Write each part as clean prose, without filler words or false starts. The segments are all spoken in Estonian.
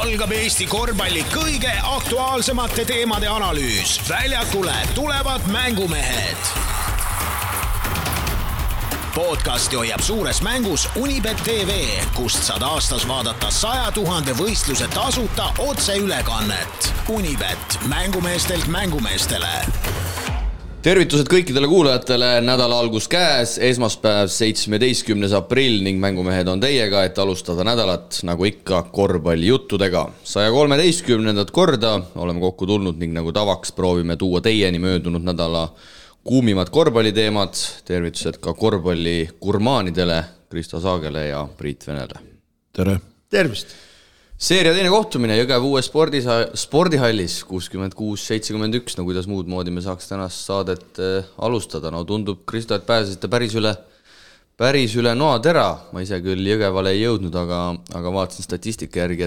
algab Eesti korvpalli kõige aktuaalsemate teemade analüüs. Väljakule tulevad mängumehed. Podcasti hoiab suures mängus Unibet TV, kust saad aastas vaadata 100 000 võistluse tasuta otseülekannet. Unibet, mängumeestelt mängumeestele. Tervitused kõikidele kuulajatele, nädala algus käes, esmaspäev 17. aprill ning mängumehed on teiega, et alustada nädalat nagu ikka korvpallijuttudega. 113. korda oleme kokku tulnud ning nagu tavaks proovime tuua teieni möödunud nädala kuumimad korvpalliteemad. Tervitused ka korvpalli gurmaanidele, Kristo Saagele ja Priit Venele. Tere! Tervist! Seeria teine kohtumine Jõgeva uue spordihallis 66-71, no kuidas muud moodi me saaks tänast saadet alustada. No tundub, Kristo, et pääsesite päris üle noatera. Ma ise küll Jõgevale ei jõudnud, aga vaatasin statistika järgi,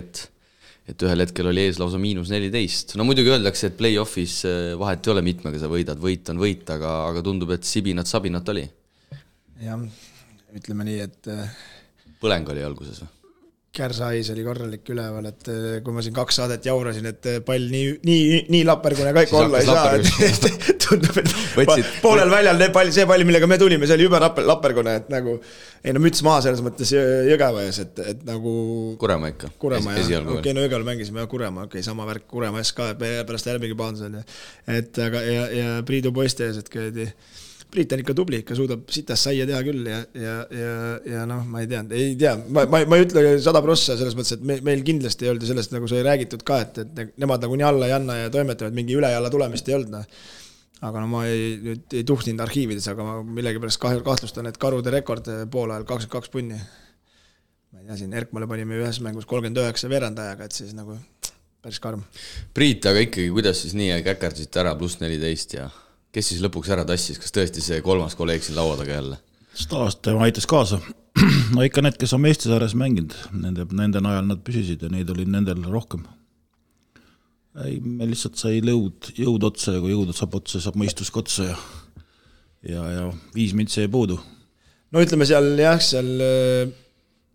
et ühel hetkel oli ees lausa -14. No muidugi öeldakse, et play-offis vahet ei ole mitmega sa võidad, võit on võit, aga tundub, et sabinat oli. Jah, ütleme nii, et põleng oli alguses või? Kärsais oli korralik üleval, et kui ma siin 2 saadet jaurasin, et pall nii lappergune kõik olla ei saa, et tundub, et poolel väljal see pall, millega me tulime, see oli juba lappergune, et nagu ei no müts maa selles mõttes Jõgeva ees, et nagu Kuremaa ikka. Kuremaa, jah. Okei, no Jõgeval mängisime Kuremaa, okei, sama värk Kuremaa ees ka, pärast järgmegi paandusel. Et aga ja Priidu poiste ees, et käidi Priit on ikka tubli, ikka suudab sitas saia teha küll ja noh, ma ei tea, ma ei ütle 100% selles mõttes, et meil kindlasti ei olnud sellest, nagu sai räägitud ka, et nemad nagu nii alla ei anna ja toimetavad, mingi üle ja alla tulemist ei olnud. Aga no ma ei tuhtinud arhiivides, aga ma millegipärast kahtlustan, et Karude rekord poole ajal 22 punni. Ma ei tea, siin Erkmale panime ühes mängus 39 veerandajaga, et siis nagu päris karm. Priit, aga ikkagi, kuidas siis nii käkerdasite ära +14 ja kes siis lõpuks ära tassis? Kas tõesti see 3. kolleeg siin laua taga jälle? Staast aitas kaasa. No ikka need, kes on Eestisaares mänginud, nende najal nad püsisid ja neid oli nendel rohkem. Me lihtsalt sai jõud otsa ja kui jõud saab otsa, saab mõistus otsa ja 5 mintsi ei puudu. No ütleme seal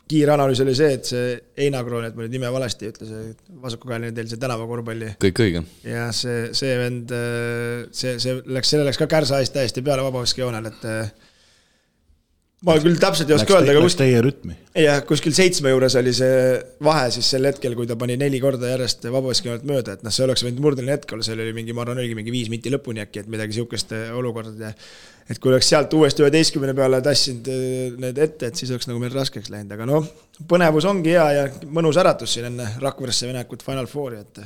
kiire analüüs oli see, et see Einakroon, et ma nüüd nime valesti ütles, vasakukäeline teil see tänavakorvpalli. Kõik õige. Ja see vend, selle läks ka Kärsais täiesti peale vabaviskejoonel, et ma küll täpselt ei oska öelda. Läks teie rütmi. Ja kuskil 7 juures oli see vahe siis sel hetkel, kui ta pani 4 korda järjest vabaviskejoonelt mööda, et see oleks võinud murdeline hetkel, seal oli mingi, ma arvan, oligi mingi 5 minti lõpuni äkki, et midagi siukest olukorda. Et kui oleks sealt uuesti 11 peale tassinud need ette, et siis oleks nagu meil raskeks läinud. Aga noh, põnevus ongi hea ja mõnus äratus siin enne Rakveresse venekut Final Fouri, et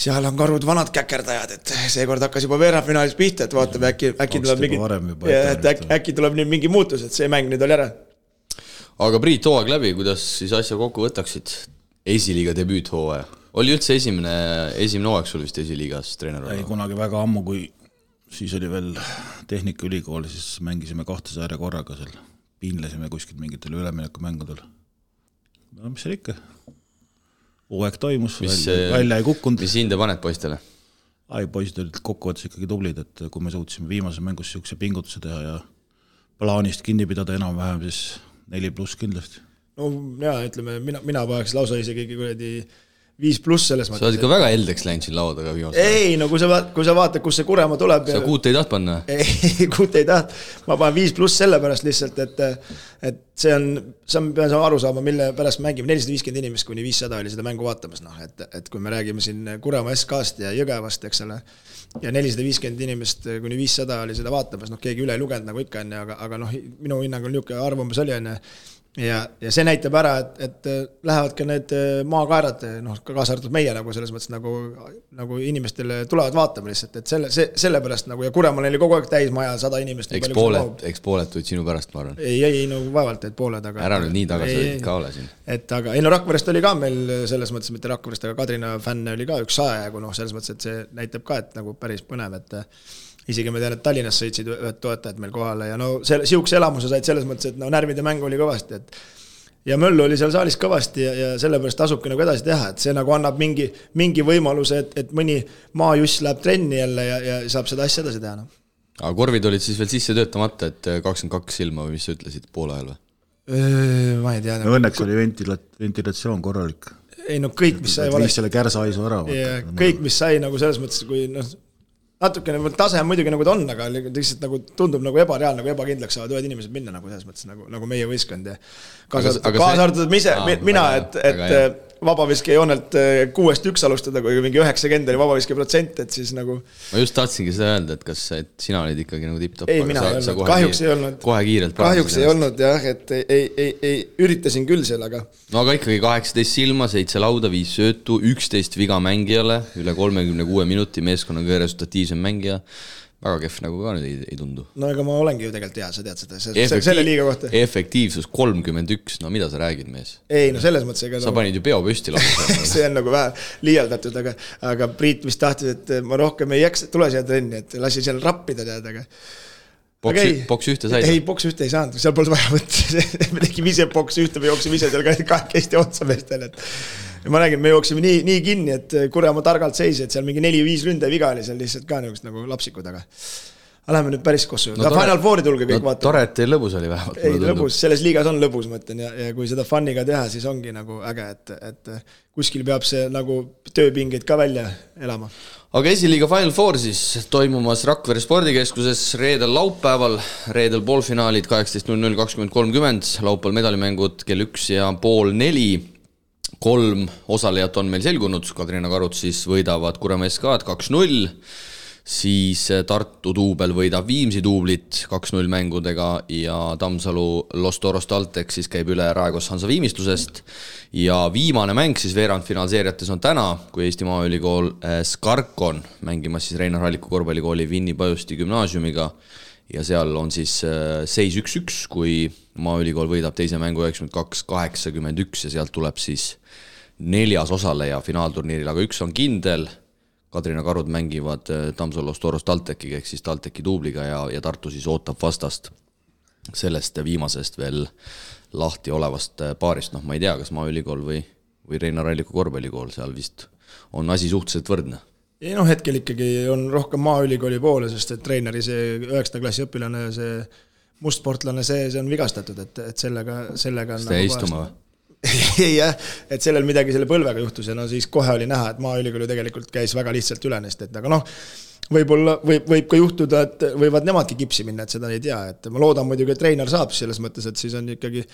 seal on Karud vanad käkerdajad, et seekord hakkas juba veerandfinaalis pihta, et vaatame, äkki tuleb nüüd mingi muutus, et see mäng nüüd oli ära. Aga Priit, hooaeg läbi, kuidas siis asja kokku võtaksid? Esiliiga debüüt hooaja. Oli üldse esimene hooaeg sul vist esiliigas treener? Ei, kunagi väga ammu, kui siis oli veel Tehnikaülikool, siis mängisime 2 saare korraga seal. Piinlesime kuskilt mingitel üleminekumängudel. No mis seal ikka? Hooaeg toimus, välja ei kukkunud. Mis hinde paned poistele? Poisid olid kokkuvõttes ikkagi tublid, et kui me suutsime viimase mängus siukse pingutuse teha ja plaanist kinni pidada enam-vähem, siis 4+ kindlasti. No jaa, ütleme, mina paneks lausa isegi 5+ selles mõttes. Sa oled ikka väga heldeks läinud siin laua taga viimasel. Ei, no kui sa vaatad, kus see Kuremaa tuleb. Sa 6 ei taht panna? Ei, 6 ei taht. Ma panen 5+ sellepärast lihtsalt, et see on, sa pean aru saama, mille pärast mängime 450 inimest kuni 500 oli seda mängu vaatamas. No, et kui me räägime siin Kuremaa SK-st ja Jõgevast, eks ole, ja 450 inimest kuni 500 oli seda vaatamas, keegi üle ei lugenud nagu ikka enne, aga minu hinnang on niisugune arvamus oli enne. Ja see näitab ära, et lähevad ka need maakaerad, kaasa arvatud meie nagu selles mõttes nagu inimestele tulevad vaatama lihtsalt, et selle pärast nagu, ja Kuremaal oli kogu aeg täis maja 100 inimest. Eks pooled tulid sinu pärast, ma arvan. Ei, vaevalt, et pooled, aga ära nüüd nii tagasi ka ole siin. Et aga, Rakverest oli ka meil selles mõttes, mitte Rakverest, aga Kadrina fänne oli ka üks 100 ja selles mõttes, et see näitab ka, et nagu päris põnev, et isegi me tean, et Tallinnas sõitsid ühed toetajad meil kohale ja siukse elamuse said selles mõttes, et närvide mäng oli kõvasti, et ja Möllu oli seal saalis kõvasti ja sellepärast tasubki nagu edasi teha, et see nagu annab mingi võimaluse, et mõni maajuss läheb trenni jälle ja saab seda asja edasi teha. Aga korvid olid siis veel sisse töötamata, et 22 ilma või mis sa ütlesid poole ajal või? Ma ei tea. Õnneks oli ventilatsioon korralik. ei no kõik, mis sai valesti. Selle kärsahaisu ära. Kõik, mis sai nagu selles mõttes, kui natukene tase on muidugi nagu ta on, aga lihtsalt nagu tundub nagu ebareaalne, nagu ebakindlaks saavad ühed inimesed minna nagu selles mõttes nagu meie võistkond ja kaasa arvatud mina, et vabaviske joonelt 6-1 alustada, kui mingi 90 oli vabaviske protsent, et siis nagu ma just tahtsingi seda öelda, et kas sina olid ikkagi nagu tipp-top, ei, mina ei olnud, kahjuks ei olnud kohe kiirelt kahjuks ei olnud jah, et ei üritasin küll seal, aga no aga ikkagi 18 silma, 7 lauda, 5 söötu, 11 viga mängijale, üle 36 minuti meeskonna kõige resultatiivsem mängija, väga kehv nagu ka nüüd ei tundu. No ega ma olengi ju tegelikult hea, sa tead seda, selle liiga kohta. Efektiivsus 31, no mida sa räägid, mees? Ei, no selles mõttes ega sa panid ju peo püsti lausa. See on nagu vähe liialdatud, aga Priit vist tahtis, et ma rohkem ei jääks, tule siia trenni, et lasi seal rappida tead, aga Boks ühte said? Ei, boks ühte ei saanud, seal polnud vaja võtta, me tegime ise boks ühte, me jooksime ise seal kahekesti otsa meestel, et ma räägin, me jooksime nii kinni, et Kurjamaa targalt seisi, et seal mingi 4-5 ründe viga oli seal lihtsalt ka niisugust nagu lapsikud, aga läheme nüüd päris kossu. No, Final Fouri tulge kõik vaatama. Tore, et teil lõbus oli vähemalt. Ei, lõbus, selles liigas on lõbus, mõtlen, ja kui seda funniga teha, siis ongi nagu äge, et kuskil peab see nagu tööpingeid ka välja elama. Aga esiliiga Final Four siis toimumas Rakvere spordikeskuses reedel laupäeval, reedel poolfinaalid 18.00, 20.30, laupäeval medalimängud kell 1 ja pool 4. 3 osalejat on meil selgunud, Kadrina Karut siis võidavad Kurjamaa SK-d 2-0, siis Tartu duubel võidab Viimsi duublit 2-0 mängudega ja Tammsalu Los Toros Taltek siis käib üle Raekos Hansa viimistlusest ja viimane mäng siis veerandfinaalseeriates on täna, kui Eesti Maaülikool Skarkon mängimas siis Reinar Halliku korvpallikooli Vinni Pajusti gümnaasiumiga ja seal on siis seis 1-1, kui Maaülikool võidab teise mängu 92-81 ja sealt tuleb siis 4. osaleja finaalturniiril, aga üks on kindel, Kadrina Karud mängivad Tammsalu Los Toros Taltekiga ehk siis Talteki duubliga ja Tartu siis ootab vastast sellest viimasest veel lahti olevast paarist, noh ma ei tea, kas Maaülikool või Reinar Halliku korvpallikool, seal vist on asi suhteliselt võrdne. Ei noh, hetkel ikkagi on rohkem Maaülikooli poole, sest et treeneri see 9. klassi õpilane, see mustsportlane, see on vigastatud, et sellega on seda istuma või? Ei jah, et sellel midagi selle põlvega juhtus ja no siis kohe oli näha, et Maaülikooli tegelikult käis väga lihtsalt üle neist, et aga noh, võib ka juhtuda, et võivad nemadki kipsi minna, et seda ei tea, et ma loodan muidugi, et treener saab selles mõttes, et siis on ikkagi,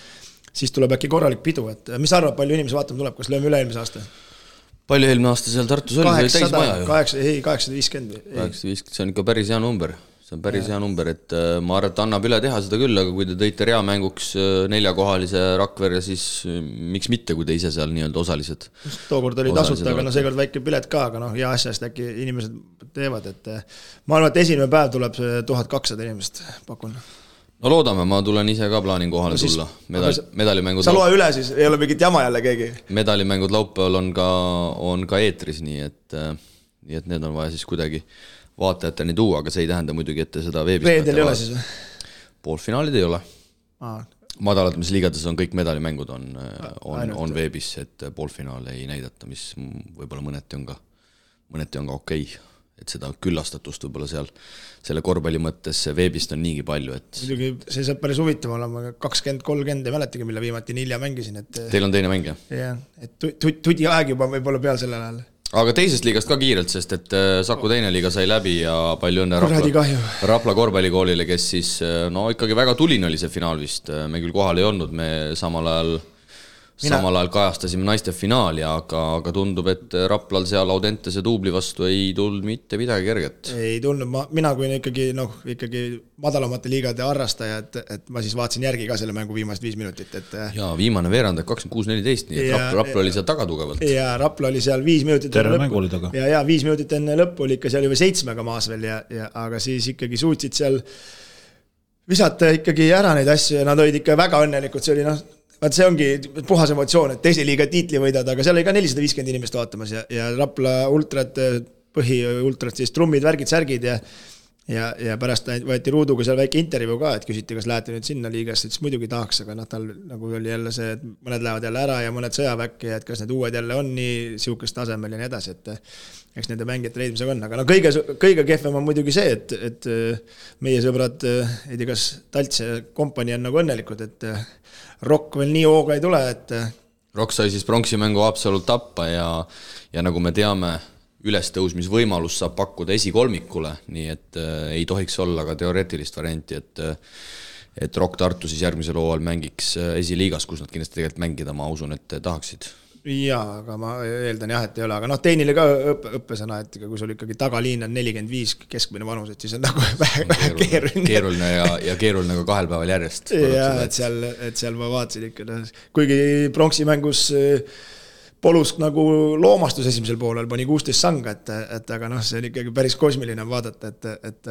siis tuleb äkki korralik pidu, et mis arvab, palju inimesi vaatama tuleb, kas lööme üle eelmise aasta? Palju eelmine aasta seal Tartus oli? 850. 850, see on ikka päris hea number. See on päris hea number, et ma arvan, et annab üle teha seda küll, aga kui te tõite reamänguks 4-kohalise Rakvere, siis miks mitte, kui te ise seal nii-öelda osalised? Tookord oli tasuta, aga no seekord väike pilet ka, aga noh, hea asjast äkki inimesed teevad, et ma arvan, et esimene päev tuleb 1200 inimest, pakun. No loodame, ma tulen ise ka plaanin kohale tulla. Medalimängud sa loe üle siis, ei ole mingit jama jälle keegi? Medalimängud laupäeval on ka eetris, nii et need on vaja siis kuidagi vaatajateni tuua, aga see ei tähenda muidugi, et seda veebist reedel ei ole siis või? Poolfinaalid ei ole. Madalatamise liigades on kõik medalimängud on veebis, et poolfinaale ei näidata, mis võib-olla mõneti on ka okei. Et seda küllastatust võib-olla seal selle korvpalli mõttes veebist on niigi palju. Muidugi see saab päris huvitav olema, 20-30 ei mäletagi, mille viimati nii hilja mängisin. Teil on teine mäng, jah? Jah, et tudi aeg juba võib-olla peal sellel ajal. Aga teisest liigast ka kiirelt, sest et Saku teine liiga sai läbi ja palju õnne Rapla korvpallikoolile, kes siis ikkagi väga tuline oli see finaal vist. Me küll kohal ei olnud, me samal ajal kajastasime naiste finaali, aga tundub, et Raplal seal Audentese duubli vastu ei tulnud mitte midagi kerget. Ei tulnud, mina kui ikkagi madalamate liigade harrastaja, et ma siis vaatasin järgi ka selle mängu viimast 5 minutit. Ja viimane veerand 26-14, nii et Rapla oli seal taga tugevalt. Ja Rapla oli seal 5 minutit terve mängu oli taga. Ja 5 minutit enne lõppu oli ikka seal juba 7 maas veel, aga siis ikkagi suutsid seal visata ikkagi ära neid asju ja nad olid ikka väga õnnelikud, see oli vaat see ongi puhas emotsioon, et teise liiga tiitli võidad, aga seal oli ka 450 inimest vaatamas ja Rapla ultrat, põhiultrat siis trummid, värgid, särgid ja pärast võeti Ruuduga seal väike intervjuu ka, et küsiti, kas lähete nüüd sinna liigasse, siis muidugi tahaks, aga tal nagu oli jälle see, et mõned lähevad jälle ära ja mõned sõjaväkke ja et kas need uued jälle on nii siukest tasemel ja nii edasi, et eks nende mängijate leidmisega on, aga kõige kehvem on muidugi see, et meie sõbrad, ei tea, kas Talts ja kompanii on nagu õnnelikud, et Rock veel nii hooga ei tule, et Rock sai siis pronksimängu Haapsalult tappa ja nagu me teame, ülestõusmisvõimalus saab pakkuda esikolmikule, nii et ei tohiks olla ka teoreetilist varianti, et Rock Tartu siis järgmisel hooajal mängiks esiliigas, kus nad kindlasti tegelikult mängida, ma usun, et tahaksid. Jaa, aga ma eeldan jah, et ei ole, aga tehnile ka õppesõna, et kui sul ikkagi tagaliin on 45 keskmine vanus, et siis on nagu vähe keeruline ja keeruline ka 2 päeval järjest. Jaa, et seal ma vaatasin ikka, kuigi pronksimängus Polusk nagu loomastus esimesel poolel pani 16 sanga, et aga see on ikkagi päris kosmiline vaadata, et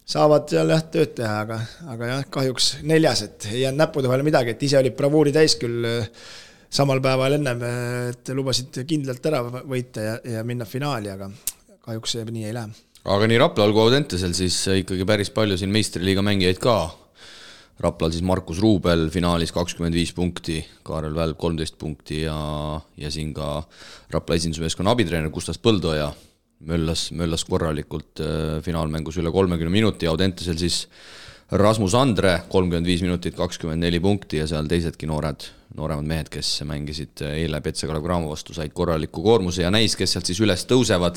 saavad seal jah tööd teha, aga jah, kahjuks 4, et ei jäänud näppude vahele midagi, et ise olid bravuuri täis küll samal päeval ennem, et lubasid kindlalt ära võita ja minna finaali, aga kahjuks see nii ei lähe. Aga nii Raplal kui Audentesel siis ikkagi päris palju siin meistriliiga mängijaid ka. Raplal siis Markus Ruubel finaalis 25 punkti, Kaarel Välb 13 punkti ja siin ka Rapla esindusmeeskonna abitreener Gustav Põldoja möllas korralikult finaalmängus üle 30 minuti, Audentesel siis Rasmus Andre 35 minutit, 24 punkti ja seal teisedki nooremad mehed, kes mängisid eile Petse Kalev Cramo vastu, said korraliku koormuse ja näis, kes sealt siis üles tõusevad.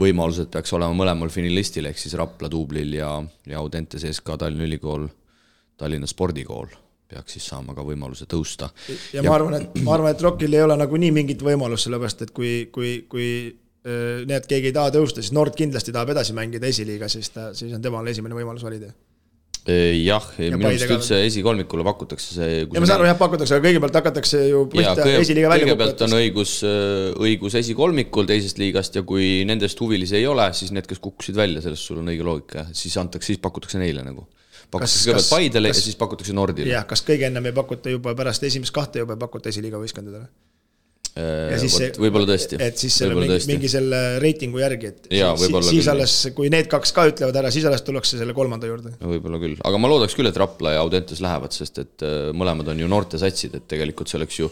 Võimalused peaks olema mõlemal finalistil, ehk siis Rapla duublil ja Audentes SK Tallinna Ülikool, Tallinna spordikool peaks siis saama ka võimaluse tõusta. Ja ma arvan, et Rockil ei ole nagu nii mingit võimalust, sellepärast, et kui need keegi ei taha tõusta, siis Nord kindlasti tahab edasi mängida esiliiga, siis on temal esimene võimalus valida. Jah, minu arust üldse esikolmikule pakutakse see... Ja ma saan aru, jah, pakutakse, aga kõigepealt hakatakse ju esiliiga välja kõigepealt on õigus esikolmikul teisest liigast ja kui nendest huvilisi ei ole, siis need, kes kukkusid välja, sellest sul on õige loogika, siis pakutakse neile nagu. Pakutakse kõigepealt Paidele ja siis pakutakse Nordile. Jah, kas kõige ennem ei pakuta juba pärast esimest 2 juba pakuta esiliiga võistkondadele? Võib-olla tõesti. Et siis mingi selle reitingu järgi, et siis alles, kui need 2 ka ütlevad ära, siis alles tullakse selle 3. juurde. Võib-olla küll, aga ma loodaks küll, et Rapla ja Audentes lähevad, sest et mõlemad on ju noorte satsid, et tegelikult see oleks ju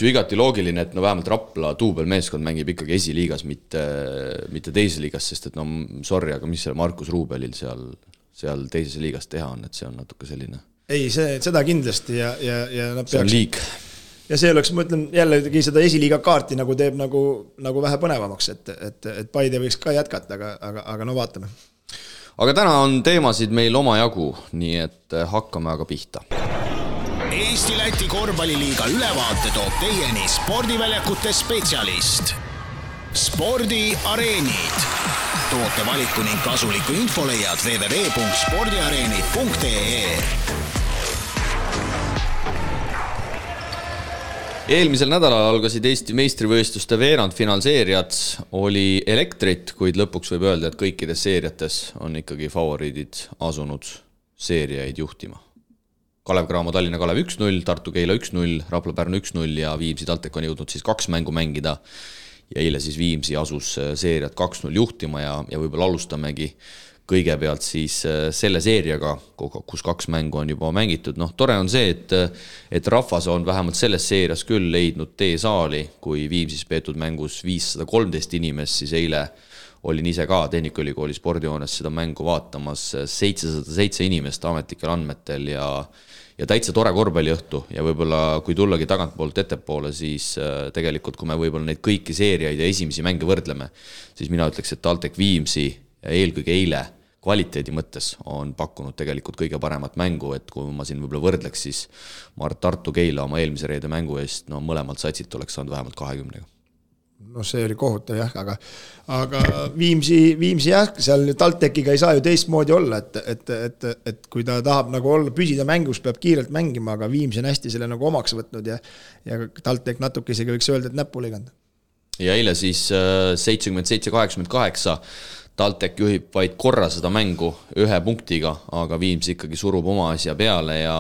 igati loogiline, et vähemalt Rapla duubelmeeskond mängib ikkagi esiliigas, mitte teises liigas, sest et sorry, aga mis selle Markus Ruubelil seal teises liigas teha on, et see on natuke selline. Ei, seda kindlasti ja see on liig. Ja see oleks, ma ütlen, jällegi seda esiliiga kaarti nagu teeb nagu vähe põnevamaks, et Paide võiks ka jätkata, aga no vaatame. Aga täna on teemasid meil oma jagu, nii et hakkame aga pihta. Eesti-Läti korvpalliliiga ülevaate toob teieni spordiväljakute spetsialist. Spordiareenid. Toote valiku ning kasuliku info leiad www.spordiareenid.ee. Eelmisel nädalal algasid Eesti meistrivõistluste veerandfinaalseeriad, oli elektrit, kuid lõpuks võib öelda, et kõikides seeriates on ikkagi favoriidid asunud seeriaid juhtima. Kalev Cramo Tallinna Kalev 1-0, Tartu Keila 1-0, Rapla Pärnu 1-0 ja Viimsi TalTech on jõudnud siis 2 mängu mängida ja eile siis Viimsi asus seeriat 2-0 juhtima ja võib-olla alustamegi kõigepealt siis selle seeriaga, kus 2 mängu on juba mängitud. Tore on see, et rahvas on vähemalt selles seerias küll leidnud tee saali, kui Viimsis peetud mängus 513 inimest, siis eile olin ise ka Tehnikaülikooli spordihoones seda mängu vaatamas 707 inimest ametlikel andmetel ja täitsa tore korvpalliõhtu ja võib-olla kui tullagi tagantpoolt ettepoole, siis tegelikult kui me võib-olla neid kõiki seeriaid ja esimesi mänge võrdleme, siis mina ütleks, et TalTech Viimsi ja eelkõige eile kvaliteedi mõttes on pakkunud tegelikult kõige paremat mängu, et kui ma siin võib-olla võrdleks, siis ma arvan, Tartu Keila oma eelmise reede mängu eest, mõlemalt satsit oleks saanud vähemalt 20. See oli kohutav jah, aga Viimsi jah, seal TalTechiga ei saa ju teistmoodi olla, et kui ta tahab nagu olla, püsida mängus, peab kiirelt mängima, aga Viimsi on hästi selle nagu omaks võtnud ja TalTech natuke isegi võiks öelda, et näppu liganud. Ja eile siis 77-88 TalTech juhib vaid korra seda mängu 1 punktiga, aga Viimsi ikkagi surub oma asja peale ja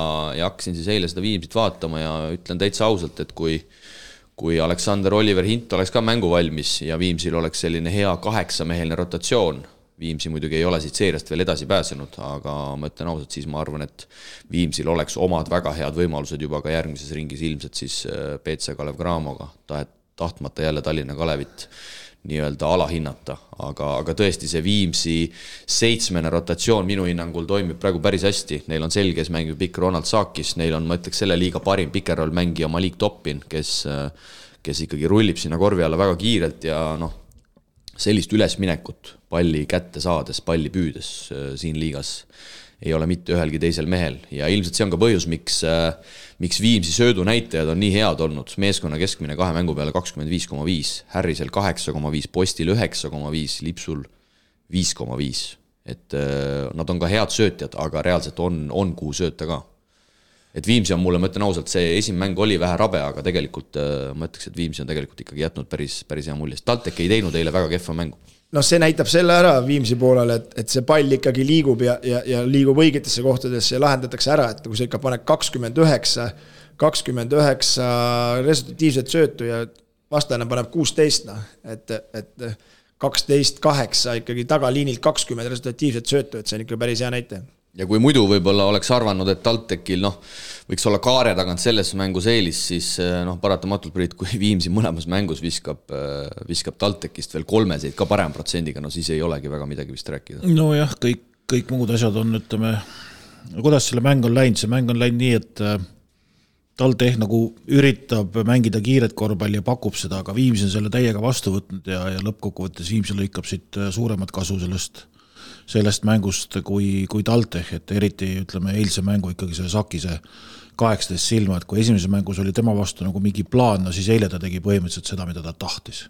hakkasin siis eile seda Viimsit vaatama ja ütlen täitsa ausalt, et kui Aleksander Oliver Hint oleks ka mängu valmis ja Viimsil oleks selline hea 8-meheline rotatsioon, Viimsi muidugi ei ole siit seeriast veel edasi pääsenud, aga ma ütlen ausalt, siis ma arvan, et Viimsil oleks omad väga head võimalused juba ka järgmises ringis ilmselt siis PC Kalev Cramoga tahtmata jälle Tallinna Kalevit nii-öelda alahinnata, aga tõesti see Viimsi 7. rotatsioon minu hinnangul toimib praegu päris hästi, neil on selges mängib pikk Ronald Saakis, neil on, ma ütleks, selle liiga parim pikerroll mängija Malik Toppin, kes ikkagi rullib sinna korvi alla väga kiirelt ja sellist ülesminekut palli kätte saades, palli püüdes siin liigas ei ole mitte ühelgi teisel mehel ja ilmselt see on ka põhjus, miks Viimsi söödunäitajad on nii head olnud. Meeskonna keskmine 2 mängu peale 25,5, Harrisel 8,5, Postil 9,5, Lipsul 5,5. Et nad on ka head söötjad, aga reaalselt on kuhu sööta ka. Et Viimsi on mulle, ma ütlen ausalt, see esimene mäng oli vähe rabe, aga tegelikult ma ütleks, et Viimsi on tegelikult ikkagi jätnud päris hea mulje. TalTech ei teinud eile väga kehva mängu. See näitab selle ära Viimsi poolel, et see pall ikkagi liigub ja liigub õigetesse kohtadesse ja lahendatakse ära, et kui sa ikka paned 29 resultatiivset söötu ja vastane paneb 16, et 12-8 ikkagi tagaliinilt 20 resultatiivset söötu, et see on ikka päris hea näite. Ja kui muidu võib-olla oleks arvanud, et TalTechil võiks olla kaare tagant selles mängus eelis, siis paratamatult Priit, kui Viimsi mõlemas mängus viskab TalTechist veel 3 ka parem protsendiga, siis ei olegi väga midagi vist rääkida. Nojah, kõik muud asjad on, ütleme, kuidas selle mäng on läinud? See mäng on läinud nii, et TalTech nagu üritab mängida kiiret korvpalli ja pakub seda, aga Viimsi on selle täiega vastu võtnud ja lõppkokkuvõttes Viimsi lõikab siit suuremat kasu sellest mängust kui TalTech, et eriti ütleme eilse mängu ikkagi see Sakise 18 silma, et kui esimese mängus oli tema vastu nagu mingi plaan, siis eile ta tegi põhimõtteliselt seda, mida ta tahtis.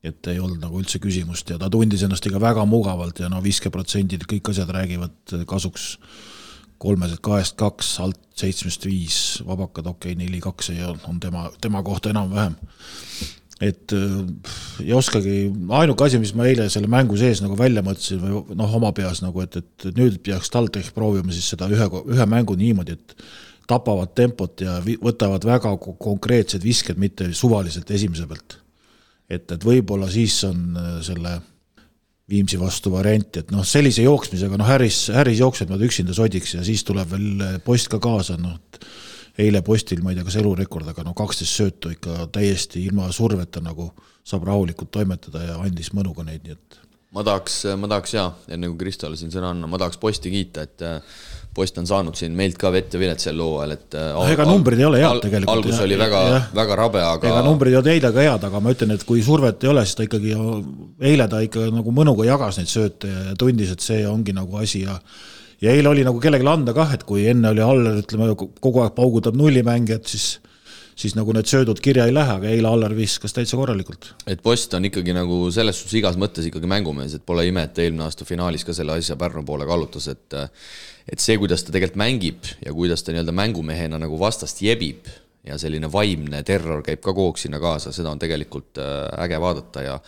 Et ei olnud nagu üldse küsimust ja ta tundis ennast ikka väga mugavalt ja 50% kõik asjad räägivad kasuks 3-2, alt 7-5, vabakad 4-2 on tema kohta enam-vähem. Et ei oskagi, ainuke asi, mis ma eile selle mängu sees nagu välja mõtlesin või oma peas nagu, et nüüd peaks TalTech proovima siis seda ühe mängu niimoodi, et tapavad tempot ja võtavad väga konkreetsed visked, mitte suvaliselt esimese pealt. Et võib-olla siis on selle Viimsi vastu variant, et sellise jooksmisega, Harris jookseb nad üksinda sodiks ja siis tuleb veel Post ka kaasa, eile Postil, ma ei tea, kas elurekord, aga 12 söötu ikka täiesti ilma surveta nagu saab rahulikult toimetada ja andis mõnuga neid, nii et ma tahaks enne kui Kristole siin sõna anna, ma tahaks Posti kiita, et Post on saanud siin meilt ka vett ja vilet sel looajal, et ega numbrid ei ole head tegelikult. Algus oli väga rabe, aga ega numbrid ei ole eile ka head, aga ma ütlen, et kui survet ei ole, siis ta ikkagi eile ta ikka nagu mõnuga jagas neid sööte ja tundis, et see ongi nagu asi ja eile oli nagu kellegile anda kah, et kui enne oli Aller, ütleme, kogu aeg paugutab nullimängijad, siis nagu need söödud kirja ei lähe, aga eile Aller viskas täitsa korralikult. Et Post on ikkagi nagu selles suhtes igas mõttes ikkagi mängumees, et pole ime, et eelmine aasta finaalis ka selle asja Pärnu poole kallutas, et see, kuidas ta tegelikult mängib ja kuidas ta nii-öelda mängumehena nagu vastast jebib ja selline vaimne terror käib ka koog sinna kaasa, seda on tegelikult äge vaadata ja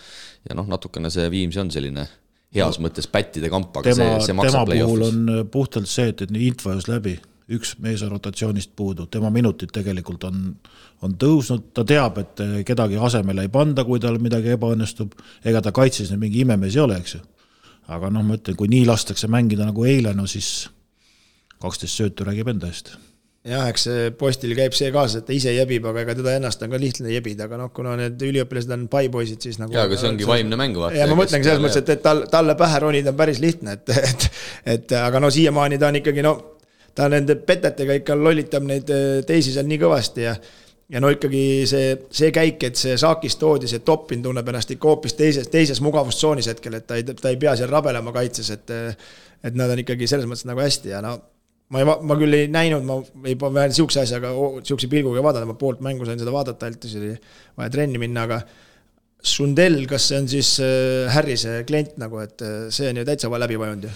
natukene see Viimsi on selline heas mõttes pättide kamp, aga see maksab play-offis. Tema puhul on puhtalt see, et Intvajus läbi, üks mees rotatsioonist puudu, tema minutid tegelikult on tõusnud, ta teab, et kedagi asemele ei panda, kui tal midagi ebaõnnestub, ega ta kaitses mingi imemees ei ole, eks ju. Aga ma ütlen, kui nii lastakse mängida nagu eile, siis 12 söötu räägib enda eest. Jah, eks Postil käib see kaasa, et ta ise jebib, aga ega teda ennast on ka lihtne jebida, aga kuna need üliõpilased on paipoisid, siis nagu... Jaa, aga see ongi vaimne mängu vaata. Ja ma mõtlengi selles mõttes, et talle pähe ronida on päris lihtne, aga siiamaani ta on ikkagi, ta nende petetega ikka lollitab neid teisi seal nii kõvasti ja ikkagi see käik, et see Saakis toodi, see Toppin tunneb ennast ikka hoopis teises mugavustsoonis hetkel, et ta ei pea seal rabelema kaitses, et nad on ikkagi selles mõttes nagu hästi ja ma küll ei näinud, ma ei pea siukse asjaga, siukse pilguga vaadata, ma poolt mängu sain seda vaadata, siis oli vaja trenni minna, aga Sundell, kas see on siis Harrise klient nagu, et see on ju täitsa läbi vajunud ju?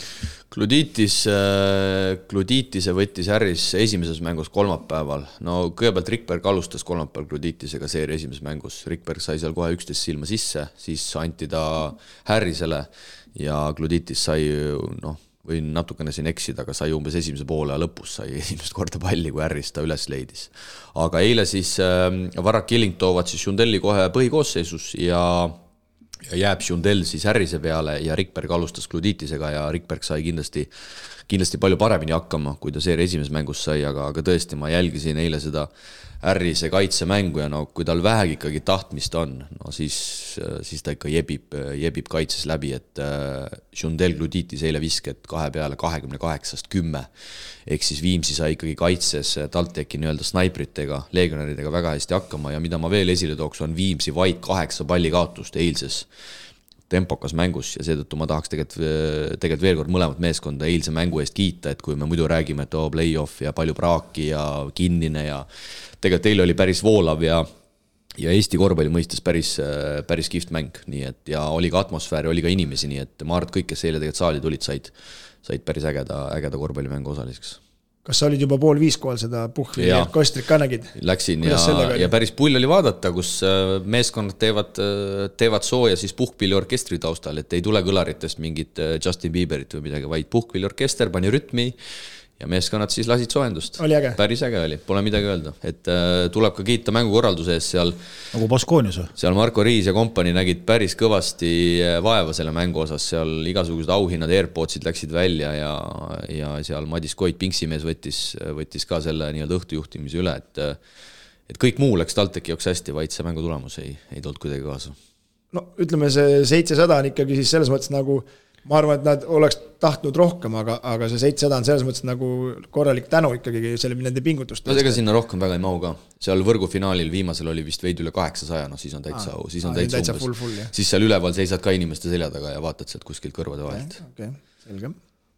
Kluditise võttis Harris esimeses mängus kolmapäeval. Kõigepealt Rikberg alustas kolmapäeval Kluditisega seeria esimeses mängus. Rikberg sai seal kohe 11 silma sisse, siis anti ta Harrisele ja Kluditis sai, või natukene siin eksida, aga sai umbes esimese poole ja lõpus sai esimest korda palli, kui Harris ta üles leidis. Aga eile siis Varrak Killing toovad siis Jundelli kohe põhikoosseisus ja jääb Jundell siis Harrise peale ja Rikberg alustas Kluditisega ja Rikberg sai kindlasti kindlasti palju paremini hakkama, kui ta seeria esimeses mängus sai, aga tõesti ma jälgisin eile seda Harrise kaitsemängu ja no kui tal vähegi ikkagi tahtmist on, no siis ta ikka jebib kaitses läbi, et Jundel Gluditis eile visked 2 peale 28-10, ehk siis Viimsi sai ikkagi kaitses TalTechi nii-öelda snaipritega, legionäridega väga hästi hakkama ja mida ma veel esile tooks, on Viimsi vaid 8 palli kaotust eilses tempokas mängus ja seetõttu ma tahaks tegelikult veel kord mõlemat meeskonda eilse mängu eest kiita, et kui me muidu räägime, et play-off ja palju praaki ja kinnine ja tegelikult eile oli päris voolav ja Eesti korvpalli mõistes päris kihvt mäng, nii et ja oli ka atmosfääri, oli ka inimesi, nii et ma arvan, et kõik, kes eile tegelikult saali tulid, said päris ägeda korvpallimängu osaliseks. Kas sa olid juba 4:30 kohal seda Puhvi ja Kostrit ka nägid? Läksin ja päris pull oli vaadata, kus meeskonnad teevad sooja siis puhkpilliorkestri taustal, et ei tule kõlaritest mingit Justin Bieberit või midagi, vaid puhkpilliorkester pani rütmi ja meeskonnad siis lasid soojendust. Oli äge? Päris äge oli, pole midagi öelda. Et tuleb ka kiita mängukorralduse eest seal. Nagu Baskoonias või? Seal Marko Riis ja kompani nägid päris kõvasti vaeva selle mängu osas. Seal igasugused auhinnad, Airpodsid läksid välja ja seal Madis Koit, Pinksimees võttis ka selle nii-öelda õhtujuhtimise üle, et kõik muu läks TalTechi joks hästi, vaid see mängu tulemus ei tulnud kuidagi kaasa. No ütleme, see 700 on ikkagi siis selles mõttes nagu ma arvan, et nad oleks tahtnud rohkem, aga see 700 on selles mõttes nagu korralik tänu ikkagi selle nende pingutust. No ega sinna rohkem väga ei mahu ka. Seal võrgufinaalil viimasel oli vist veidi üle 800, no siis on täitsa umbes. Siis seal üleval seisad ka inimeste selja taga ja vaatad sealt kuskilt kõrvade vahelt. Okay, selge.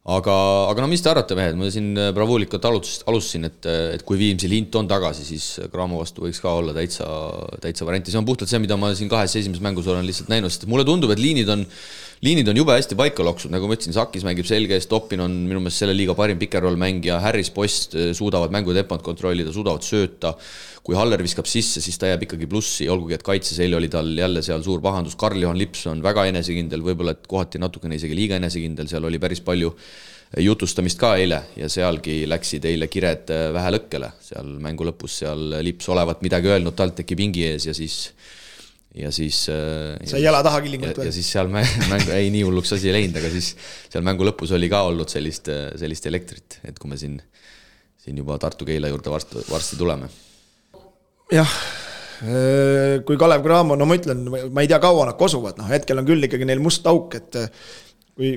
Aga no mis te arvate, mehed? Ma siin bravuulikult alustasin, et kui Viimsi lint on tagasi, siis Graamo vastu võiks ka olla täitsa varianti. See on puhtalt see, mida ma siin 2 esimeses mängus olen lihtsalt näinud, sest mulle tundub, et liinid on jube hästi paika loksud, nagu ma ütlesin, Sakis mängib selge eest, Toppin on minu meelest selle liiga parim pikerroll mängija, Harris Post suudavad mängu tempot kontrollida, suudavad sööta, kui Haller viskab sisse, siis ta jääb ikkagi plussi, olgugi et kaitses eile oli tal jälle seal suur pahandus, Karl-Johan Lips on väga enesekindel, võib-olla et kohati natukene isegi liiga enesekindel, seal oli päris palju jutustamist ka eile ja sealgi läksid eile kired vähe lõkkele, seal mängu lõpus seal Lips olevat midagi öelnud TalTechi pingi ees ja siis sai jala taha killingut ja siis seal mängu ei nii hulluks asi ei läinud, aga siis seal mängu lõpus oli ka olnud sellist elektrit, et kui me siin juba Tartu-Keila juurde varsti tuleme. Jah, kui Kalev Cramo, no ma ütlen, ma ei tea kaua nad kosuvad, hetkel on küll ikkagi neil must auk, et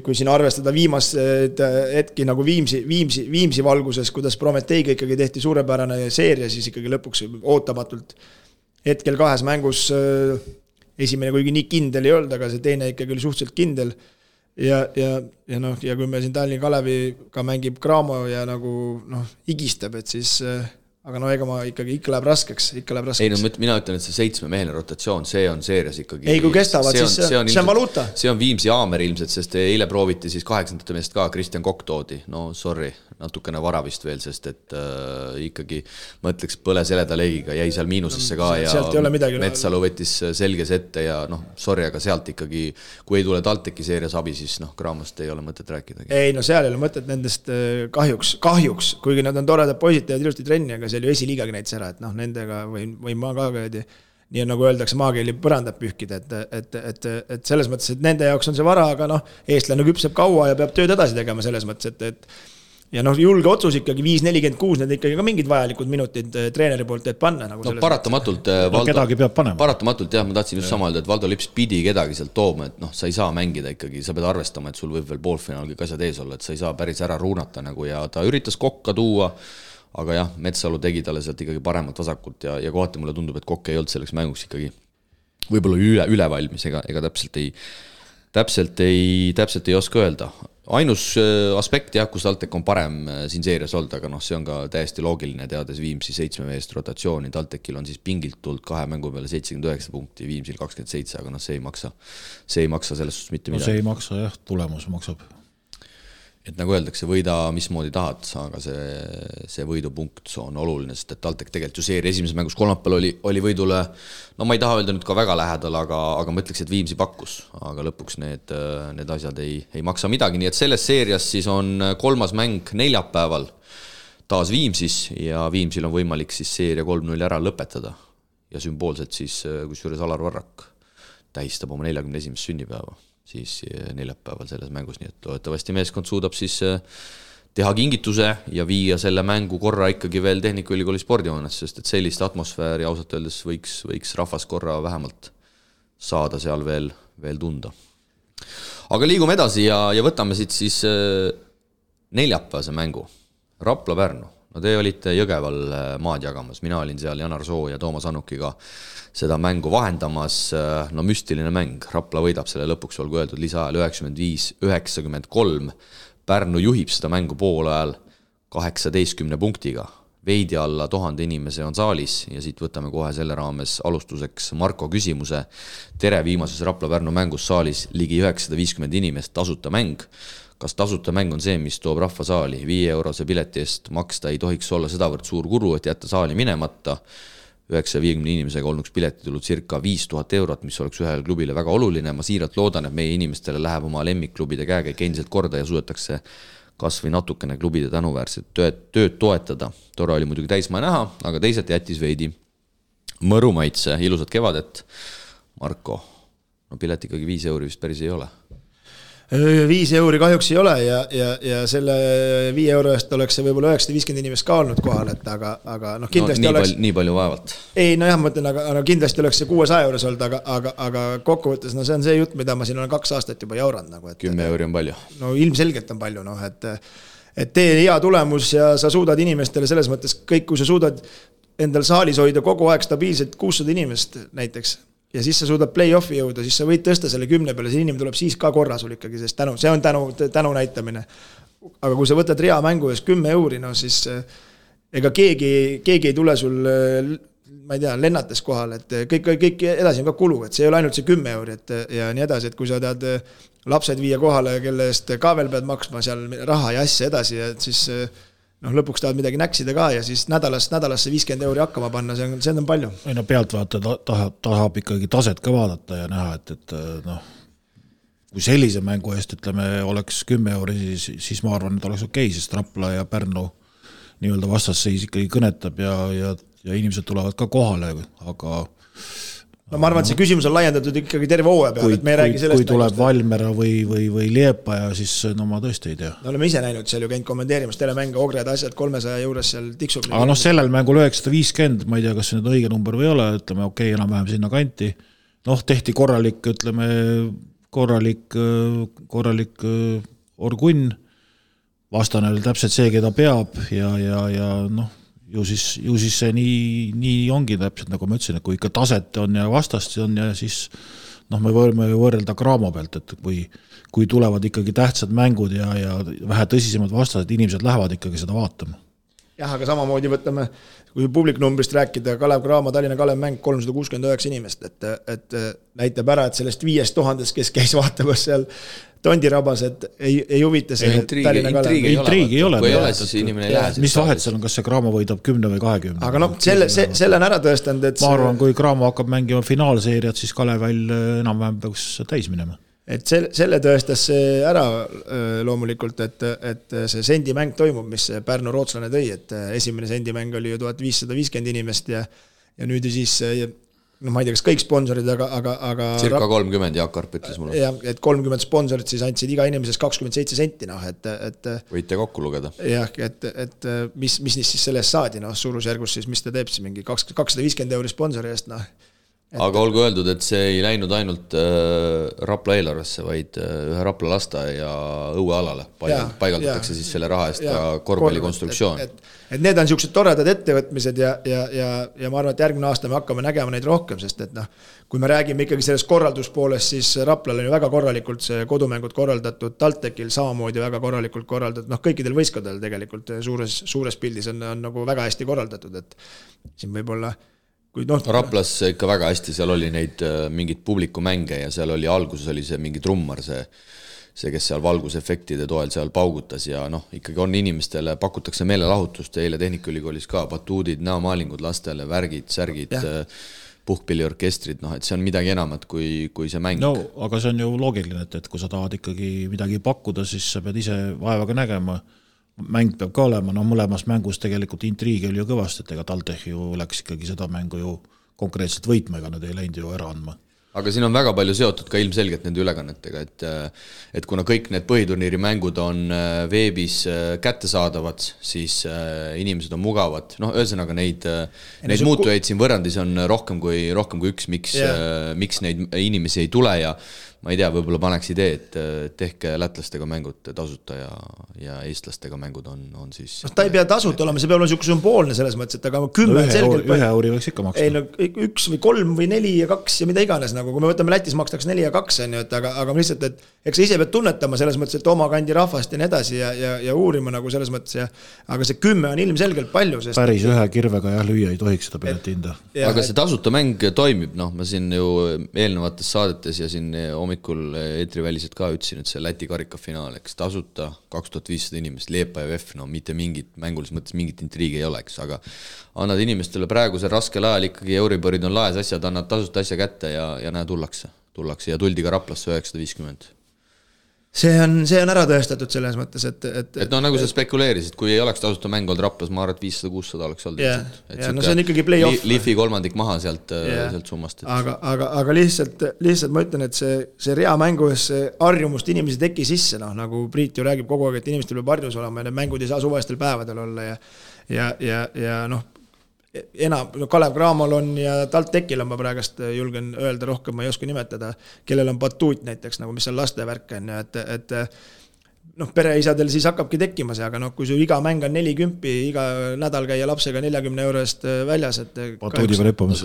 kui siin arvestada viimast hetki nagu Viimsi valguses, kuidas Prometeiga ikkagi tehti suurepärane seeria, siis ikkagi lõpuks ootamatult hetkel 2 mängus esimene kuigi nii kindel ei olnud, aga see teine ikkagi oli suhteliselt kindel ja kui me siin Tallinna Kaleviga mängib Cramo ja nagu higistab, et siis aga ega ma ikka läheb raskeks. Ei, no mina ütlen, et see 7-meheline rotatsioon, see on seerias ikkagi. Ei, kui kestavad, siis see on valuuta. See on Viimsi Aamer ilmselt, sest eile prooviti siis 8. meest ka, Kristjan Kokk toodi. No sorry, natukene vara vist veel, sest et ikkagi mõtleks põle seleda leegiga, jäi seal miinusesse ka ja Metsalu võttis selges ette ja sorry, aga sealt ikkagi, kui ei tule TalTechi seerias abi, siis Craamost ei ole mõtet rääkida. Ei, no seal ei ole mõtet nendest kahjuks, kuigi nad on toredad poisid, teevad ilusti trenni, aga see oli esiliigagi näitis ära, et nendega või ma ka nii nagu öeldakse, maakeeli põrandab pühkida, et selles mõttes, et nende jaoks on see vara, aga eestlane küpseb kaua ja peab tööd edasi tegema selles mõttes, et ja julge otsus ikkagi 5-46, need ikkagi ka mingid vajalikud minutid treeneri poolt teed panna. Nagu paratamatult, kedagi peab panema. Paratamatult, jah, ma tahtsin just sama öelda, et Valdo Lips pidi kedagi sealt tooma, et sa ei saa mängida ikkagi, sa pead arvestama, et sul võib veel poolfinaalgi asjad ees olla, et sa ei saa päris ära ruunata nagu ja ta üritas Kokka tuua, aga jah, Metsalu tegi talle sealt ikkagi paremat vasakult ja kohati mulle tundub, et Kokk ei olnud selleks mänguks ikkagi võib-olla üle valmis, ega täpselt ei oska öelda. Ainus aspekt, jah, kus TalTech on parem siin seerias olnud, aga see on ka täiesti loogiline, teades Viimsi 7 meest rotatsiooni. TalTechil on siis pingilt tulnud 2 mängu peale 79 punkti, Viimsil 27, aga see ei maksa selles suhtes mitte midagi. See ei maksa, jah, tulemus maksab. Et nagu öeldakse, võida mismoodi tahad, aga see võidupunkt on oluline, sest et TalTech tegelikult ju seeri esimeses mängus kolmapäeval oli võidule, ma ei taha öelda nüüd ka väga lähedal, aga ma ütleks, et Viimsi pakkus, aga lõpuks need asjad ei maksa midagi, nii et selles seerias siis on 3. mäng neljapäeval taas Viimsis ja Viimsil on võimalik siis seeria 3-0 ära lõpetada ja sümboolselt siis, kusjuures Alar Varrak tähistab oma 41. sünnipäeva siis neljapäeval selles mängus, nii et loodetavasti meeskond suudab siis teha kingituse ja viia selle mängu korra ikkagi veel Tehnikaülikooli spordihoones, sest et sellist atmosfääri ausalt öeldes võiks rahvas korra vähemalt saada seal veel tunda. Aga liigume edasi ja võtame siit siis neljapäevase mängu. Rapla-Pärnu. No te olite Jõgeval maad jagamas, mina olin seal Janar Soo ja Toomas Annukiga seda mängu vahendamas, no müstiline mäng, Rapla võidab selle lõpuks, olgu öeldud, lisaajal 95-93, Pärnu juhib seda mängu poole ajal 18 punktiga, veidi alla 1000 inimese on saalis ja siit võtame kohe selle raames alustuseks Marko küsimuse. Tere, viimases Rapla-Pärnu mängus saalis ligi 950 inimest, tasuta mäng. Kas tasuta mäng on see, mis toob rahva saali? 5 eurose pileti eest maksta ei tohiks olla sedavõrd suur kulu, et jätta saali minemata. 950 inimesega olnuks pileti tulnud circa 5000 eurot, mis oleks ühel klubile väga oluline. Ma siiralt loodan, et meie inimestele läheb oma lemmikklubide käekäik endiselt korda ja suudetakse kas või natukene klubide tänuväärset tööd toetada. Tore oli muidugi täismaa näha, aga teisalt jättis veidi mõru maitse. Ilusat kevadet, Marko. No pilet ikkagi 5 euri vist päris ei ole. 5 euri kahjuks ei ole ja selle 5 euro eest oleks see võib-olla 950 inimest ka olnud kohal, et aga noh, kindlasti oleks... Nii palju vaevalt. Ei, no jah, ma mõtlen, aga kindlasti oleks see 600 euros olnud, aga kokkuvõttes, no see on see jutt, mida ma siin olen 2 aastat juba jauranud. Nagu, 10 euri on palju. No ilmselgelt on palju, noh, et tee hea tulemus ja sa suudad inimestele selles mõttes kõik, kui sa suudad endal saalis hoida kogu aeg stabiilselt 600 inimest näiteks, ja siis sa suudad play-offi jõuda, siis sa võid tõsta selle 10 peale, see inimene tuleb siis ka korra sul ikkagi, sest see on tänu näitamine. Aga kui sa võtad rea mängu ees 10 euri, no siis ega keegi ei tule sul, ma ei tea, lennates kohal, et kõik edasi on ka kulu, et see ei ole ainult see 10 euri, et, ja nii edasi, et kui sa tahad lapsed viia kohale, kelle eest ka veel pead maksma seal raha ja asja edasi, et siis noh, lõpuks tahad midagi näksida ka ja siis nädalasse 50 euri hakkama panna, see on palju. Ei no pealtvaata tahab ikkagi taset ka vaadata ja näha, et noh, kui sellise mängu eest, ütleme, oleks 10 euri, siis ma arvan, et oleks okei, sest Rapla ja Pärnu nii-öelda vastasseis ikkagi kõnetab ja inimesed tulevad ka kohale, aga no ma arvan, et see küsimus on laiendatud ikkagi terve hooaja peale, et me ei räägi sellest. Kui tuleb Valmera või Liepaja, siis no ma tõesti ei tea. No oleme ise näinud seal ju käinud kommenteerimas telemänge, Ogred asjad 300 juures seal tiksub. Aga noh, sellel mängul 950, ma ei tea, kas see nüüd õige number või ei ole, ütleme okei, enam-vähem sinna kanti. Noh, tehti korralik, ütleme, korralik orgunn, vastane oli täpselt see, keda peab ja noh, ju siis see nii ongi täpselt, nagu ma ütlesin, et kui ikka taset on ja vastast on ja siis noh, me võime võrrelda Graamo pealt, et kui tulevad ikkagi tähtsad mängud ja vähe tõsisemad vastased, inimesed lähevad ikkagi seda vaatama. Jah, aga samamoodi võtame, kui publiknumbrist rääkida, Kalev Graamo, Tallinna Kalev mäng 369 inimest, et näitab ära, et sellest 5000, kes käis vaatamas seal Tondirabas, et ei huvita see Tallinna Kalev. Intriigi ei ole. Kui ei ole, siis inimene ei lähe. Mis vahet seal on, kas see Graamo võidab 10 või 20? Aga noh, selle on ära tõestanud, et ma arvan, kui Graamo hakkab mängima finaalseeriat, siis Kalevel enam-vähem peaks täis minema. Et selle tõestas see ära loomulikult, et see sendimäng toimub, mis Pärnu rootslane tõi, et esimene sendimäng oli ju 1550 inimest ja nüüd siis no ma ei tea, kas kõik sponsorid, aga circa 30, Jaak Karp ütles mulle. Ja, et 30 sponsorid siis andsid iga inimesest 27 senti, noh, et võite kokku lugeda. Jah, et mis siis sellest saadi, noh, suurusjärgus siis, mis ta teeb siis mingi 250 euri sponsori eest, noh. Aga olgu öeldud, et see ei läinud ainult Rapla eelarvesse, vaid ühe Rapla lasta ja õuealale paigaldatakse siis selle raha eest ka korvpallikonstruktsioon. Et need on niisugused toredad ettevõtmised ja ma arvan, et järgmine aasta me hakkame nägema neid rohkem, sest et noh, kui me räägime ikkagi sellest korralduspoolest, siis Raplal on ju väga korralikult see kodumängud korraldatud, Taltekil samamoodi väga korralikult korraldatud, noh kõikidel võistkondadel tegelikult suures pildis on nagu väga hästi korraldatud, et siin võib-olla Raplas ikka väga hästi, seal oli neid mingid publikumänge ja seal oli alguses oli see mingi trummar, see, kes seal valgusefektide toel seal paugutas ja noh, ikkagi on inimestele, pakutakse meelelahutust eile Tehnikaülikoolis ka, batuudid, näomaalingud lastele, värgid, särgid, puhkpilliorkestrid, noh, et see on midagi enamat kui see mäng. No, aga see on ju loogiline, et kui sa tahad ikkagi midagi pakkuda, siis sa pead ise vaevaga nägema. Mäng peab ka olema, no mõlemas mängus tegelikult intriigi oli ju kõvasti, et ega TalTech ju läks ikkagi seda mängu ju konkreetselt võitma, ega nad ei läinud ju ära andma. aga siin on väga palju seotud ka ilmselgelt nende ülekannetega, et kuna kõik need põhiturniiri mängud on veebis kättesaadavad, siis inimesed on mugavad. Noh, ühesõnaga neid muutujaid siin võrrandis on rohkem kui üks, miks neid inimesi ei tule ja ma ei tea, võib-olla paneks idee, et tehke lätlastega mängud tasuta ja eestlastega mängud on siis... ta ei pea tasuta olema, see peab olema niisugune sümboolne selles mõttes, et aga 10 selgelt... Ühe euri võiks ikka maksta. Ei, no 1 või 3 või 4 ja 2 ja mida iganes, nagu kui me võtame Lätis makstakse 4 ja 2, on ju, aga lihtsalt, et eks sa ise pead tunnetama selles mõttes, et oma kandi rahvast ja nii edasi ja uurima nagu selles mõttes, aga see 10 on ilmselgelt palju, sest... Päris ühe kirvega lüüa ei tohiks seda pileti hinda. Aga see tasuta mäng toimib, noh, ma siin ju eelnevates saadetes ja siin hommikul eetriväliselt ka ütlesin, et see Läti karikafinaal, eks tasuta 2500 inimest, Liepa ja VEF, no mitte mingit mängulis mõttes mingit intriigi ei oleks, aga annad inimestele praegusel raskel ajal ikkagi Euriborid on laes asjad, annad tasuta asja kätte ja näe tullakse ja tuldi ka Raplasse 950. See on ära tõestatud selles mõttes, et no nagu sa spekuleerisid, kui ei oleks tasuta mäng olnud Raplas, ma arvan, et 500-600 oleks olnud. No see on ikkagi play-off. Liifi kolmandik maha sealt summast. Aga lihtsalt ma ütlen, et see rea mängus harjumust inimesi teki sisse, nagu Priit ju räägib kogu aeg, et inimestel peab harjus olema ja need mängud ei saa suvestel päevadel olla ja noh, Kalev Cramol on ja TalTechil on ma praegast julgen öelda rohkem, ma ei oska nimetada, kellel on batuut näiteks, nagu mis on lastevärk on, et noh, pereisadel siis hakkabki tekkima see, aga noh, kui su iga mäng on 40, iga nädal käia lapsega 40 € väljas, et batuudi peal hüppamas.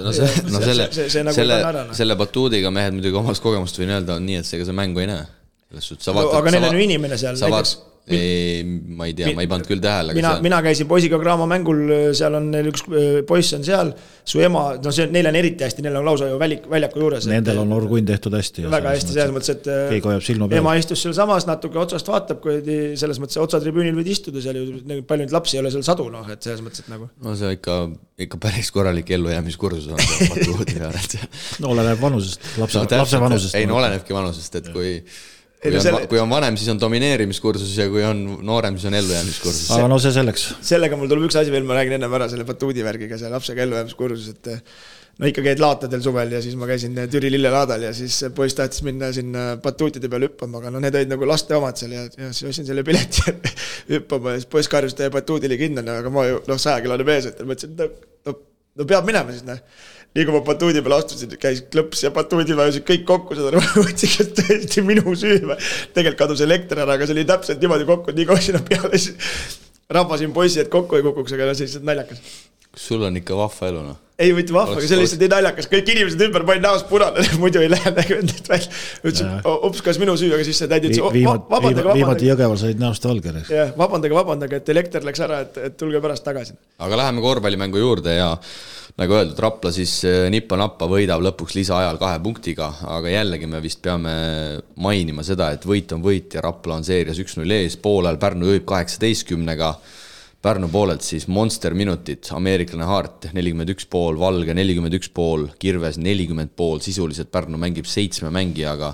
Selle batuudiga mehed muidugi omast kogemust võin öelda, on nii, et see mängu ei näe. Aga neil on ju inimene seal näiteks. Ma ei tea, ma ei pannud küll tähele. Mina käisin poisiga Graamo mängul, seal on neil üks poiss on seal, su ema, no neil on eriti hästi, neil on lausa ju väljaku juures. Nendel on orgunn tehtud hästi. Väga hästi, selles mõttes, et ema istus seal samas, natuke otsast vaatab, kui selles mõttes otsatribüünil võid istuda seal ju, palju neid lapsi ei ole seal sadu, noh, et selles mõttes, et nagu. No see ikka päris korralik ellujäämiskursus on see patuudi peal. No oleneb vanusest, lapse vanusest. Ei, no olenebki vanusest, et kui on vanem, siis on domineerimiskursus ja kui on noorem, siis on ellujäämiskursus. Aga no see selleks. Sellega mul tuleb üks asi veel, ma räägin enne ära selle batuudivärgiga, see lapsega ellujäämiskursus, et no ikka käid laatadel suvel ja siis ma käisin Türi lillelaadal ja siis poiss tahtis minna sinna batuutide peal hüppama, aga no need olid nagu laste omad seal ja siis ostsin selle pileti hüppama ja siis poiss karjus teie batuudile kindlane, aga ma ju 100 kilone mees, et mõtlesin, no peab minema siis, nii kui ma batuudi peale astusin, käis klõps ja batuudi vajusid kõik kokku, seda võtsin, et tõesti minu süü. Tegelikult kadus elekter ära, aga see oli täpselt niimoodi kokku, nii kui sinna peale rahvasin poissi, et kokku ei kukuks, aga see lihtsalt naljakas. Kas sul on ikka vahva elu, noh? Ei võtti vahva, aga see lihtsalt nii naljakas. Kõik inimesed ümber panin näos punane, muidu ei lähe nägevendit välja. Ütlesin, ups, kas minu süü, aga siis see täidi ütles, viimati Jõgeval said näost valger. Vabandage, et elekter läks ära, et tulge pärast tagasi. Aga läheme korvpallimängu juurde ja nagu öeldud, Rapla siis nippa-nappa võidab lõpuks lisaajal 2 punktiga, aga jällegi me vist peame mainima seda, et võit on võit ja Rapla on seerias 1-0 ees, poolel Pärnu juhib 18-ga, Pärnu poolelt siis monster minutit, ameeriklane Hart 41,5, Valge 41,5, Kirves 40,5, sisuliselt Pärnu mängib 7 mängijaga,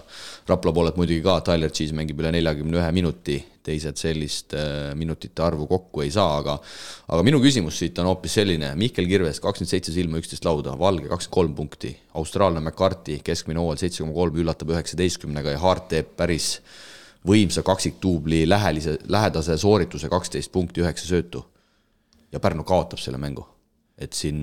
Rapla poolelt muidugi ka, Tyler Cheese mängib üle 41 minuti, teised sellist minutite arvu kokku ei saa, aga minu küsimus siit on hoopis selline, Mihkel Kirves 27 silma 11 lauda, Valge 23 punkti, austraalne McCarthy keskmine hooajal 7,3 üllatab 19-ga ja Hart teeb päris võimsa kaksiktuubli lähedase soorituse 12 punkti 9 söötu ja Pärnu kaotab selle mängu. Et siin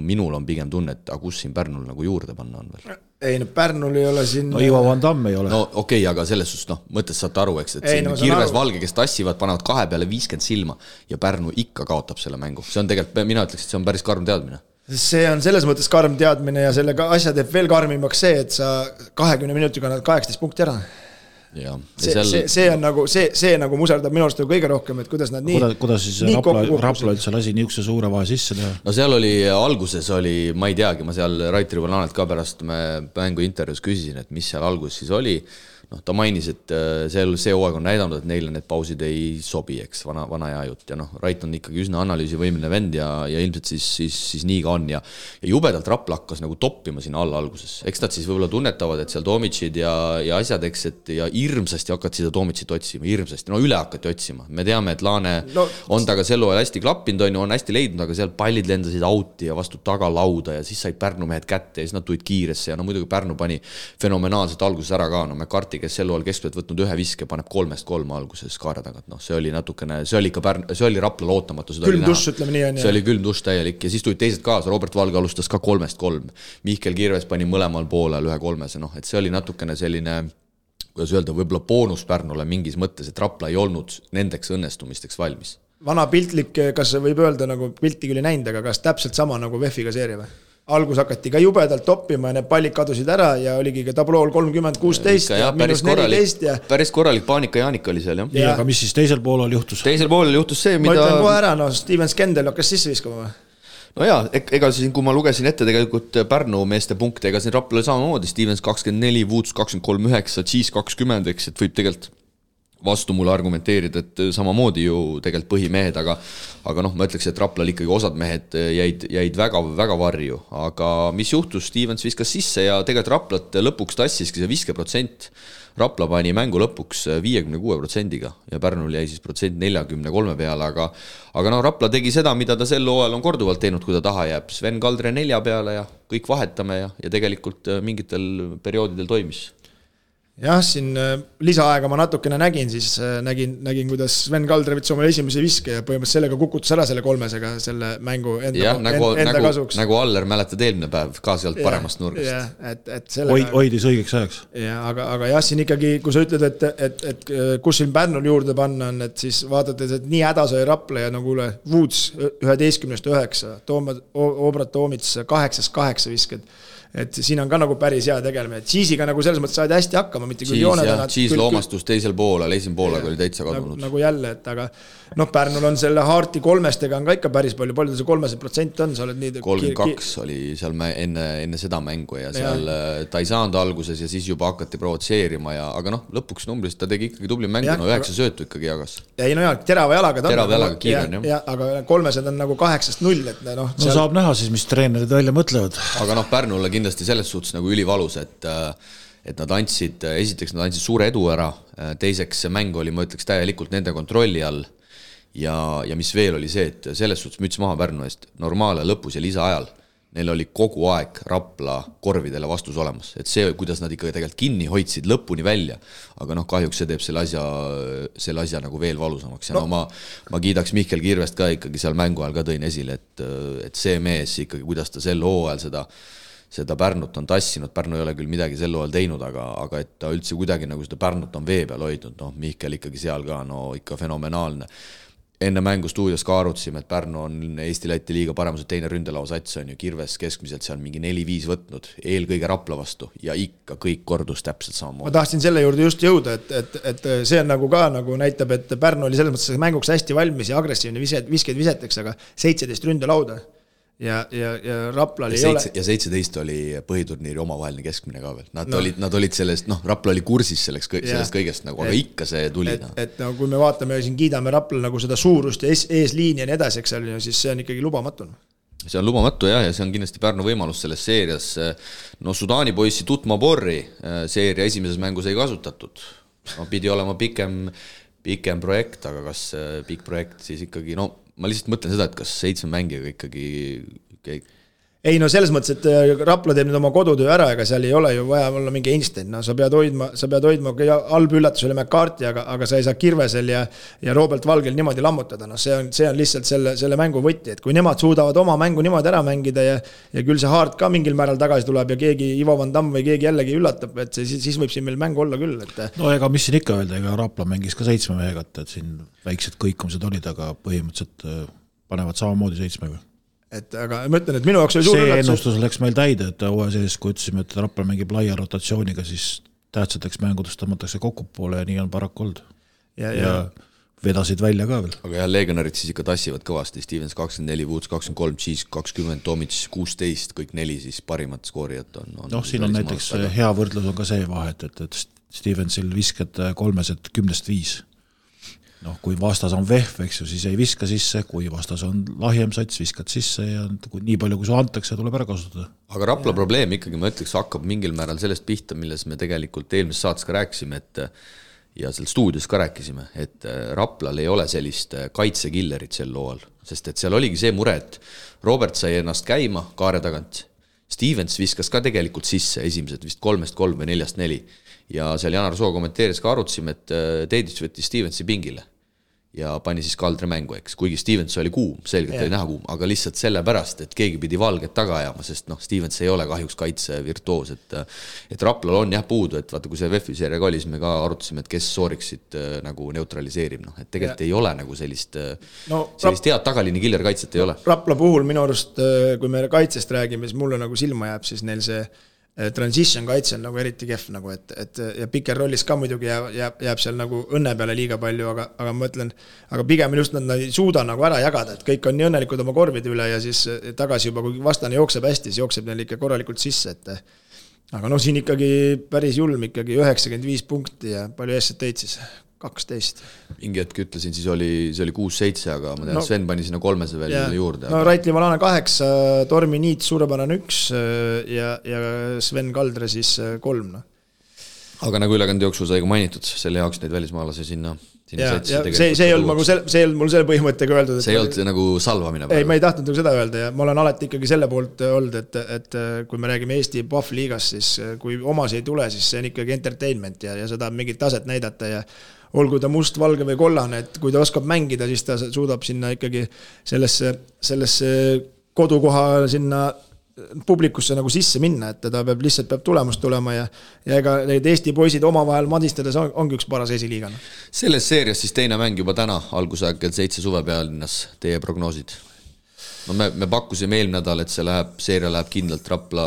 minul on pigem tunne, et kus siin Pärnul nagu juurde panna on veel? Ei, no Pärnul ei ole siin... No Ivo Van Damme ei ole. No okei, aga selles suhtes, mõttes saate aru, eks, et siin Kirves Valge, kes tassivad, panevad 2 peale 50 silma ja Pärnu ikka kaotab selle mängu. See on tegelikult, mina ütleks, et see on päris karm teadmine. See on selles mõttes karm teadmine ja selle asja teeb veel karmimaks see, et sa 20 minutiga annad 18 punkti ära. Ja. See on nagu, see nagu muserdab minu arust kõige rohkem, et kuidas nad nii... Kuidas siis Rapla üldse lasi niisuguse suure vahe sisse teha? No seal oli, alguses oli, ma ei teagi, ma seal Raitri Valanet ka pärast me mängu intervjuus küsisin, et mis seal alguses siis oli. ta mainis, et see hooaeg on näidanud, et neile need pausid ei sobi, eks, vana hea jutt ja Rait on ikkagi üsna analüüsivõimeline vend ja ilmselt siis nii ka on ja jubedalt Rapla hakkas nagu toppima sinna alla alguses. Eks nad siis võib-olla tunnetavad, et seal Tomitšid ja asjad, eks, et ja hirmsasti hakkad seda Tomitšit otsima, hirmsasti, üle hakati otsima. Me teame, et Laane on taga sel hooajal hästi klappinud, on hästi leidnud, aga seal pallid lendasid auti ja vastu tagalauda ja siis said Pärnu mehed kätte ja siis nad tulid kiiresse ja muidugi Pärnu pani fenomenaalselt alguses ära ka, McCarthy, kes sel hooajal keskpealt võtnud ühe viske, paneb 3-3 alguses kaare tagant, see oli natukene, see oli Rapla lootamatu, külm dušš, ütleme nii on. See oli külm dušš täielik ja siis tulid teised kaasa, Robert Valge alustas ka 3-3, Mihkel Kirves pani mõlemal poolel 1-3, et see oli natukene selline, kuidas öelda, võib-olla boonus Pärnule mingis mõttes, et Rapla ei olnud nendeks õnnestumisteks valmis. Vana piltlik, kas võib öelda, nagu pilti küll ei näinud, aga kas täpselt sama nagu VEF-iga seeria või? Algus hakati ka jubedalt toppima ja need pallid kadusid ära ja oligi ka tablool 30-16 ja -14 ja päris korralik paanika Jaanika oli seal, jah. Nii, aga mis siis teisel poolel juhtus? Teisel poolel juhtus see, mida... Ma ütlen kohe ära, Steven Skendel hakkas sisse viskama või? No jaa, ega siin, kui ma lugesin ette tegelikult Pärnu meeste punkte, ega siin Raplale samamoodi, Stevens 24, Woods 23-9, Cheese 20, eks, et võib tegelikult vastu mulle argumenteerida, et samamoodi ju tegelikult põhimehed, aga ma ütleks, et Raplal ikkagi osad mehed jäid väga, väga varju, aga mis juhtus, Stevens viskas sisse ja tegelikult Raplat lõpuks tassiski see 50%, Rapla pani mängu lõpuks 56%-ga ja Pärnul jäi siis protsent 43 peale, aga Rapla tegi seda, mida ta sel hooajal on korduvalt teinud, kui ta taha jääb, Sven Kaldre 4 peale ja kõik vahetame ja tegelikult mingitel perioodidel toimis. Jah, siin lisaaega ma natukene nägin, siis nägin, kuidas Sven Kaldre võttis omale esimese viske ja põhimõtteliselt sellega kukutus ära selle 3-sega selle mängu enda kasuks. Nagu Aller mäletad eelmine päev ka sealt paremast nurgast. Hoidis õigeks ajaks. Ja, aga jah, siin ikkagi, kui sa ütled, et kus siin Pärnul juurde panna on, et siis vaadates, et nii häda sai Rapla ja nagu Woods 11-9, Obrat Toomits 8-8 visked. Et siin on ka nagu päris hea tegelemine, et Cheese'iga nagu selles mõttes saadi hästi hakkama, mitte küll jooned. Cheese loomastus teisel poolel, esimene poolega oli täitsa kadunud. Nagu jälle, et aga Pärnul on selle Harti 3-stega on ka ikka päris palju see 3% on, sa oled nii... 32 oli seal enne seda mängu ja seal ta ei saanud alguses ja siis juba hakati provotseerima aga lõpuks numbris ta tegi ikkagi tubli mängu, 9 söötu ikkagi jagas. Ei terava jalaga kiire on, jah. Aga 3 on nagu 8-0, et seal... saab näha siis, mis treenerid välja mõtlevad. Aga Pärnule kindlasti selles suhtes nagu ülivalus, et nad andsid, esiteks nad andsid suure edu ära, teiseks see mäng oli, ma ütleks, täielikult nende kontrolli all ja mis veel oli see, et selles suhtes müts maha Pärnu eest normaale lõpus ja lisaajal neil oli kogu aeg Rapla korvidele vastus olemas, et see, kuidas nad ikka tegelikult kinni hoidsid lõpuni välja, aga kahjuks see teeb selle asja nagu veel valusamaks ja ma kiidaks Mihkel Kirvest ka ikkagi seal mängu ajal ka tõin esile, et see mees ikkagi, kuidas ta sel hooajal seda Pärnut on tassinud, Pärnu ei ole küll midagi sel hooajal teinud, aga et ta üldse kuidagi nagu seda Pärnut on vee peal hoidnud, Mihkel ikkagi seal ka, ikka fenomenaalne. Enne mängu stuudios ka arutasime, et Pärnu on Eesti-Läti liiga paremused teine ründelausats on ju Kirves keskmiselt seal mingi 4-5 võtnud, eelkõige Rapla vastu ja ikka kõik kordus täpselt samamoodi. Ma tahtsin selle juurde just jõuda, et see on nagu ka nagu näitab, et Pärnu oli selles mõttes mänguks hästi valmis ja agressiivne viskeid viseteks, aga 17 ründelauda. Ja Rapla oli 17 oli põhiturniiri omavaheline keskmine ka veel. Nad olid sellest, Rapla oli kursis sellest kõigest, nagu, aga ikka see tuli. Et kui me vaatame ja siin kiidame Rapla nagu seda suurust ja eesliini ja nii edasi, siis see on ikkagi lubamatu. See on lubamatu ja see on kindlasti Pärnu võimalus selles seerias. Sudaani poissi Tutma Borri seeria esimeses mängus ei kasutatud. Pidi olema pikem projekt, aga kas pikk projekt siis ikkagi, ma lihtsalt mõtlen seda, et kas 7 mängijaga ikkagi... Ei, selles mõttes, et Rapla teeb nüüd oma kodutöö ära, aga seal ei ole ju vaja olla mingi Einstein. Sa pead hoidma, halb üllatus oli McCarthy, aga sa ei saa Kirvesel ja Robert Valgel niimoodi lammutada. See on lihtsalt selle mängu võtti, et kui nemad suudavad oma mängu niimoodi ära mängida ja küll see Hart ka mingil määral tagasi tuleb ja keegi Ivo Van Damme või keegi jällegi üllatab, et siis võib siin meil mängu olla küll. Ega mis siin ikka öelda, ega Rapla mängis ka 7 mehegat, et siin väiksed kõikumised olid, aga põhimõtteliselt panevad samamoodi 7-ga. Aga ma ütlen, et minu jaoks oli suur see ennustus läks meil täide, et hooaja sees, kui ütlesime, et Rapla mängib laia rotatsiooniga, siis tähtsateks mängudest tõmmatakse kokku poole ja nii on paraku olnud. Ja vedasid välja ka veel. Aga legionarid siis ikka tassivad kõvasti, Stevens 24, Woods 23, Cheese 20, Tomic 16, kõik 4 siis parimat skoorijat on. Siin on näiteks hea võrdlus on ka see vahet, et Stevensil viskad 3-10-5. Noh, kui vastas on vehv, eks ju, siis ei viska sisse, kui vastas on lahjem sats, viskad sisse ja kui nii palju, kui su antakse, tuleb ära kasutada. Aga Rapla probleem ikkagi, ma ütleks, hakkab mingil määral sellest pihta, milles me tegelikult eelmises saates ka rääkisime, et ja seal stuudios ka rääkisime, et Raplal ei ole sellist kaitsekillerit sel looal, sest et seal oligi see mure, et Robert sai ennast käima kaare tagant, Stevens viskas ka tegelikult sisse esimesed vist 3-3 või 4-4 ja seal Janar Soo kommenteeris ka arutasime, et Teedits võttis Stevensi pingile ja pani siis Kaldre mängu, eks. Kuigi Stevens oli kuum, selgelt oli näha kuum, aga lihtsalt sellepärast, et keegi pidi valget taga ajama, sest Stevens ei ole kahjuks kaitse virtuoos, et Raplal on jah puudu, et vaata, kui see VEF-i seeriaga oli, siis me ka arutasime, et kes sooriksid nagu neutraliseerib, et tegelikult ei ole nagu sellist head tagaliini killer kaitset ei ole. Rapla puhul minu arust, kui me kaitsest räägime, siis mulle nagu silma jääb, siis neil see transition kaitse on nagu eriti kehv nagu, et ja piker rollis ka muidugi jääb seal nagu õnne peale liiga palju, aga ma mõtlen, aga pigem just nad ei suuda nagu ära jagada, et kõik on nii õnnelikud oma korvide üle ja siis tagasi juba, kui vastane jookseb hästi, siis jookseb neil ikka korralikult sisse, aga siin ikkagi päris julm ikkagi 95 punkti ja palju eest teid siis? 12. Mingi hetk ütlesin, siis oli 6-7, aga ma tean, Sven pani sinna 3 veel juurde. No Raitli Valane 8, Tormi Niit suurepärane 1 ja Sven Kaldre siis 3. Aga nagu ülekande jooksul sai ka mainitud, selle jaoks neid välismaalase sinna see ei olnud mul selle põhimõttega öeldud. See ei olnud nagu salvamine. Ei, ma ei tahtnud nagu seda öelda ja ma olen alati ikkagi selle poolt olnud, et kui me räägime Eesti PAF liigast, siis kui omas ei tule, siis see on ikkagi entertainment ja seda mingit taset näidata ja olgu ta must, valge või kollane, et kui ta oskab mängida, siis ta suudab sinna ikkagi sellesse kodukoha sinna publikusse nagu sisse minna, et ta peab tulemust tulema ja ega need Eesti poisid omavahel madistades ongi üks paras esiliigana. Selles seerias siis teine mäng juba täna, algusaeg kell 7 Suvepealinnas, teie prognoosid? No me pakkusime eelmine nädal, et seeria läheb kindlalt Rapla,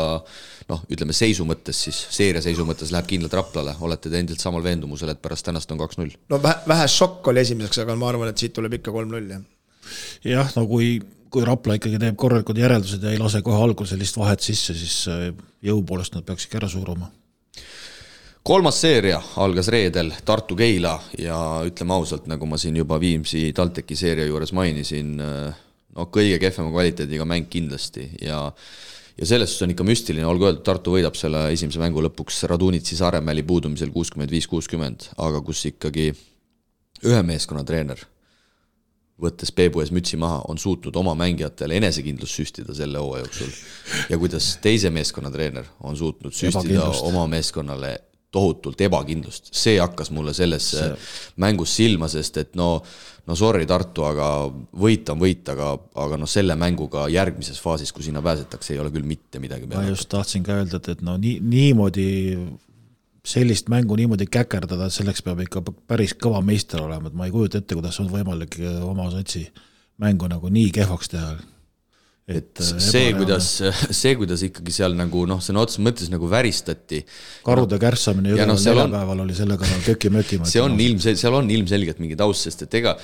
ütleme seisu mõttes siis, seeria seisu mõttes läheb kindlalt Raplale, olete te endilt samal veendumusel, et pärast tänast on 2-0? No vähe šokk oli esimeseks, aga ma arvan, et siit tuleb ikka 3-0. Jah, no kui Rapla ikkagi teeb korralikud järeldused ja ei lase kohe algul sellist vahet sisse, siis jõu poolest nad peaks ikka ära suuruma. 3. seeria algas reedel Tartu-Keila ja ütleme ausalt, nagu ma siin juba Viimsi TalTechi seeria juures mainisin, kõige kehvema kvaliteediga mäng kindlasti ja selles on ikka müstiline, olgu öeldud, Tartu võidab selle esimese mängu lõpuks Radunitsi Saaremäeli puudumisel 65-60, aga kus ikkagi ühe meeskonna treener võttes Peebu ees mütsi maha, on suutnud oma mängijatele enesekindlust süstida selle hooaja jooksul. Ja kuidas teise meeskonna treener on suutnud süstida oma meeskonnale tohutult ebakindlust. See hakkas mulle selles mängus silma, sest et sorry Tartu, aga võit on võit, aga selle mänguga järgmises faasis, kui sinna pääsetakse, ei ole küll mitte midagi peale. Ma just tahtsin ka öelda, et niimoodi sellist mängu niimoodi käkerdada, selleks peab ikka päris kõva meister olema, et ma ei kujuta ette, kuidas on võimalik oma satsi mängu nagu nii kehvaks teha. Et see, kuidas ikkagi seal nagu, sõna otseses mõttes nagu väristati. Karude kärsamine neljapäeval oli selle kõrval köki-möki. Seal on ilmselgelt mingi taust, sest et ega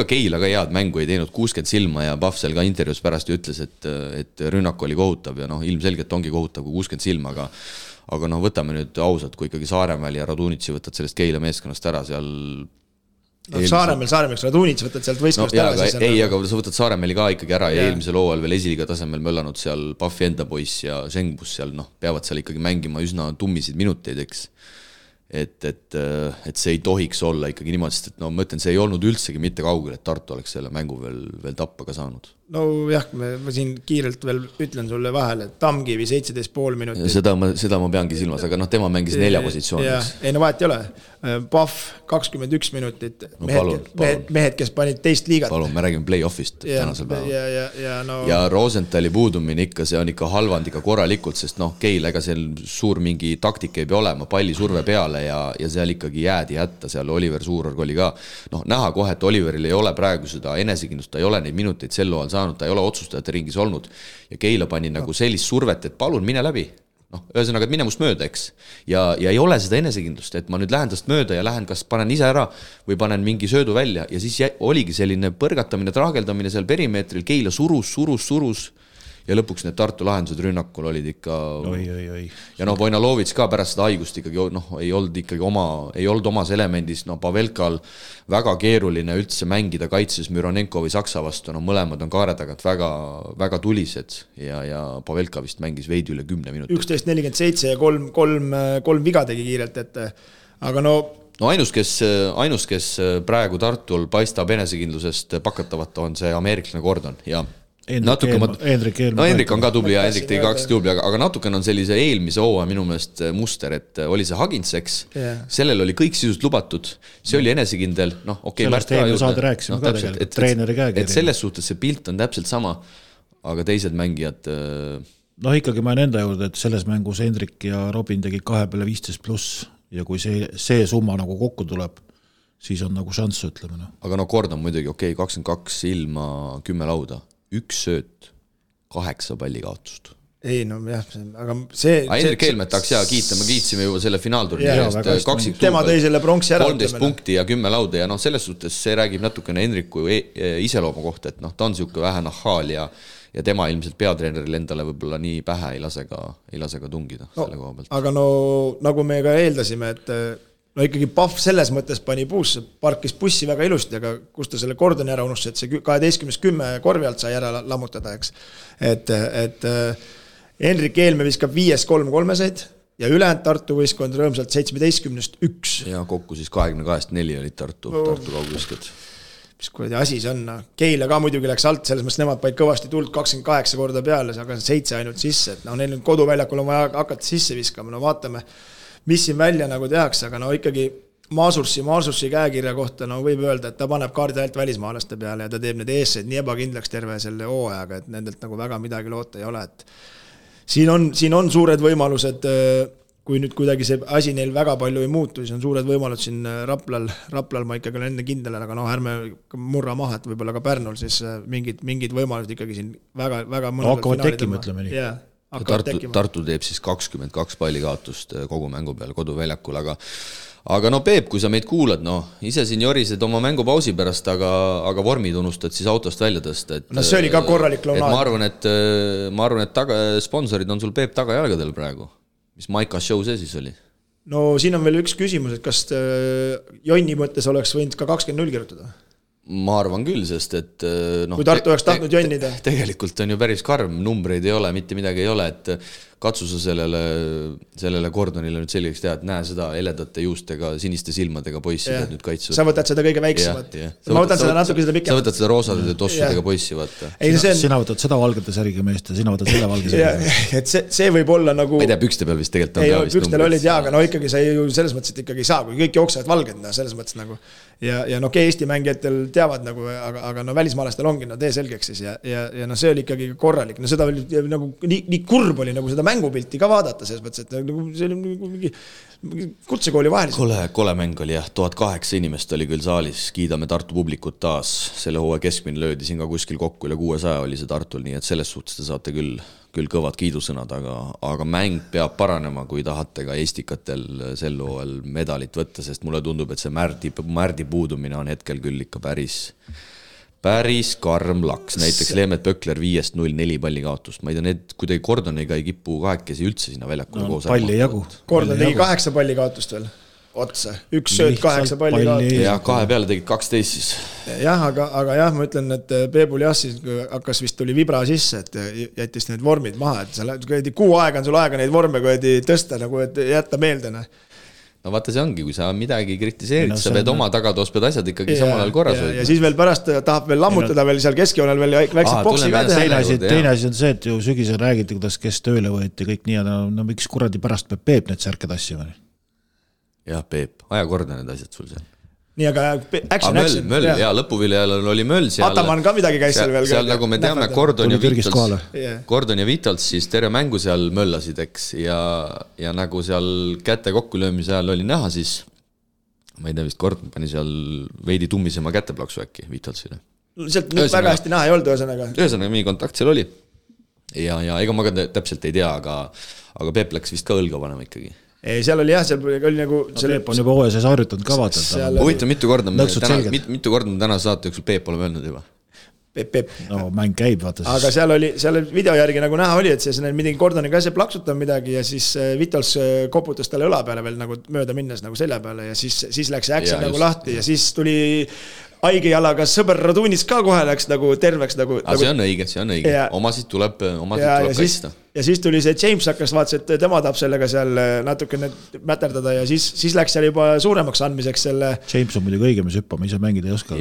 Keila ka head mängu ei teinud 60 silma ja Pahvsel ka intervjuus pärast ütles, et rünnak oli kohutav ja ilmselgelt ongi kohutav kui 60 silma, aga võtame nüüd ausalt, kui ikkagi Saaremäel ja Radunitsi võtad sellest Keila meeskonnast ära seal Saaremäel Radunitsi võtad sealt võistkonnast ära. Aga sa võtad Saaremäeli ka ikkagi ära ja eelmisel hooajal veel esiliiga tasemel möllanud seal Pahvi enda poiss ja Sengbus seal, peavad seal ikkagi mängima üsna tummisid minuteid, eks. Et see ei tohiks olla ikkagi niimoodi, sest et ma ütlen, see ei olnud üldsegi mitte kaugel, et Tartu oleks selle mängu veel tappa ka saanud. No jah, ma siin kiirelt veel ütlen sulle vahele, et Tamkivi 17,5 minutit. Seda ma peangi silmas, aga tema mängis 4 positsiooniks. Ei, vahet ei ole. Pahv 21 minutit. Mehed, kes panid teist liigat. Palun, me räägime play-offist tänasel päeval. Ja Rosenthali puudumine ikka, see on ikka halvand ikka korralikult, sest Keil, ega seal suur mingi taktika ei pea olema, palli surve peale ja seal ikkagi jäädi hätta, seal Oliver Suurorg oli ka. Näha kohe, et Oliveril ei ole praegu seda enesekindlust, ta ei ole neid minuteid sel loal saanud, ta ei ole otsustajate ringis olnud ja Keila pani nagu sellist survet, et palun mine läbi. Ühesõnaga, et mine must mööda, eks. Ja ei ole seda enesekindlust, et ma nüüd lähen tast mööda ja lähen, kas panen ise ära või panen mingi söödu välja ja siis oligi selline põrgatamine, traageldamine seal perimeetril, Keila surus ja lõpuks need Tartu lahendused rünnakul olid ikka oi. Ja Vojnalovits ka pärast seda haigust ikkagi ei olnud omas elemendis, Pavelkal väga keeruline üldse mängida kaitses Müronenko või Saksa vastu, mõlemad on kaare tagant väga, väga tulised ja Pavelka vist mängis veidi üle 10 minutit. 11.47 ja kolm viga tegi kiirelt, aga ainus, kes praegu Tartul paistab enesekindlusest pakatavat, on see ameeriklane Gordon ja Hendrik on ka tubli ja Hendrik tegi 2 tubli, aga natukene on sellise eelmise hooaja minu meelest muster, et oli see Haginseks, sellel oli kõik sisust lubatud, see oli enesekindel, sellest eelmine saade rääkisime ka tegelikult, treeneri käekiri. Et selles suhtes see pilt on täpselt sama, aga teised mängijad ikkagi ma olen enda juurde, et selles mängus Hendrik ja Robin tegi 2 peale 15+, ja kui see summa nagu kokku tuleb, siis on nagu šanss, ütleme. Aga Gordon muidugi, 22 ilma 10 lauda, 1 sööt, 8 palli kaotust. Ei, jah, aga see... Hendrik Helmet tahaks kiita, me kiitsime juba selle finaalturniiri. Tema tõi selle pronksi ära. 13 punkti ja 10 lauda ja selles suhtes see räägib natukene Hendriku iseloomu kohta, et ta on siuke vähe nahhaal ja tema ilmselt peatreeneril endale võib-olla nii pähe ei lase ka tungida selle koha pealt. Aga nagu me ka eeldasime, et ikkagi Pahv selles mõttes pani puusse, parkis bussi väga ilusti, aga kus ta selle Gordoni ära unustas, et see 12-10 korvi alt sai ära lammutada, eks. Et Hendrik Eelme viskab 5-3-3-seid ja ülejäänud Tartu võistkond rõõmsalt 17-1. Ja kokku siis 22-4 olid Tartu kaugviskad. Mis kuradi asi see on, Keila ka muidugi läks alt, selles mõttes nemad paid kõvasti tuld 28 korda peale, aga 7 ainult sisse, et neil koduväljakul on vaja hakata sisse viskama, vaatame, mis siin välja nagu tehakse, aga ikkagi Maasursi käekirja kohta võib öelda, et ta paneb kaardi alt välismaalaste peale ja ta teeb need eesseid nii ebakindlaks terve selle hooajaga, et nendelt nagu väga midagi loota ei ole, et siin on suured võimalused, kui nüüd kuidagi see asi neil väga palju ei muutu, siis on suured võimalused siin Raplal ma ikkagi olen enne kindel, aga ärme murra maha, et võib-olla ka Pärnul siis mingid võimalused ikkagi siin väga hakkavad tekkima, ütleme nii. Tartu teeb siis 22 palli kaotust kogu mängu peal koduväljakul, aga Peep, kui sa meid kuulad, ise siin jorised oma mängupausi pärast, aga vormid unustad siis autost välja tõsta. See oli ka korralik launaad. Ma arvan, et sponsorid on sul Peep tagajalgadel praegu. Mis Maika show see siis oli? Siin on veel üks küsimus, et kas Jonni mõttes oleks võinud ka 20-0 kirjutada? Ma arvan küll, sest et kui Tartu oleks tahtnud jonnida. Tegelikult on ju päris karm, numbreid ei ole, mitte midagi ei ole, et katsu sa sellele Gordonile nüüd selgeks teha, et näe seda heledate juustega, siniste silmadega poissi nüüd kaitsuvad. Sa võtad seda kõige väiksemat. Ma võtan seda natuke seda pikemalt. Sa võtad seda roosadede tossudega poissi, vaata. Sina võtad seda valgete särgi meest ja sina võtad selle valge särgi. Et see võib olla nagu... Ma ei tea, pükste peal vist tegelikult on ka vist numbrid. Pükstel olid aga ikkagi sa ju selles mõttes, et ikkagi ei saa, kui kõik jooksevad valged, selles mõttes nagu. Ja Eesti mängijatel teavad nagu, aga välismaalastel ongi tee selgeks siis ja see oli ikkagi korralik. Seda oli nagu nii kurb oli nagu seda mängupilti ka vaadata selles mõttes, et see oli mingi kutsekooli vahelis. Kole mäng oli jah, 1008 inimest oli küll saalis, kiidame Tartu publikut taas, selle hooaja keskmine löödi siin ka kuskil kokku üle 600 oli see Tartul, nii et selles suhtes te saate küll kõvad kiidusõnad, aga mäng peab paranema, kui tahate ka eestikatel sel hooajal medalit võtta, sest mulle tundub, et see Märdi puudumine on hetkel küll ikka päris karm laks. Näiteks Leemet Pökler 5-0-4 palli kaotust. Ma ei tea, need kuidagi Gordoniga ei kipu kahekesi üldse sinna väljakule koos. Palli jagu. Gordon tegi 8 palli kaotust veel otsa. 1 sööt 8 palli kaotust. Ja 2 peale tegid 12 siis. Jah, aga jah, ma ütlen, et Peebul jah siis hakkas vist tuli vibra sisse, et jättis need vormid maha, et kuu aega on sul aega neid vorme tõsta, nagu et jätta meelde. No vaata see ongi, kui sa midagi kritiseerid, sa pead oma tagatoos, pead asjad ikkagi samal ajal korras hoida. Ja siis veel pärast tahab veel lammutada veel seal keskjoonel veel väikseid boksi ka teha. Teine asi on see, et ju sügisel räägiti, kuidas kes tööle võeti kõik nii, no miks kuradi pärast peab Peep need särked asjama? Jah, Peep, aja korda need asjad sul seal. Nii, aga action. Möll, ja lõpuviljal oli möll seal. Ataman ka midagi käis seal veel. Seal nagu me teame, Gordon ja Vitals siis terve mängu seal möllasid, eks, ja nagu seal käte kokkulöömise ajal oli näha, siis ma ei tea, vist Gordon pani seal veidi tummisema käteplaksu äkki Vitalsile. Sealt väga hästi näha ei olnud ühesõnaga. Ühesõnaga, mingi kontakt seal oli. Ja ega ma ka täpselt ei tea, aga Peep läks vist ka õlga panema ikkagi. Ei, seal oli jah, seal oli nagu... Peep on juba OSS harjutanud ka vaatanud. Huvitav, mitu korda me täna saate jooksul Peep oleme öelnud juba? Peep. no mäng käib, vaata aga seal video järgi nagu näha oli, et see midagi Gordoniga asja plaksutab midagi ja siis Vitols koputas talle õla peale veel nagu mööda minnes nagu selja peale ja siis läks see action nagu lahti ja siis tuli haige jalaga sõber Radunits ka kohe läks nagu terveks nagu. See on õige, omasid tuleb kaitsta. Ja siis tuli see James hakkas vaatas, et tema tahab sellega seal natukene mäterdada ja siis läks seal juba suuremaks andmiseks selle. James on muidugi õige, mis hüppama ise mängida ei oska.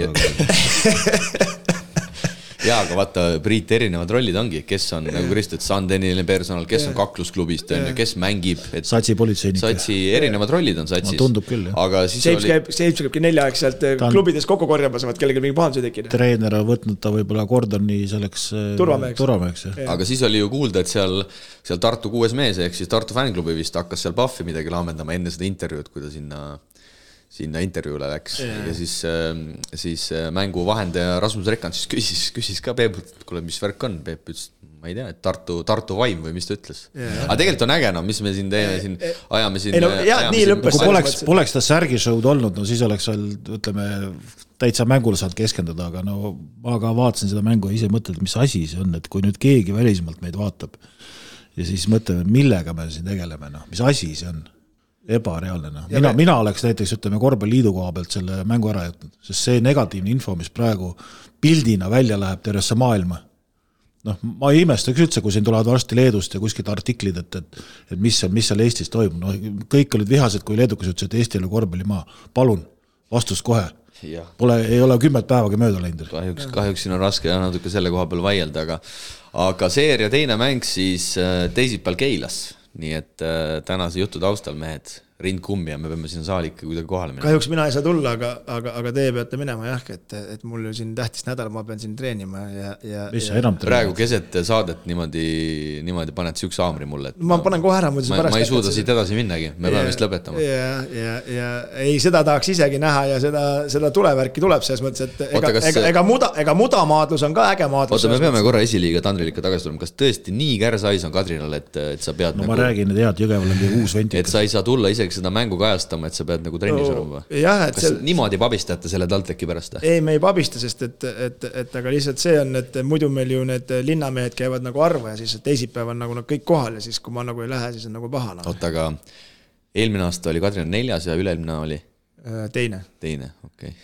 Jaa, aga vaata, Priit erinevad rollid ongi, kes on nagu Kristut Sandeniline personal, kes on kaklusklubist, kes mängib. Satsi politseinik. Satsi erinevad rollid on satsis. No, tundub küll, jah. Aga siis James käibki 4 aeg sealt klubides kokku korjamas, vaat kellegi mingi pahanduse tekina. Treener on võtnud ta võib-olla Gordoni selleks turvameheks. Aga siis oli ju kuulda, et seal Tartu 6 mees, ehk siis Tartu fänklubi vist hakkas seal Puffi midagi laamendama enne seda intervjuud, kui ta sinna intervjuule läks ja siis mängu vahendaja Rasmus Rekand siis küsis ka Peepult, et kuule, mis värk on, Peep ütles, ma ei tea, et Tartu vaim või mis ta ütles. Aga tegelikult on äge, no mis me siin teeme, ajame siin. Kui poleks ta särgi show'd olnud, no siis oleks seal, ütleme, täitsa mängule saanud keskenduda, aga no ma ka vaatasin seda mängu ja ise mõtled, mis asi see on, et kui nüüd keegi välismalt meid vaatab ja siis mõtleme, millega me siin tegeleme, no, mis asi see on. Ebareaalne. Mina oleks näiteks, ütleme, korvpalliliidu koha pealt selle mängu ära jätnud, sest see negatiivne info, mis praegu pildina välja läheb tervesse maailma. Noh, ma ei imestaks üldse, kui siin tulevad varsti Leedust ja kuskilt artiklid, et mis seal Eestis toimub. No, kõik olid vihased, kui leedukas ütles, et Eesti oli korvpallimaa. Palun, vastus kohe. Ei ole 10 päevagi mööda läinud. Kahjuks siin on raske natuke selle koha peal vaielda, aga seeria teine mäng siis teisipäeval Keilas. Nii et tänase jutu taustal mehed rind kummi ja me peame sinna saali ikka kuidagi kohale minema. Kahjuks mina ei saa tulla, aga teie peate minema jah, et mul siin tähtis nädal, ma pean siin treenima ja praegu keset saadet niimoodi paned süüks haamri mulle. Ma panen kohe ära. Ma ei suuda siit edasi minnagi, me peame vist lõpetama. Ja ei, seda tahaks isegi näha ja seda tulevärki tuleb selles mõttes, et ega mudamaadlus on ka äge maadlus. Oota, me peame korra esiliiga Tandriliga tagasi tulema. Kas tõesti nii kärsais on Kadrinal, et sa pead ma räägin, et Jõgeval on uus venti. Et sa ei saa tulla isegi seda mängu kajastama, et sa pead nagu trennis olema. Kas niimoodi pabistate selle TalTechi pärast? Ei, me ei pabista, sest et aga lihtsalt see on, et muidu meil ju need linnamehed käivad nagu arvu ja siis teisipäev on nagu kõik kohal ja siis kui ma nagu ei lähe, siis on nagu pahana. Oota, aga eelmine aasta oli Kadrina 4 ja üle-eelmine oli? Teine, okei.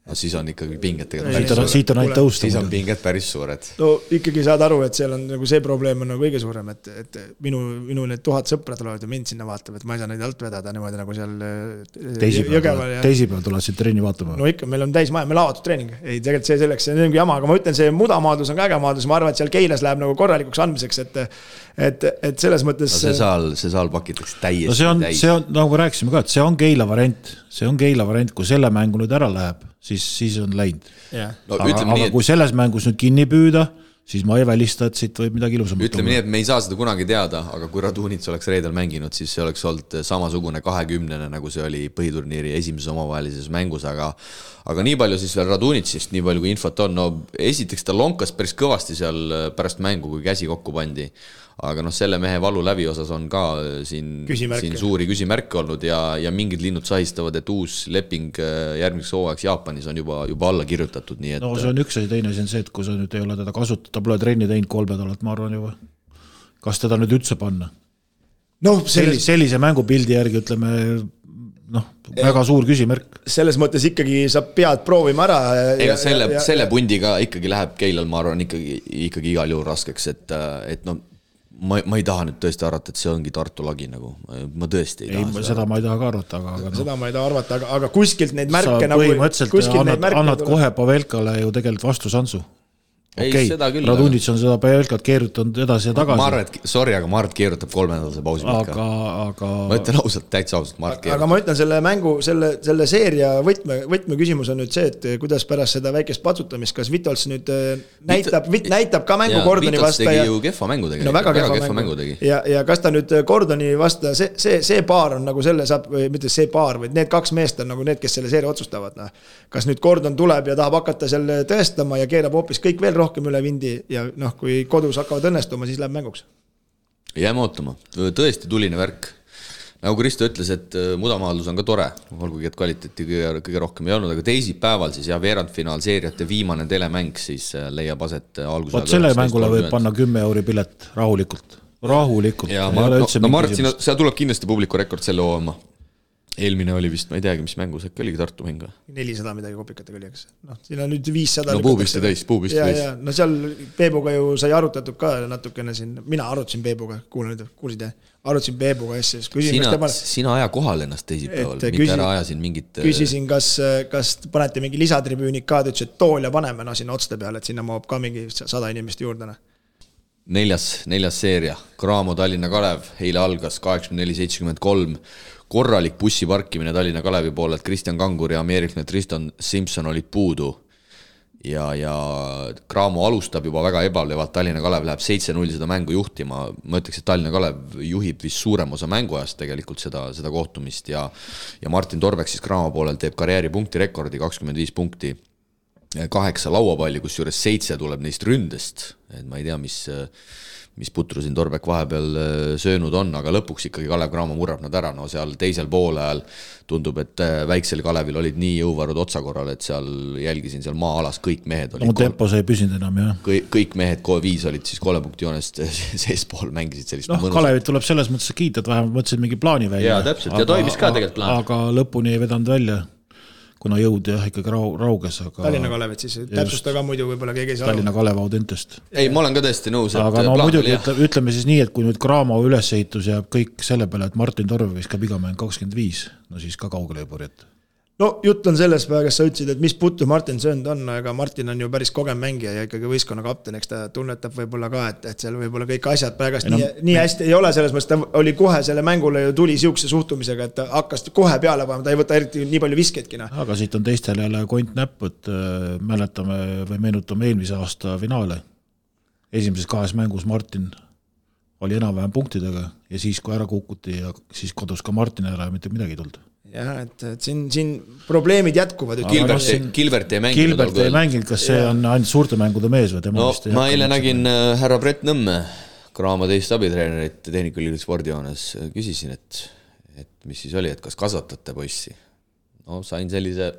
No siis on ikkagi pinged siit on ainult tõusta. Siis on pinged päris suured. No ikkagi saad aru, et seal on nagu see probleem on nagu kõige suurem, et minu need 1000 sõpra tulevad ja mind sinna vaatab, et ma ei saa neid alt vedada niimoodi nagu seal Jõgeval. Teisipäeval tulevad siin treeni vaatama. No ikka, meil on täis maja, meil avatud treening. Ei, tegelikult see selleks, see on jama, aga ma ütlen, see mudamaadlus on ka äge maadlus, ma arvan, et seal Keilas läheb nagu korralikuks andmiseks, et selles mõttes no see saal pakitakse täiesti. No see on, nagu me rääkisime ka, et see on Keila variant, kui selle mängu nüüd ära läheb, siis on läinud. No, aga kui selles mängus nüüd kinni püüda, siis ma ei välista, et siit võib midagi ilusam. Ütleme nii, et me ei saa seda kunagi teada, aga kui Radunits oleks reedel mänginud, siis see oleks olnud samasugune 20, nagu see oli põhiturniiri esimeses omavahelises mängus, aga nii palju siis veel Radunitsist, nii palju kui infot on, no esiteks ta lonkas päris kõvasti seal pärast mängu, kui käsi kokku pandi. Aga selle mehe valu läbi osas on ka siin suuri küsimärke olnud ja mingid linnud sahistavad, et uus leping järgmiseks hooajaks Jaapanis on juba alla kirjutatud. Nii et... No see on üks asi, teine on see, et kui sa nüüd ei ole teda kasutada, ta pole trenni teinud 3 nädalat, ma arvan juba. Kas teda nüüd üldse panna? No, sellise mängupildi järgi, ütleme, väga suur küsimärk. Selles mõttes ikkagi sa pead proovima ära. Ega selle pundiga ikkagi läheb Keilal, ma arvan, ikkagi igal juhul raskeks, et ma ei taha nüüd tõesti arvata, et see ongi Tartu lagi nagu. Ma tõesti ei taha seda ma ei taha ka arvata, seda ma ei taha arvata, aga kuskilt neid märke sa põhimõtteliselt annad kohe Pavelkale ju tegelikult vastusansu. Okei, Radunits on seda Pavelkat keerutanud edasi ja tagasi. Ma arvan, et ma keerutab 3 nädalase pausi aga... Ma ütlen ausalt, täitsa ausalt, ma keerutab. Aga ma ütlen selle mängu, selle seeria võtme küsimus on nüüd see, et kuidas pärast seda väikest patsutamist, kas Vitols nüüd näitab ka mängu Gordoni vasta. Vitols tegi ju kehva mängu tegi. No väga kehva mängu tegi. Ja kas ta nüüd Gordoni vasta, see paar on nagu selle saab, mitte see paar, vaid need 2 meest on nagu need, kes selle seeria otsustavad. Kas nüüd Gordon tuleb ja tahab hakata selle tõestama ja keerab hoopis kõik veel rohkem üle vindi ja kui kodus hakkavad õnnestuma, siis läheb mänguks. Jääme ootama. Tõesti tuline värk. nagu Kristo ütles, et mudamaadlus on ka tore, olgugi et kvaliteeti kõige rohkem ei olnud, aga teisipäeval siis veerandfinaal seeriate viimane telemäng siis leiab aset alguse. Vaat selle mängule võib panna 10 euri pilet rahulikult. Ja Martin, seal tuleb kindlasti publiku rekord selle hooma. Eelmine oli vist, ma ei teagi, mis mängus, äkki oligi Tartu mäng. 400 midagi kopikatega oli, eks. Siin on nüüd 500. No puubisti täis. No seal Peebuga ju sai arutatud ka natukene siin. Mina arutasin Peebuga, kuulsid, arutasin Peebuga asja. Sina aja kohal ennast teisipäeval, mitte ära ajasin mingit... Küsisin, kas panete mingi lisatribüünik ka, ta ütles, et tool ja paneme sinna otste peale, et sinna maab ka mingi 100 inimest juurde. Neljas seeria, Graamo Tallinna Kalev, eile algas 84-73, korralik bussi parkimine Tallinna Kalevi poole, et Kristjan Kangur ja Ameerikne Tristan Simpson olid puudu ja Graamo alustab juba väga ebalevalt, Tallinna Kalev läheb 7-0 seda mängu juhtima, ma ütleks, et Tallinna Kalev juhib vist suurem osa mänguajast tegelikult seda kohtumist ja Martin Torbek siis Graamo poolel teeb karjääri punktirekordi 25 punkti, 8 lauapalli, kus juures 7 tuleb neist ründest, et ma ei tea, mis putru siin Torbek vahepeal söönud on, aga lõpuks ikkagi Kalev Graamo murrab nad ära, no seal teisel poole ajal tundub, et väiksel Kalevil olid nii jõuvarud otsakorral, et seal jälgisin seal maa-alas, kõik mehed olid tempo sai püsinud enam, jah. Kõik mehed 5 olid siis 3 punkti joonest seespool mängisid sellist mõnusat. Kalevit tuleb selles mõttes kiita, et vähemalt mõtlesid mingi plaani välja. Jaa, täpselt, ja toimis ka tegelikult plaan. Aga lõpuni ei vedanud välja, kuna jõud ikkagi rauges. Tallinna Kalevit siis, täpsusta ka muidu võib-olla keegi ei saa. Tallinna Kalev Audentest. Ei, ma olen ka tõesti nõus. Aga no muidugi ütleme siis nii, et kui nüüd Graamo ülesehitus jääb kõik selle peale, et Martin Torv viskab iga mäng 25, no siis ka kaugele ei purjeta. No jutt on selles päeva, kes sa ütlesid, et mis putu Martin söönud on, aga Martin on ju päris kogem mängija ja ikkagi võistkonna kapten, eks ta tunnetab võib-olla ka, et seal võib-olla kõik asjad päevast nii hästi ei ole, selles mõttes ta oli kohe selle mängule ju tuli siukse suhtumisega, et ta hakkas kohe peale panema, ta ei võta eriti nii palju visketki. Aga siit on teistel jälle kont näpp, et mäletame või meenutame eelmise aasta finaale. Esimeses 2 mängus Martin oli enam-vähem punktidega ja siis kui ära kukuti ja siis kodus ka Martin ära ja mitte midagi tulnud. Jah, et siin probleemid jätkuvad. Gilbert ei mänginud, kas see on ainult suurte mängude mees või tema vist? No ma eile nägin härra Brett Nõmme, Graamo teist abitreenerit Tehnikülikooli spordijoones, küsisin, et mis siis oli, et kas kasvatate poissi? No sain sellise,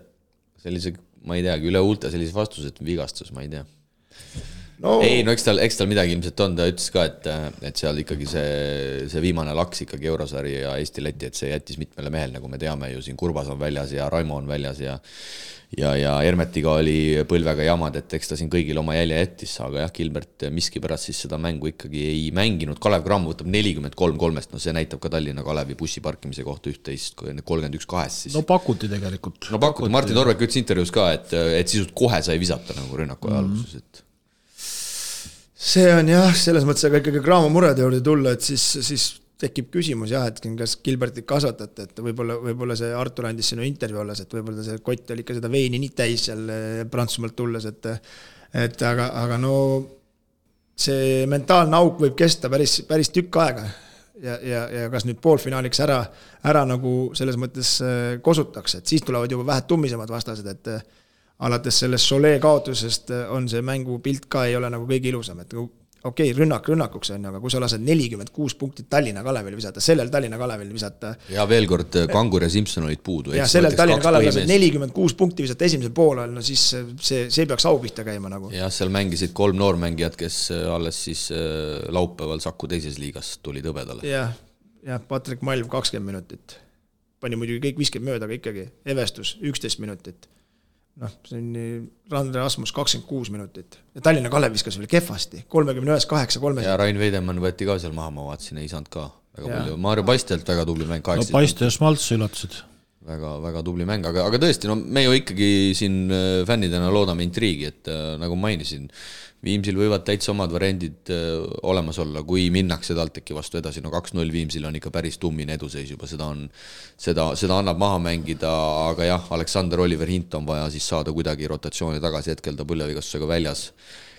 ma ei teagi, üle huulte sellise vastuse, et vigastus, ma ei tea. No. Ei, no eks tal midagi ilmselt on, ta ütles ka, et seal ikkagi see viimane laks ikkagi Eurosari ja Eesti-Läti, et see jättis mitmele mehel, nagu me teame ju siin Kurbas on väljas ja Raimo on väljas ja Hermetiga oli põlvega jamad, et eks ta siin kõigil oma jälje jättis, aga jah, Gilbert miski pärast siis seda mängu ikkagi ei mänginud, Kalev Graamo võtab 43-3, no see näitab ka Tallinna Kalevi bussi parkimise kohta 31-2 siis. No pakuti tegelikult. No pakuti, Martin Torvek ütles intervjuus ka, et sisult kohe sai visata nagu rünnaku alguses, et see on jah, selles mõttes, aga ikkagi Graamo murede juurde tulla, et siis tekib küsimus jah, et kas Gilbertit kasvatate, et võib-olla see Artur andis sinu intervju olles, et võib-olla see kott oli ikka seda veini nii täis seal Prantsusmaalt tulles, et aga no see mentaalne auk võib kesta päris tükk aega ja kas nüüd poolfinaaliks ära nagu selles mõttes kosutaks, et siis tulevad juba vähe tummisemad vastased, et alates sellest Solee kaotusest on see mängu pilt ka ei ole nagu kõige ilusam, et okei, rünnakuks on, aga kui sa lased 46 punktit Tallinna Kalevil visata, sellel Tallinna Kalevil visata. Ja veel kord Kangur ja Simpson olid puudu. Ja sellel Tallinna Kalevil lased 46 punkti visata esimesel poolel, no siis see peaks au pihta käima nagu. Ja seal mängisid 3 noormängijad, kes alles siis laupäeval Saku teises liigas tuli tõbedale. Ja Patrik Malv 20 minutit. Pani muidugi kõik visked mööda, aga ikkagi Evestus 11 minutit. See on Randre Asmus 26 minutit. Ja Tallinna Kalev viskas veel kehvasti. 31-8-3. Ja Rain Veidemann võeti ka seal maha, ma vaatasin, ei saanud ka väga palju. Maarjo Paistelt väga tubli mäng. No Paiste ja Smalts üllatused. Väga tubli mäng, aga tõesti, no me ju ikkagi siin fännidena loodame intriigi, et nagu mainisin, Viimsil võivad täitsa omad variandid olemas olla, kui minnakse TalTechi vastu edasi, no 2-0 Viimsil on ikka päris tummine eduseis juba, seda annab maha mängida, aga jah, Aleksander Oliver Hint on vaja siis saada kuidagi rotatsiooni tagasi, hetkel ta põlvevigastusega väljas,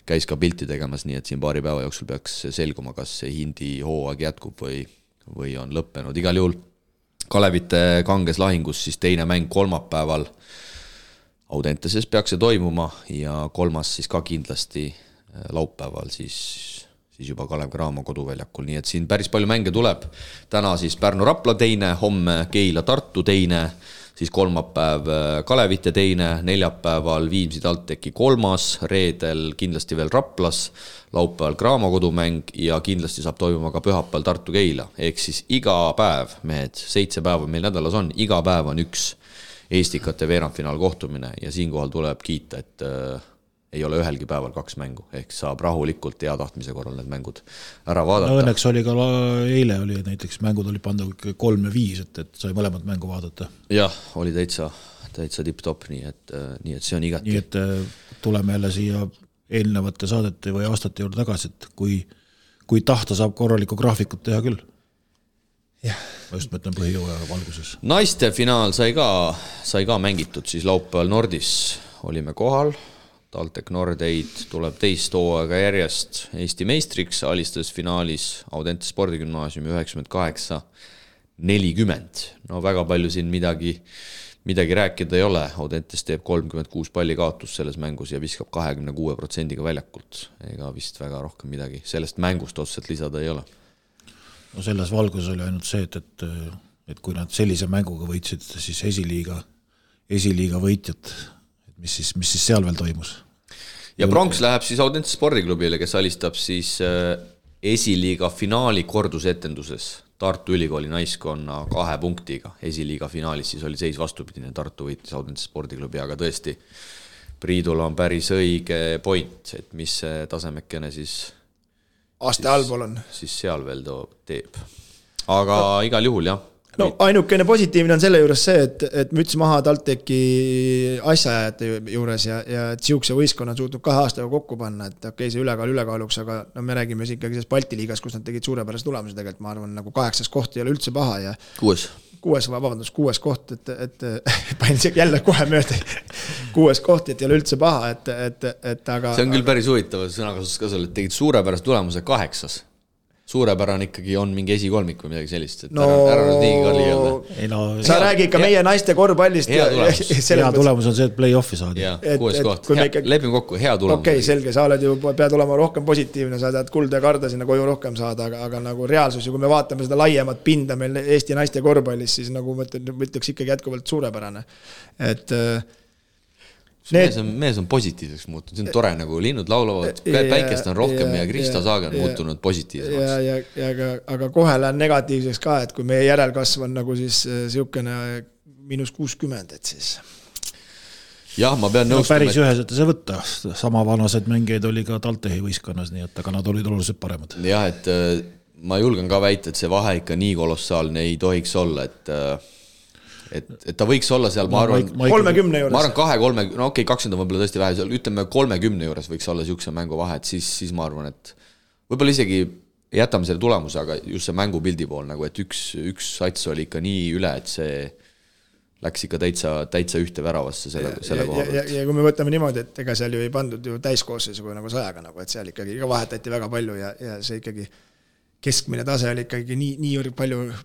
käis ka pilti tegemas, nii et siin paari päeva jooksul peaks selguma, kas see Hindi hooaeg jätkub või on lõppenud. Igal juhul Kalevite kanges lahingus siis teine mäng kolmapäeval Audenteses peaks see toimuma ja kolmas siis ka kindlasti laupäeval siis siis juba Kalev Cramo koduväljakul, nii et siin päris palju mänge tuleb. Täna siis Pärnu-Rapla teine, homme Keila-Tartu teine, siis kolmapäev Kalevite teine, neljapäeval Viimsi TalTechi kolmas, reedel kindlasti veel Raplas, laupäeval Cramo kodumäng ja kindlasti saab toimuma ka pühapäeval Tartu-Keila. Ehk siis iga päev, mehed, 7 päeva meil nädalas on, iga päev on üks Eestikate veerandfinaal kohtumine ja siinkohal tuleb kiita, et ei ole ühelgi päeval 2 mängu, ehk saab rahulikult hea tahtmise korral need mängud ära vaadata. No õnneks oli ka eile oli näiteks mängud oli pandud 3 ja 5, et sai mõlemad mängu vaadata. Jah, oli täitsa tipp-top, nii et see on igati. Nii et tuleme jälle siia eelnevate saadete või aastate juurde tagasi, et kui tahta saab korralikku graafikut teha küll. Jah. Ma just mõtlen põhijõuaja valguses. Naiste finaal sai ka mängitud, siis laupäeval Nordis olime kohal. TalTech Nordeid tuleb teist hooaega järjest Eesti meistriks, alistas finaalis Audentese spordigümnaasiumi 98-40. No väga palju siin midagi rääkida ei ole. Audentes teeb 36 palli kaotus selles mängus ja viskab 26% väljakult. Ega vist väga rohkem midagi sellest mängust otseselt lisada ei ole. No selles valgus oli ainult see, et kui nad sellise mänguga võitsid, siis esiliiga võitjad, mis siis seal veel toimus? Ja pronks läheb siis Audentese spordiklubile, kes alistab siis esiliiga finaali kordusetenduses Tartu Ülikooli naiskonna 2 punktiga. Esiliiga finaalis siis oli seis vastupidine, Tartu võitis Audentese spordiklubi, aga tõesti Priidul on päris õige point, et mis tasemekene siis aste allpool on. Siis seal veel teeb. Aga igal juhul jah. No ainukene positiivne on selle juures see, et müts maha TalTechi asjaajate juures ja et siukse võistkonna on suutnud 2 aastaga kokku panna, et okei, see ülekaaluks, aga no me räägime ikkagi sellest Balti liigas, kus nad tegid suurepärast tulemusi tegelikult, ma arvan, nagu 8. koht ei ole üldse paha ja 6. koht, et panin jälle kohe mööda 6. koht, et ei ole üldse paha, et aga see on küll päris huvitav sõnakasutus ka selle, et tegid suurepärast tulemuse 8. Suurepärane ikkagi on mingi esikolmik või midagi sellist, et ära nüüd nii kalli öelda. Sa räägi ikka meie naiste korvpallist. Hea tulemus on see, et play-offi saadi. Ja, 6. koht. Lepime kokku, hea tulemus. Okei, selge, sa oled ju, pead olema rohkem positiivne, sa tahad kulda ja karda sinna koju rohkem saada, aga nagu reaalsus, kui me vaatame seda laiemat pinda meil Eesti naiste korvpallis, siis nagu mõtleks ikkagi jätkuvalt suurepärane. Et mees on positiivseks muutunud, see on tore, nagu linnud laulavad, päikest on rohkem ja Krista Saage on muutunud positiivsemaks. Aga kohe lähen negatiivseks ka, et kui meie järelkasv on nagu siis siukene -60, et siis jah, ma pean nõustama. Päris üheselt see võtta, sama vanased mängeid oli ka TalTechi võistkonnas, nii et aga nad olid oluliselt paremad. Jah, et ma julgen ka väita, et see vahe ikka nii kolossaalne ei tohiks olla, et ta võiks olla seal, ma arvan 30 juures. Ma arvan 2-3, no okei, 20 on võib-olla tõesti vähe, seal ütleme 30 juures võiks olla siukse mängu vahe, et siis ma arvan, et võib-olla isegi jätame selle tulemuse, aga just see mängupildi pool, nagu et üks sats oli ikka nii üle, et see läks ikka täitsa ühte väravasse selle koha. Ja kui me võtame niimoodi, et ega seal ju ei pandud ju täiskoosseisuga nagu 100-ga, nagu, et seal ikkagi vahetati väga palju ja see ikkagi keskmine tase oli ikkagi nii palju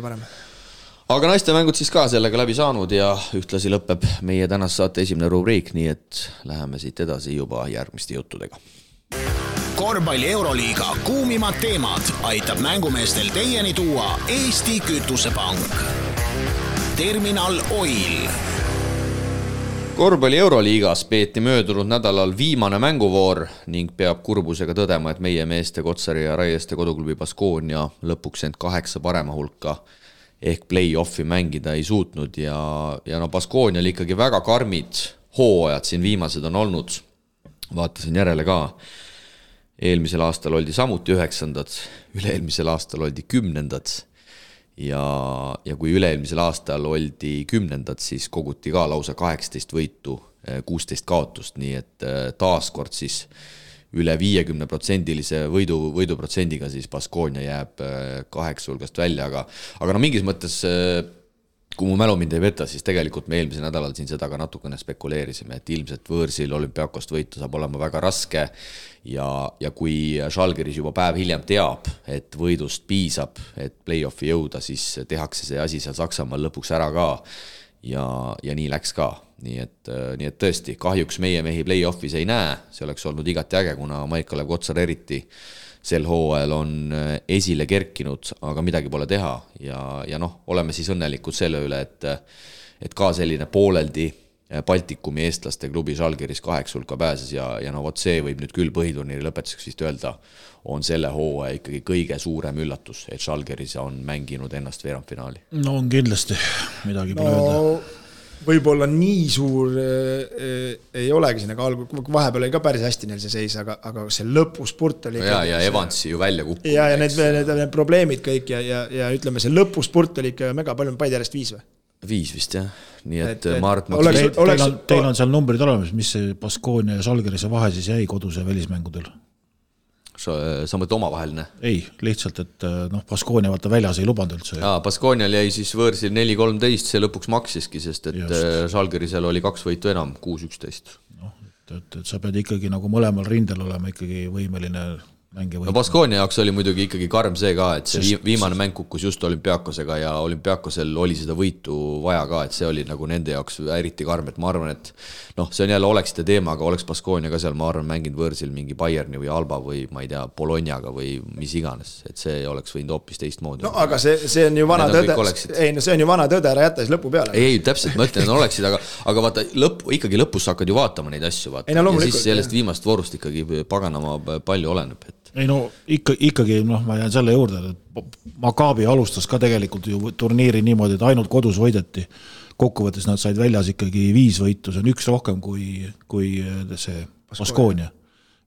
parem. Aga naiste mängud siis ka sellega läbi saanud ja ühtlasi lõpeb meie tänase saate esimene rubriik, nii et läheme siit edasi juba järgmiste juttudega. Korvpalli Euroliiga kuumimad teemad aitab mängumeestel teieni tuua Eesti Kütusepank. Terminal Oil. Korvpalli Euroliigas peeti möödunud nädalal viimane mänguvoor ning peab kurbusega tõdema, et meie meeste Kotsari ja Raieste koduklubi Baskonia lõpuks end 8 parema hulka ehk play-offi mängida ei suutnud ja no Baskonia oli ikkagi väga karmid hooajad siin viimased on olnud. Vaatasin järele ka. Eelmisel aastal oldi samuti 9. Üle-eelmisel aastal oldi 10. Ja kui üle-eelmisel aastal oldi 10. siis koguti ka lausa 18 võitu, 16 kaotust, nii et taaskord siis üle 50%-lise võiduprotsendiga siis Baskonia jääb 8 hulgast välja, aga no mingis mõttes, kui mu mälu mind ei peta, siis tegelikult me eelmisel nädalal siin seda ka natukene spekuleerisime, et ilmselt võõrsil Olümpiakost võitu saab olema väga raske ja kui Žalgiris juba päev hiljem teab, et võidust piisab, et play-offi jõuda, siis tehakse see asi seal Saksamaal lõpuks ära ka ja nii läks ka. Nii et tõesti, kahjuks meie mehi play-offis ei näe, see oleks olnud igati äge, kuna Maik-Kalev Kotsar eriti sel hooajal on esile kerkinud, aga midagi pole teha ja noh, oleme siis õnnelikud selle üle, et ka selline pooleldi Baltikumi eestlaste klubi Žalgiris 8 hulka pääses ja no vot see võib nüüd küll põhiturniiri lõpetuseks vist öelda, on selle hooaja ikkagi kõige suurem üllatus, et Žalgiris on mänginud ennast veerandfinaali. No on kindlasti, midagi pole öelda. Võib-olla nii suur ei olegi siin, aga vahepeal oli ka päris hästi neil see seis, aga see lõpuspurt oli ja Evansi ju välja kukkunud. Ja need probleemid kõik ja ütleme, see lõpuspurt oli ikka mega palju, Paide järjest 5 või? 5 vist jah, nii et Mart teil on seal numbrid olemas, mis see Baskonia ja Žalgirise vahe siis jäi koduse välismängudel? Sa mõtled omavaheline? Ei, lihtsalt, et Baskonia vaata väljas ei lubanud üldse. Baskonial jäi siis võõrsil 4-13, see lõpuks maksiski, sest et Žalgirisel oli 2 võitu enam, 6-11. Et sa pead ikkagi nagu mõlemal rindel olema ikkagi võimeline mänge võitma. No Baskonia jaoks oli muidugi ikkagi karm see ka, et see viimane mäng kukkus just Olümpiakosega ja Olümpiakosel oli seda võitu vaja ka, et see oli nagu nende jaoks eriti karm, et ma arvan, et noh, see on jälle oleksite teema, aga oleks Baskonia ka seal, ma arvan, mänginud võõrsil mingi Bayerni või Alba või ma ei tea, Bolognaga või mis iganes, et see oleks võinud hoopis teistmoodi. No aga see on ju vana tõde, see on ju vana tõde, ära jätta siis lõpu peale. Ei, täpselt, ma ütlen, et oleksid, aga vaata, ikkagi lõpus hakkad ju vaatama neid asju, vaata. Ja siis sellest viimast voorust ikkagi paganama palju oleneb, et ei no ikkagi ma jään selle juurde, et Maccabi alustas ka tegelikult ju turniiri niimoodi, et ainult kodus võideti. Kokkuvõttes nad said väljas ikkagi 5 võitu, see on 1 rohkem kui see Baskonia.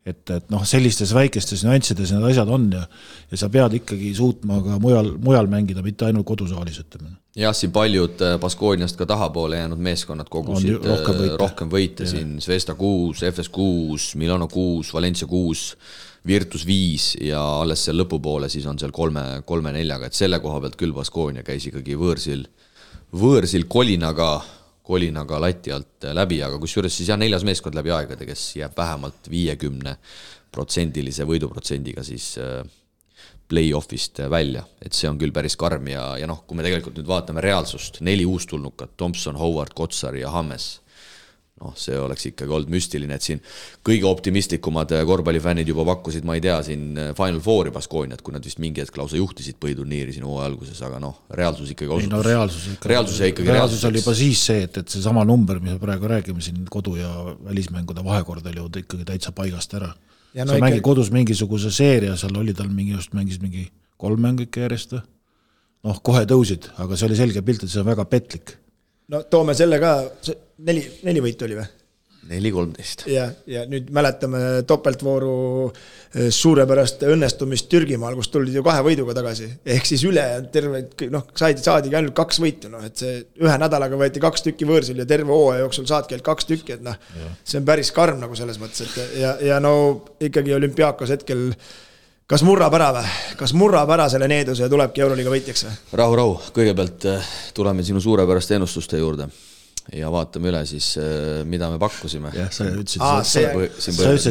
Et sellistes väikestes nüanssides need asjad on ja sa pead ikkagi suutma ka mujal mängida, mitte ainult kodusaalis, ütleme. Jah, siin paljud Baskoniast ka tahapoole jäänud meeskonnad kogusid rohkem võite siin Zvezda 6, FS 6, Milano 6, Valencia 6, Virtus 5 ja alles seal lõpupoole siis on seal 3-4, et selle koha pealt küll Baskonia käis ikkagi võõrsil kolinaga lati alt läbi, aga kusjuures siis 4. meeskond läbi aegade, kes jääb vähemalt 50% võiduprotsendiga siis play-offist välja, et see on küll päris karm ja kui me tegelikult nüüd vaatame reaalsust, 4 uustulnukat, Thompson, Howard, Kotsar ja Hammes, see oleks ikkagi olnud müstiline, et siin kõige optimistlikumad korvpallifännid juba pakkusid, ma ei tea, siin Final Fouri Baskoniat, kui nad vist mingi hetk lausa juhtisid põhiturniiri siin hooaja alguses, aga reaalsus ikkagi osutus. Reaalsus oli juba siis see, et see sama number, mis me praegu räägime siin kodu- ja välismängude vahekord oli ju ikkagi täitsa paigast ära. Sa mängid kodus mingisuguse seeria, seal oli tal mängis mingi 3 mängu ikka järjest. Kohe tõusid, aga see oli selge pilt, et see on väga petlik. No toome selle ka, 4 võitu oli või? 4-13. Ja nüüd mäletame topeltvooru suurepärast õnnestumist Türgimaal, kus tulid ju 2 võiduga tagasi. Ehk siis üle terve, saadigi ainult 2 võitu. Et see 1 nädalaga võeti 2 tükki võõrsil ja terve hooaja jooksul saadki ainult 2 tükki. Et see on päris karm nagu selles mõttes. Ja ikkagi Olümpiakos hetkel kas murrab ära või? Kas murrab ära selle needuse ja tulebki Euroliiga võitjaks või? Rahu, kõigepealt tuleme sinu suurepäraste ennustuste juurde ja vaatame üle siis, mida me pakkusime. Jah, sa ütlesid,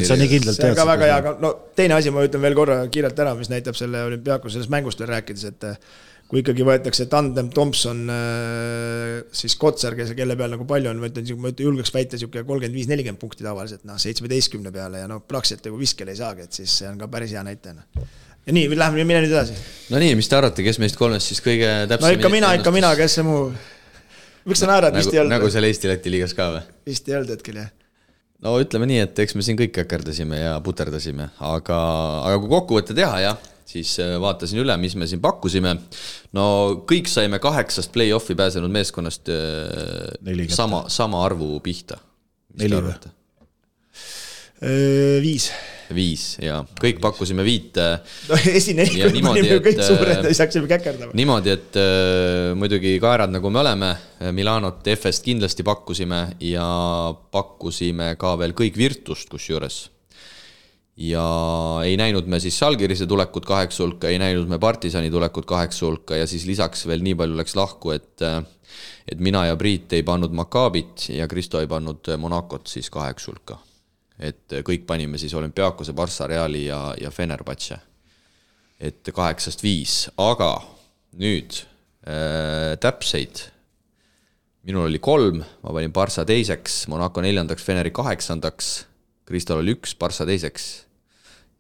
sa nii kindlalt tead. See on ka väga hea, aga teine asi ma ütlen veel korra kiirelt ära, mis näitab selle Olümpiakos sellest mängust veel rääkides, et kui ikkagi võetakse tandem Thompson, siis Kotsar, kelle peal nagu palju on, ma ütlen julgeks väita 35-40 punkti tavaliselt, 17 peale ja praktiliselt viskel ei saagi, et siis see on ka päris hea näitajana. Ja nii, läheme mine nüüd edasi. No nii, mis te arvate, kes meist 3 siis kõige täpsemini? No ikka mina, kes see muu... Miks sa naerad, vist ei olnud? Nagu seal Eesti-Läti liigas ka või? Vist ei olnud hetkel, jah. No ütleme nii, et eks me siin kõik äkerdasime ja puterdasime, aga kui kokkuvõtte teha, jah, siis vaatasin üle, mis me siin pakkusime. No kõik saime 8 play-offi pääsenud meeskonnast sama arvu pihta. 4 või? 5 ja kõik pakkusime 5. No esinelikult panime kõik suured, ei saaksime käkerdama. Niimoodi, et muidugi kaerad nagu me oleme, Milanot FS kindlasti pakkusime ja pakkusime ka veel kõik Virtust kusjuures. Ja ei näinud me siis Žalgirise tulekut 8 hulka, ei näinud me Partisani tulekut 8 hulka ja siis lisaks veel nii palju läks lahku, et mina ja Priit ei pannud Maccabit ja Kristo ei pannud Monacot siis 8 hulka. Et kõik panime siis Olümpiakose, Barça, Reali ja Fenerbahce. Et 8-5, aga nüüd täpseid. Minul oli 3, ma panin Barça teiseks, Monaco 4, Feneri 8, Kristol oli 1, Barça teiseks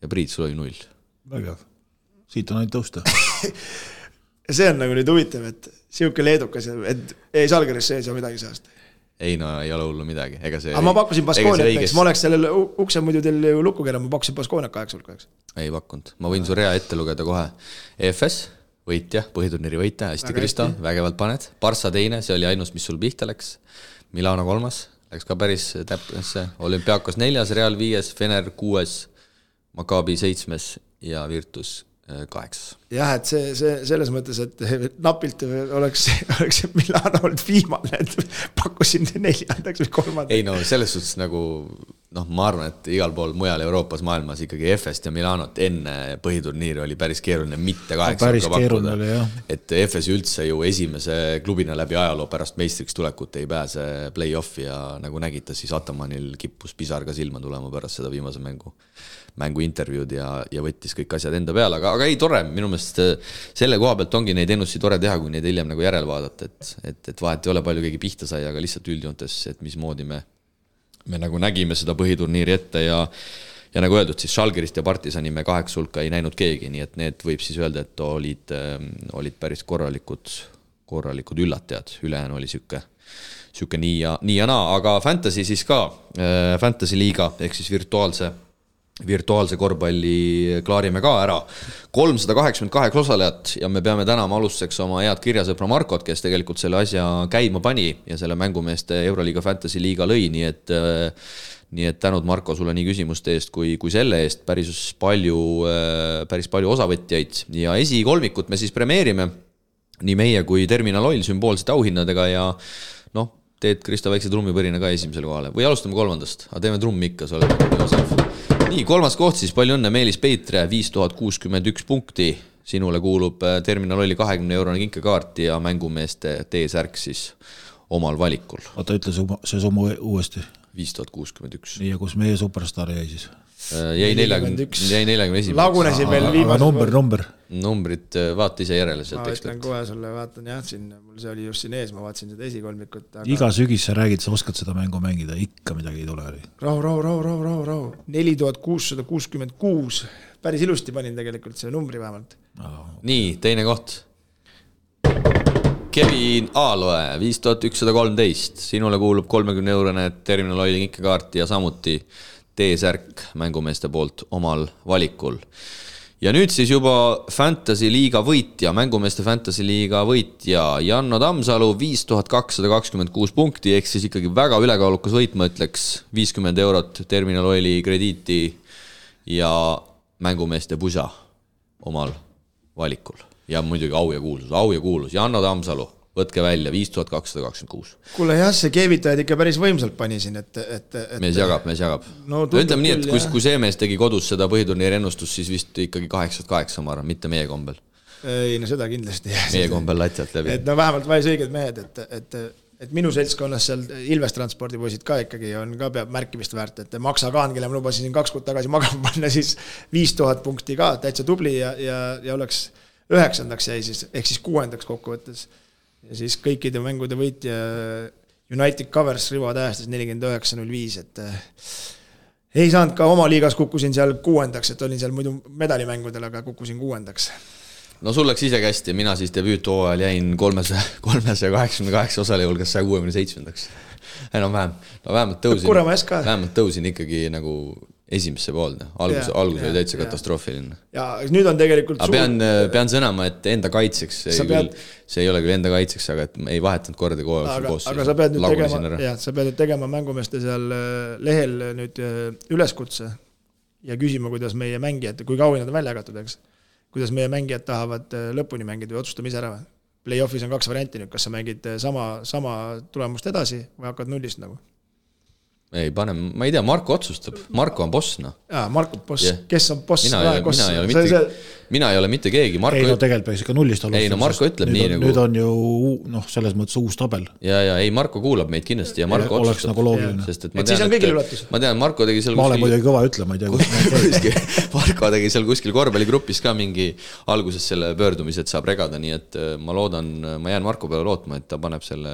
ja Priit, sul oli 0. Vägev. Siit on ainult tõusta. Ja see on nagu nüüd huvitav, et siuke leedukas, et ei Salgeris sees ja midagi seast. Ei no ei ole hullu midagi. Aga ma pakkusin Baskooniat, ma oleks sellel ukse muidu teil ju lukku keera, ma pakkusin Baskooniat 8-8. Ei pakkunud, ma võin su rea ette lugeda kohe. EFS, võitja, põhiturniiri võitja, hästi Kristo, vägevalt paned. Barça teine, see oli ainus, mis sul pihta läks. Milano 3, läks ka päris täpnesse. Olümpiakos 4, Real 5, Fener 6, Maccabi 7 ja Virtus 8. Jah, et see selles mõttes, et napilt oleks Milano olnud viimane, et pakkusin 4. või 3. Ei no selles suhtes nagu, ma arvan, et igal pool mujal Euroopas maailmas ikkagi FS ja Milanot enne põhiturniiri oli päris keeruline mitte 8 pakkuda. Et FS üldse ju esimese klubina läbi ajaloo pärast meistriks tulekut ei pääse play-offi ja nagu nägita, siis Atamanil kippus pisar ka silma tulema pärast seda viimase mängu intervjuud ja võttis kõik asjad enda peale, aga ei tore, minu meelest selle koha pealt ongi neid ennustusi tore teha, kui neid hiljem nagu järel vaadata, et vahet ei ole palju keegi pihta sai, aga lihtsalt üldjoontes, et mismoodi me nagu nägime seda põhiturniiri ette ja nagu öeldud, siis Žalgirist ja Partisani me 8 hulka ei näinud keegi, nii et need võib siis öelda, et olid päris korralikud üllatajad, ülejäänu oli süke nii ja naa, aga Fantasy siis ka, Fantasy liiga, ehk siis virtuaalse korvpalli klaarime ka ära. 388 osalejat ja me peame tänama alustuseks oma head kirjasõpra Markot, kes tegelikult selle asja käima pani ja selle mängumeeste Euroliiga Fantasy liiga lõi, nii et tänud Marko sulle nii küsimuste eest kui selle eest, päris palju osavõtjaid ja esikolmikut me siis premeerime nii meie kui Terminal Oil sümboolsete auhinnadega ja teed Kristo väikse trummipõrina ka esimesele kohale või alustame 3, aga teeme trummi ikka, sa oled nii osav. Nii, 3. koht siis, palju õnne Meelis Peitre, 5061 punkti, sinule kuulub Terminal Oili 20 eurone kinkekaart ja mängumeeste T-särk siis omal valikul. Oota, ütle see summa uuesti. 5061. Nii, ja kus meie superstar jäi siis? Jäi 41. Lagunesin veel viimase. Aga number? Numbrid vaata ise järele sealt ekspert. Ma ütlen kohe sulle, vaatan jah, mul see oli just siin ees, ma vaatasin seda esikolmikut. Aga... Iga sügis sa räägid, sa oskad seda mängu mängida, ikka midagi ei tule. Rahu. 4666. Päris ilusti panin tegelikult see numbri vähemalt. Nii, teine koht. Kevin Aaloe, 5113. Sinule kuulub 30 eurone Terminal Oili kinkekaart ja samuti T-särk mängumeeste poolt omal valikul. Ja nüüd siis juba Fantasy liiga võitja, mängumeeste Fantasy liiga võitja Janno Tammsalu 5226 punkti, ehk siis ikkagi väga ülekaalukas võit, ma ütleks 50 eurot Terminal Oili krediiti ja mängumeeste pusa omal valikul. Ja muidugi au ja kuulus. Janno Tammsalu, võtke välja, 5226. Kuule jah, see keevitajad ikka päris võimsalt pani siin, et... Mees jagab. No, ütleme nii, et kui see mees tegi kodus seda põhiturniiri ennustust, siis vist ikkagi 8-8, ma arvan, mitte meie kombel. Ei, no seda kindlasti. Meie kombel latialt läbi. Et no vähemalt valis õiged mehed, et minu seltskonnas seal Ilves transpordipoisid ka ikkagi on ka peab märkimist väärt, et Maksa Kaan, kelle ma lubasin 2 kuud tagasi magama panna, siis 5000 punkti ka, täitsa tubli ja oleks 9. jäi siis, ehk siis 6. kokkuvõttes. Ja siis kõikide mängude võitja United Covers Rivo tähestas 49.05, et ei saanud ka oma liigas, kukkusin seal 6. et olin seal muidu medalimängudel, aga kukkusin 6. No sul läks ise kästi, mina siis debüüthooajal jäin 388 osaleja hulgas 167. Enam vähem. No vähemalt tõusin ikkagi nagu esimesse poolne. Algus oli täitsa katastroofiline. Ja nüüd on tegelikult pean sõnama, et enda kaitseks, see ei ole küll enda kaitseks, aga et ei vahetanud korda koos. Aga sa pead nüüd tegema mängumeeste seal lehel nüüd üleskutse ja küsima, kuidas meie mängijad, kui kaua nad on välja jagatud, eks? Kuidas meie mängijad tahavad lõpuni mängida või otsustame ise ära. Play-offis on 2 varianti nüüd, kas sa mängid sama tulemust edasi või hakkad nullist nagu? Ei, ma ei tea, Marko otsustab. Marko on boss, noh. Jaa, Marko on boss. Kes on boss? Mina ei ole mitte. mina ei ole mitte keegi. Ei no tegelikult peaks ikka nullist alustada. Ei no Marko ütleb nii nagu... Nüüd on ju selles mõttes uus tabel. Ja ei, Marko kuulab meid kindlasti ja Marko oleks otsustab. Nagu loogiline. Et siis on kõigil üllatus. Ma tean, Marko tegi seal ma olen muidugi kõva ütlema, ei tea. Marko tegi seal kuskil korvpalligrupis ka mingi alguses selle pöördumise, et saab regada, nii et ma loodan, ma jään Marko peale lootma, et ta paneb selle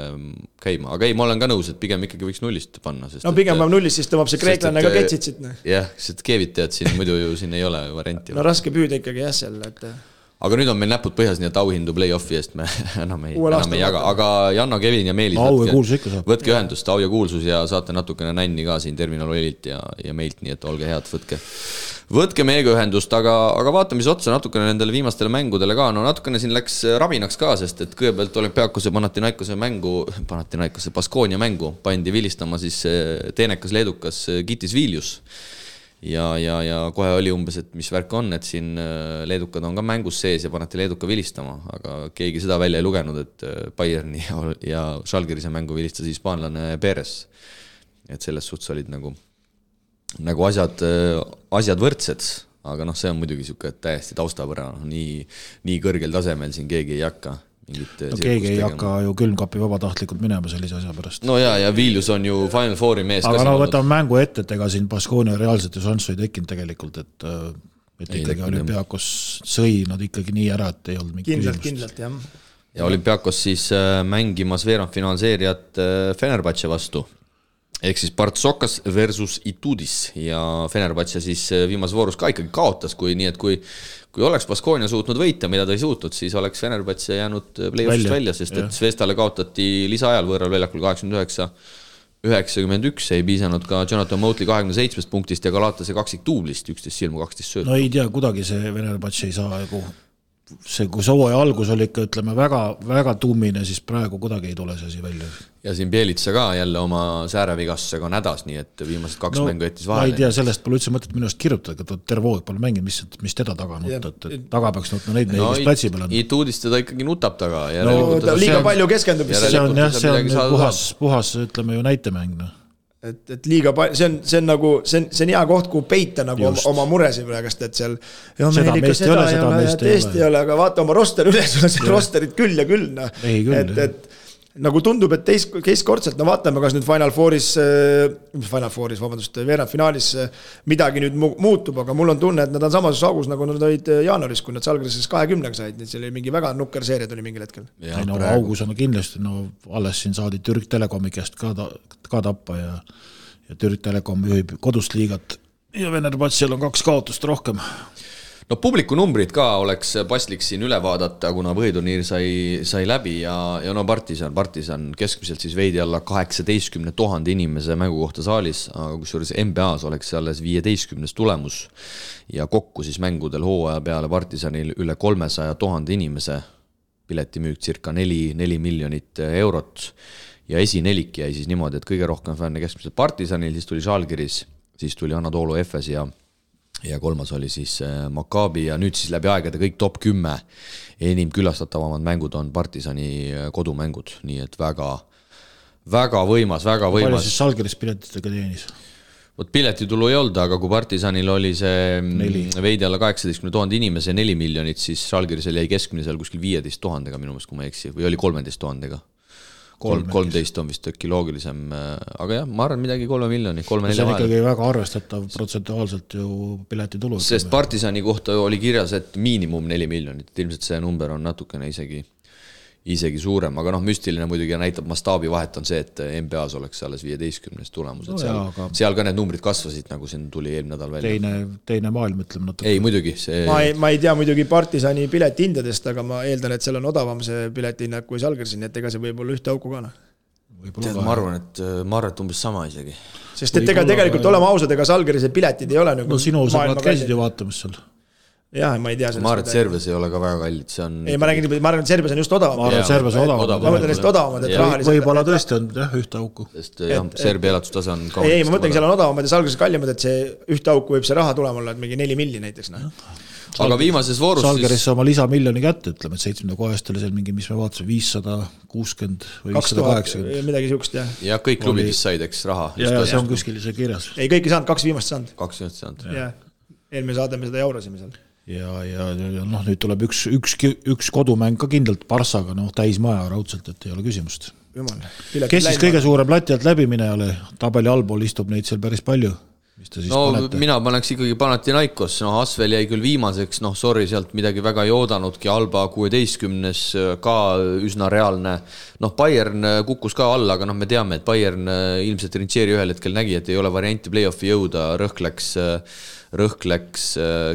käima. Aga ei, ma olen ka nõus, et pigem ikkagi võiks nullist panna. Sest, no pigem paneb nullist, siis tõmbab see kreeklane ka ketsid siit. Jah, sest Kevit tead siin, muidu ju siin ei ole varianti. No raske püüda ikkagi jah seal, et... Aga nüüd on meil näpud põhjas, nii et auhindu play-offi eest me enam ei jaga. Aga Janno, Kevin ja Meelis, võtke ühendust, au ja kuulsus ja saate natukene nänni ka siin Terminal Oililt ja meilt, nii et olge head, võtke meiega ühendust, aga vaatame mis otsa natukene nendele viimastele mängudele ka. No natukene siin läks rabinaks ka, sest et kõigepealt Olümpiakose Panathinaikose Baskonia mängu pandi vilistama siis teenekas leedukas Gitis Viljus. Ja kohe oli umbes, et mis värk on, et siin leedukad on ka mängus sees ja paneti leeduka vilistama, aga keegi seda välja ei lugenud, et Bayerni ja Schalgirise mängu vilistas hispaanlane Perez. Et selles suhtes olid nagu asjad võrdsed, aga see on muidugi siuke täiesti taustapõra, nii kõrgel tasemel siin keegi ei hakka. No keegi ei hakka ju külmkapi vabatahtlikult minema sellise asja pärast. No ja Viljus on ju Final Fouri mees. Aga võtame mängu ette, et ega siin Baskonia reaalselt ju šanssu ei tekkinud tegelikult, et ikkagi Olümpiakos sõi nad ikkagi nii ära, et ei olnud mingi kindlalt, jah. Ja Olümpiakos siis mängimas veerandfinaalseeriat Fenerbahce vastu. Ehk siis Partsokas versus Itudis ja Fenerbahce siis viimas voorus ka ikkagi kaotas, nii et kui oleks Baskonia suutnud võita, mida ta ei suutnud, siis oleks Fenerbahce jäänud play-offist välja, sest et Svestale kaotati lisaajal võõral väljakul 89-91, ei piisanud ka Jonathan Motley 27 punktist ja Galatase kaksik tuublist, 11 silmu, 12 söötu. No ei tea, kuidagi see Fenerbahce ei saa kui sooja algus oli ikka, ütleme, väga tummine, siis praegu kuidagi ei tule see asi välja. Ja siin Bielitsa ka jälle oma säärevigastusega on hädas, nii et viimased kaks mängu jättis vahele. Ma ei tea, sellest pole üldse mõtet minu eest kirjutada, et terve hoog pole mängid, mis teda taga nutta, et taga peaks nutma neid mehi, kes platsi peal on. Ituudist teda ikkagi nutab taga. Liiga palju keskendub. See on puhas, ütleme ju näitemäng. Et liiga palju, see on nagu, see on hea koht, kuhu peita nagu oma muresi praegast, et seal seda meest ei ole, aga vaata oma roster üles, rosterid küll ja küll. Et nagu tundub, et teistkordselt, vaatame, kas nüüd Final Fouris, veerandfinaalis midagi nüüd muutub, aga mul on tunne, et nad on samas augus, nagu nad olid jaanuaris, kui nad Žalgirises 20 said, nii see oli mingi väga nukker seeria tuli mingil hetkel. Augus on kindlasti, alles siin saadi Türk Telekomi käest ka tappa ja Türk Telekom juhib kodust liigat ja Fenerbahcel on 2 kaotust rohkem. No publiku numbrid ka oleks paslik siin üle vaadata, kuna põhiturniir sai läbi ja Partisan keskmiselt siis veidi alla 18 000 inimese mängu kohta saalis, aga kusjuures NBA-s oleks alles 15 tulemus ja kokku siis mängudel hooaja peale Partisanil üle 300 000 inimese, piletimüük circa 4 miljonit eurot ja esinelik jäi siis niimoodi, et kõige rohkem fänne keskmiselt Partisanil, siis tuli Žalgiris, siis tuli Anadolu Efes ja kolmas oli siis Maccabi ja nüüd siis läbi aegade kõik top 10 enim külastatavamad mängud on Partisani kodumängud, nii et väga võimas. Palju siis Žalgiris piletitega teenis? Piletitulu ei olnud, aga kui Partisanil oli see veidi alla 18 000 inimese 4 miljonit, siis Žalgirisel jäi keskmine seal kuskil 15 000, minu meelest, kui ma ei eksi, või oli 13 000. 13 on vist ökki loogilisem, aga jah, ma arvan midagi 3 miljoni, 3-4 vahel. See on ikkagi väga arvestatav protsentuaalselt ju piletitulu. Sest Partisani kohta oli kirjas, et miinimum 4 miljonit, ilmselt see number on natukene isegi suurem, aga müstiline muidugi näitab mastaabi vahet on see, et NBA-s oleks alles 15 tulemus, et seal ka need numbrid kasvasid, nagu siin tuli eelmine nädal välja. Teine maailm, ütleme natuke. Ei, muidugi. Ma ei tea muidugi Partisani piletihindadest, aga ma eeldan, et seal on odavam see piletihinnad kui Žalgirisin, nii et ega see võib olla ühte auku ka. Ma arvan, et umbes sama isegi. Sest et tegelikult olema ausad, ega Žalgirise piletid ei ole no sinu sõbrad käisid ju vaatamas seal. Jah, ma ei tea. Ma arvan, et Serbias ei ole ka väga kallid. Ei, ma arvan, et Serbias on just odavam. Ma arvan, et Serbias on odavam. Ma mõtlen lihtsalt odavamad, et rahaliselt. Võib-olla tõesti on ühte auku. Sest Serbia elatustase on ei, ma mõtlengi, seal on odavamad ja Žalgiris kallimad, et see ühte auku võib see raha tulema olla, et mingi 4 milli näiteks. Aga viimases voorus Žalgiris oma lisamiljoni kätte, ütleme, et 7. kohast oli seal mingi, mis me vaatasime, 560 või 580. Midagi siukest, jah. Ja kõik klubidest said, eks, raha. Ja see on kuskil see kirjas. Ei, kõik ei saanud, 2 viimast saanud. 2 viimast saanud. Eelmine saade me seda jaurasime seal. ja nüüd tuleb üks kodumäng ka kindlalt Barssaga, täismaja raudselt, et ei ole küsimust. Kes siis kõige suurem lati alt läbimine oli? Tabeli allpool istub neid seal päris palju. Panete? Mina paneks ikkagi Panathinaikos, Asvel jäi küll viimaseks, sorry, sealt midagi väga ei oodanudki, Alba 16 ka üsna reaalne, Bayern kukkus ka alla, aga me teame, et Bayern ilmselt Rinčieri ühel hetkel nägi, et ei ole varianti play-offi jõuda, rõhk läks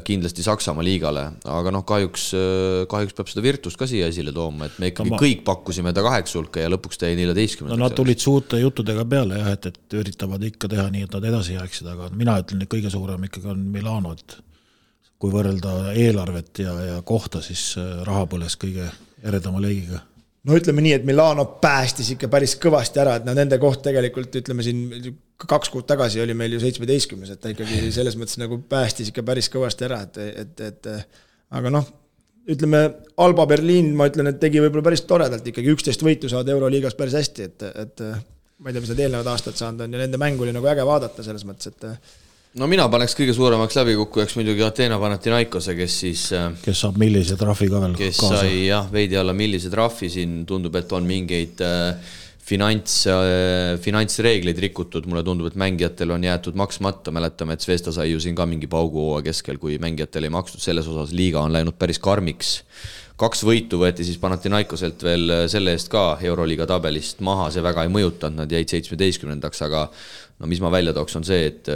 kindlasti Saksamaa liigale, aga kahjuks peab seda Virtust ka siia esile tooma, et me ikkagi kõik pakkusime ta 8 hulka ja lõpuks ta jäi 14. Nad tulid suurte juttudega peale, et üritavad ikka teha nii, et nad edasi jääksid, aga mina ütlen, et kõige suurem ikkagi on Milano, et kui võrrelda eelarvet ja kohta, siis raha põles kõige eredama leigiga. Ütleme nii, et Milano päästis ikka päris kõvasti ära, et nende koht tegelikult, ütleme siin 2 kuud tagasi oli meil ju 17, et ta ikkagi selles mõttes nagu päästis ikka päris kõvasti ära, aga ütleme, Alba Berliin, ma ütlen, et tegi võib-olla päris toredalt ikkagi 11 võitu saada Euroliigas päris hästi, et ma ei tea, mis need eelnevad aastad saanud on ja nende mängu oli nagu äge vaadata selles mõttes, et mina paneks kõige suuremaks läbikukkujaks muidugi Ateena Panathinaikose, kes saab millise trahvi ka veel kes kaasa. Sai veidi alla millise trahvi, siin tundub, et on mingeid finantsreegleid rikutud, mulle tundub, et mängijatel on jäetud maksmata, mäletame, et Zvesta sai ju siin ka mingi pauguhooa keskel, kui mängijatel ei makstud, selles osas liiga on läinud päris karmiks. 2 võitu võeti siis Panathinaikoselt veel selle eest ka Euroliiga tabelist maha, see väga ei mõjutanud, nad jäid 17, aga mis ma välja tooks on see, et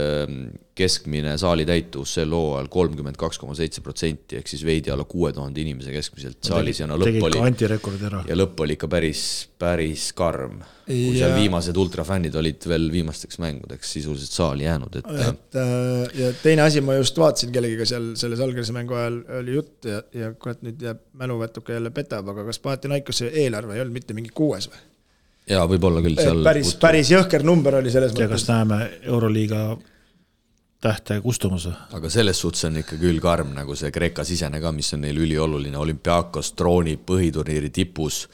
keskmine saali täitus sel hooajal 32,7%, ehk siis veidi alla 6000 inimese keskmiselt saalis ja lõpp oli ikka päris karm. Kui seal viimased ultrafännid olid veel viimasteks mängudeks sisuliselt saali jäänud. Ja teine asi, ma just vaatasin kellegiga seal selles Algerise mängu ajal oli jutt ja kurat nüüd jääb mäluvätuka jälle petab, aga kas Panathinaikose eelarve ei olnud mitte mingi 6 või? Jaa, võib-olla küll seal... Päris jõhker number oli selles mõttes. Ja kas näeme Euroliiga tähte kustumus? Aga selles suhtes on ikka küll karm, nagu see Kreeka sisene ka, mis on neil ülioluline. Olümpiakos trooni põhiturniiri tipus.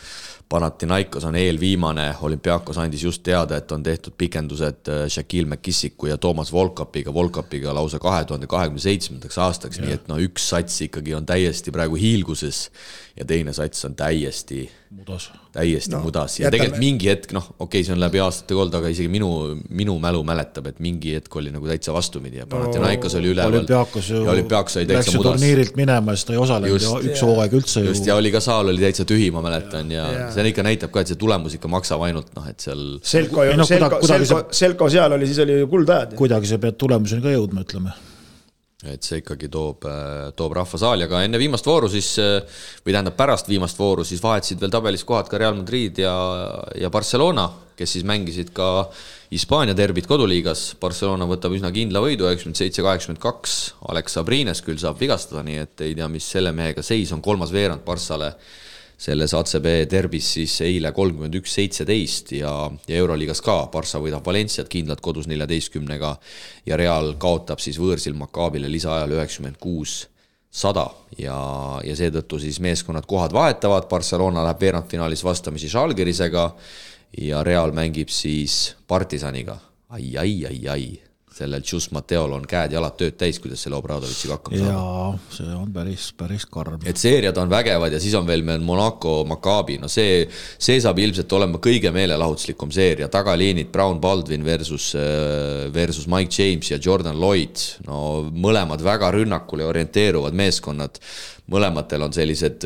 Panathinaikos on eelviimane. Olümpiakos andis just teada, et on tehtud pikendused Shaquille McKissiku ja Toomas Volkapiga lausa 2027. aastaks. Nii et üks sats ikkagi on täiesti praegu hiilguses ja teine sats on täiesti mudas. Ja tegelikult mingi hetk, see on läbi aastate kold, aga isegi minu mälu mäletab, et mingi hetk oli nagu täitsa vastumidi ja Panathinaikos oli üleval. Olümpiakos oli täitsa mudas. Turniirilt minema, siis ta ei osalenud üks hooaeg üldse. Just, ja oli ka saal oli täitsa tühi, ma mäletan, ja see ikka näitab ka, et see tulemus ikka maksab ainult, et seal... Selko seal oli, siis oli kuldajad. Kuidagi see pead tulemuseni ka jõudma, ütleme. Et see ikkagi toob rahvasaali, aga enne viimast vooru siis, või tähendab pärast viimast vooru, siis vahetsid veel tabelis kohad ka Real Madrid ja Barcelona, kes siis mängisid ka Hispaania derbit koduliigas. Barcelona võtab üsna kindla võidu, 97-82, Alex Sabrines küll saab vigastada, nii et ei tea, mis selle mehega seis on, 3. veerand Barssale selles ACB derbis siis eile 31-17 ja Euroliigas ka. Barssa võidab Valenciat kindlalt kodus 14-ga ja Real kaotab siis võõrsil Maccaabile lisaajal 96-100 ja seetõttu siis meeskonnad kohad vahetavad. Barcelona läheb veerandfinaalis vastamisi Žalgirisega ja Real mängib siis Partisaniga. Ai. Sellel Tšus Mateol on käed ja jalad tööd täis, kuidas selle Obradovitšiga hakkama saada. Jaa, see on päris karm. Et seeriad on vägevad ja siis on veel meil Monaco, Maccabi. See saab ilmselt olema kõige meelelahutuslikum seeria. Tagaliinid Brown Baldwin versus Mike James ja Jordan Lloyd. Mõlemad väga rünnakule orienteeruvad meeskonnad. Mõlematel on sellised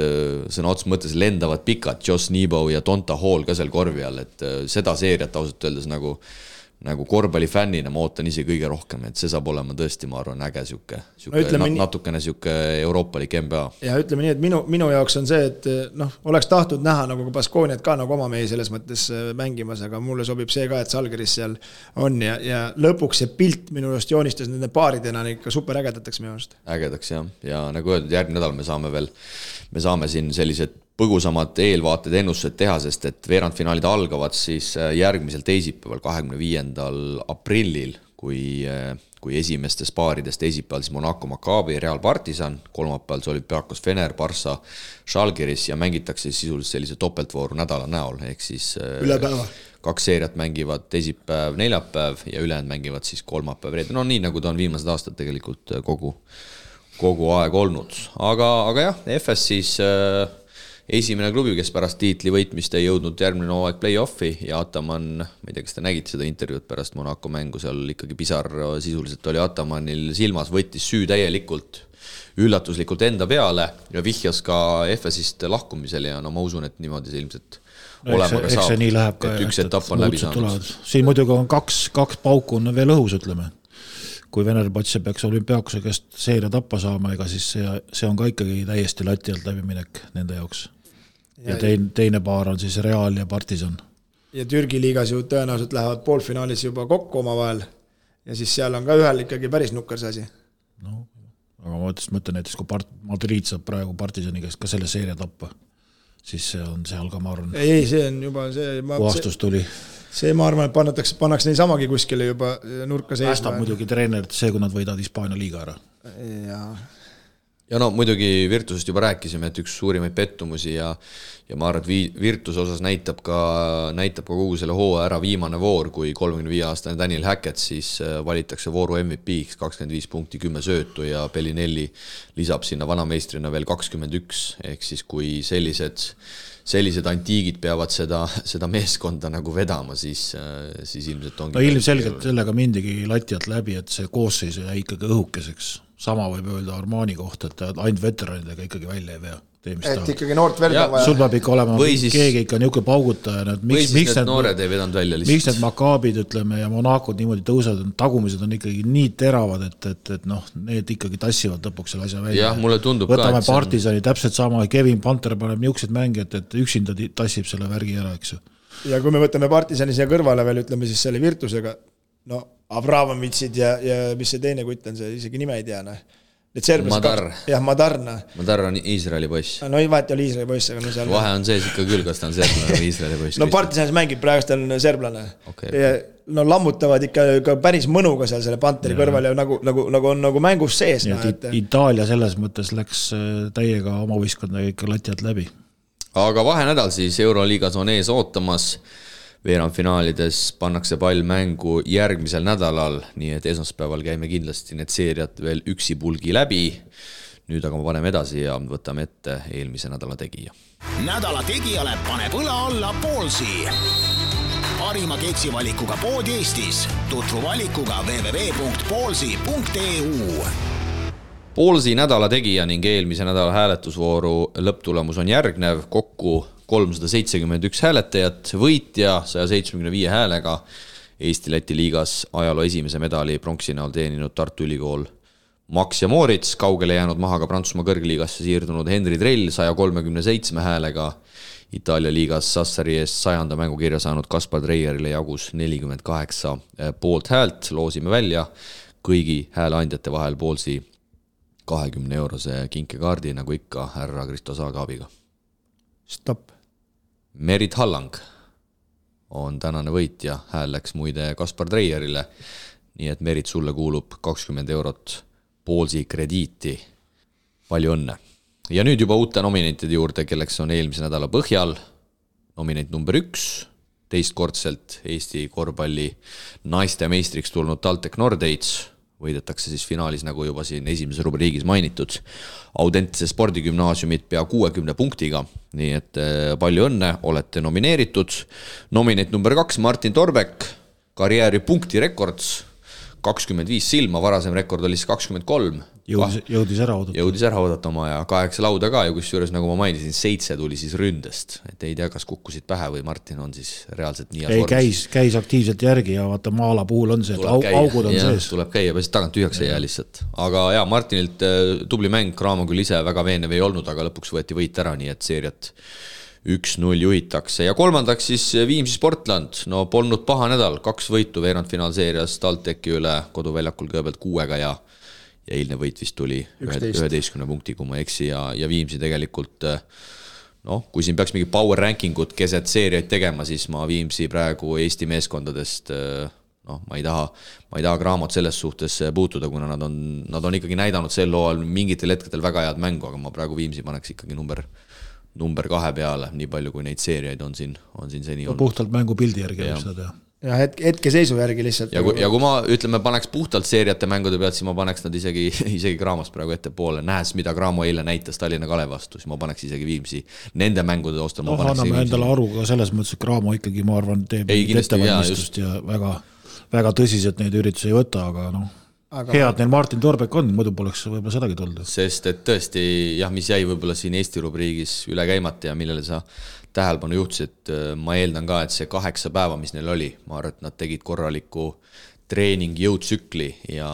sõna otsa mõttes lendavad pikad. Josh Nebo ja Tonta Hall ka seal korvi all. Et seda seeriat ausalt öeldes nagu korvpallifännina ma ootan ise kõige rohkem, et see saab olema tõesti, ma arvan, äge natukene siuke euroopalik NBA. Ja ütleme nii, et minu jaoks on see, et oleks tahtnud näha nagu Baskooniat ka nagu oma mehi selles mõttes mängimas, aga mulle sobib see ka, et Žalgiris seal on ja lõpuks see pilt minu just joonistas nende paaridena ikka super ägedataks minu arust. Ägedaks jah, ja nagu öeldud, järgmine nädal me saame siin sellised põgusamad eelvaated ennustused teha, sest et veerandfinaalid algavad siis järgmisel teisipäeval 25. aprillil, kui esimestes paarides teisipäeval siis Monaco, Maccabi, Real Partisan, kolmapäeval see Olympiakos Fener, Barssa, Žalgiris ja mängitakse sisuliselt sellise topeltvooru nädala näol, ehk siis üle päeva. 2 seeriat mängivad teisipäev, neljapäev ja ülejäänud mängivad siis kolmapäev, reede. Nii nagu ta on viimased aastad tegelikult kogu aeg olnud. Aga jah, FS siis esimene klubi, kes pärast tiitli võitmist ei jõudnud järgmine hooaeg play-offi ja Ataman, ma ei tea, kas te nägite seda intervjuud pärast Monaco mängu, seal ikkagi pisar sisuliselt oli Atamanil silmas, võttis süü täielikult üllatuslikult enda peale ja vihjas ka FS-ist lahkumisele ja no ma usun, et niimoodi see ilmselt olema ka saab, nii läheb ka, et üks etapp on läbi saanud. Siin muidugi on kaks pauku on veel õhus, ütleme. Kui Venerbatse peaks olümpiaakuse käest seeria tappa saama, ega siis see on ka ikkagi täiesti lati alt läbiminek nende jaoks. Ja teine paar on siis Real ja Partizan. Ja Türgi liigas ju tõenäoliselt lähevad poolfinaalis juba kokku oma vahel ja siis seal on ka ühel ikkagi päris nukker see asi. No, aga ma mõtlen näiteks, kui Madrid saab praegu Partizani käest ka selle seeria tappa, siis see on seal ka, ma arvan. Ei, see on juba see... Puhastus tuli. See ma arvan, et pannakse neid samagi kuskile juba nurka seisma. Päästab muidugi treenerit see, kui nad võidavad Hispaania liiga ära. Ja no muidugi Virtusest juba rääkisime, et üks suurimaid pettumusi ja ma arvan, et Virtuse osas näitab ka kogu selle hooaja ära viimane voor, kui 35-aastane Daniel Hackett siis valitakse vooru MVP-ks 25 punkti, 10 söötu ja Bellinelli lisab sinna vanameistrina veel 21, ehk siis kui sellised antiigid peavad seda meeskonda nagu vedama, siis ilmselt ongi... No ilmselgelt sellega mindigi latialt läbi, et see koosseis jäi ikkagi õhukeseks. Sama võib öelda Armani kohta, et ainult veteranidega ikkagi välja ei vea. Et ikkagi noort verd on vaja. Sul peab ikka olema keegi ikka niuke paugutaja. Või siis need noored ei vedanud välja lihtsalt. Miks need Makaabid, ütleme, ja Monacod niimoodi tõusevad, tagumised on ikkagi nii teravad, et need ikkagi tassivad lõpuks selle asja välja. Jah, mulle tundub võtame ka, Partizani täpselt sama, Kevin Panter paneb niuksed mängijad, et üksinda tassib selle värgi ära, eks. Ja kui me võtame Partizani siia kõrvale veel, ütleme siis selle Virtusega, no Abramovitsid ja mis see teine kutt on, see isegi nime ei tea, Madar. Jah, Madar. Madar on Iisraeli poiss. No ei vahet oli Iisraeli poiss, aga no seal... Vahe on sees ikka küll, kas ta on serblane või Iisraeli poiss. No Partisanis mängib, praegust on serblane. Okay. Ja, no lammutavad ikka päris mõnuga seal selle Panteri kõrval ja nagu on nagu mängus sees. Itaalia selles mõttes läks täiega oma võistkonna ikka latialt läbi. Aga vahenädal siis Euroliigas on ees ootamas. Veerandfinaalides pannakse pall mängu järgmisel nädalal, nii et esmaspäeval käime kindlasti need seeriad veel üksi pulgi läbi. Nüüd aga ma paneme edasi ja võtame ette eelmise nädala tegija. Nädala tegijale paneb õla alla Poolsi. Parima keksivalikuga pood Eestis. Tutvu valikuga www.poolsi.eu. Poolsi nädala tegija ning eelmise nädala hääletusvooru lõpptulemus on järgnev, kokku 371 hääletajat, võitja 175 häälega Eesti-Läti liigas ajaloo esimese medali pronksi näol teeninud Tartu Ülikool Max ja Moritz, kaugele jäänud maha ka Prantsusmaa kõrgliigasse siirdunud Henri Trell 137 häälega, Itaalia liigas Sassari eest 100. mängukirja saanud Kaspar Dreierile jagus 48 poolt häält, loosime välja kõigi hääleandjate vahel Poolsi 20 eurose kinkekaardi, nagu ikka härra Kristo Saagaabiga. Stopp. Merit Hallang on tänane võitja, hääl läks muide Kaspar Dreierile, nii et Merit, sulle kuulub 20 eurot Poolsi krediiti. Palju õnne. Ja nüüd juba uute nominentide juurde, kelleks on eelmise nädala põhjal. Nominent number 1, teistkordselt Eesti korvpalli naiste meistriks tulnud TalTech Nordates, võidetakse siis finaalis, nagu juba siin esimeses rubriigis mainitud, Audentse spordigümnaasiumit pea 60 punktiga, nii et palju õnne, olete nomineeritud. Nominent number 2, Martin Torbek, karjääri punktirekords, 25 silma, varasem rekord oli siis 23. Jõudis ära oodata oma ja 8 lauda ka ja kusjuures, nagu ma mainisin, 7 tuli siis ründest. Et ei tea, kas kukkusid pähe või Martin on siis reaalselt nii käis aktiivselt järgi ja vaata Maala puhul on see, et augud on sees. Tuleb käia, pärast tagant tühjaks ei jää lihtsalt. Aga ja, Martinilt tubli mäng, Raamo küll ise väga veenev ei olnud, aga lõpuks võeti võit ära, nii et seeriat 1-0 juhitakse. Ja kolmandaks siis Viimsi Sportland. No polnud paha nädal, 2 võitu veerandfinaalseerias TalTechi üle koduväljakul kõigepealt 6 ja eilne võit vist tuli 11 punkti, kui ma eksi ja Viimsi tegelikult, kui siin peaks mingi power rankingut keset seeriaid tegema, siis ma Viimsi praegu Eesti meeskondadest, ma ei taha Graamot selles suhtes puutuda, kuna nad on ikkagi näidanud sel loal mingitel hetkedel väga head mängu, aga ma praegu Viimsi paneks ikkagi number 2 peale, nii palju kui neid seeriaid on siin seni olnud. Puhtalt mängu pildi järgi. Ja hetkeseisu järgi lihtsalt. Ja kui ma ütleme, paneks puhtalt seeriate mängude pealt, siis ma paneks nad isegi Graamast praegu ette poole. Nähes, mida Graamo eile näitas Tallinna Kalev vastu, siis ma paneks isegi Viimsi nende mängude ostal. Anname endale aru ka selles mõttes, et Graamo ikkagi, ma arvan, teeb ettevalmistust ja väga tõsiselt neid üritusi ei võta, aga head neil Martin Torbek on, muidu poleks võib-olla sedagi tulnud. Sest et tõesti, mis jäi võib-olla siin Eesti rubriigis üle käimata ja millele sa tähelepanu juhtisid, ma eeldan ka, et see 8 päeva, mis neil oli, ma arvan, et nad tegid korraliku treening jõudsükli ja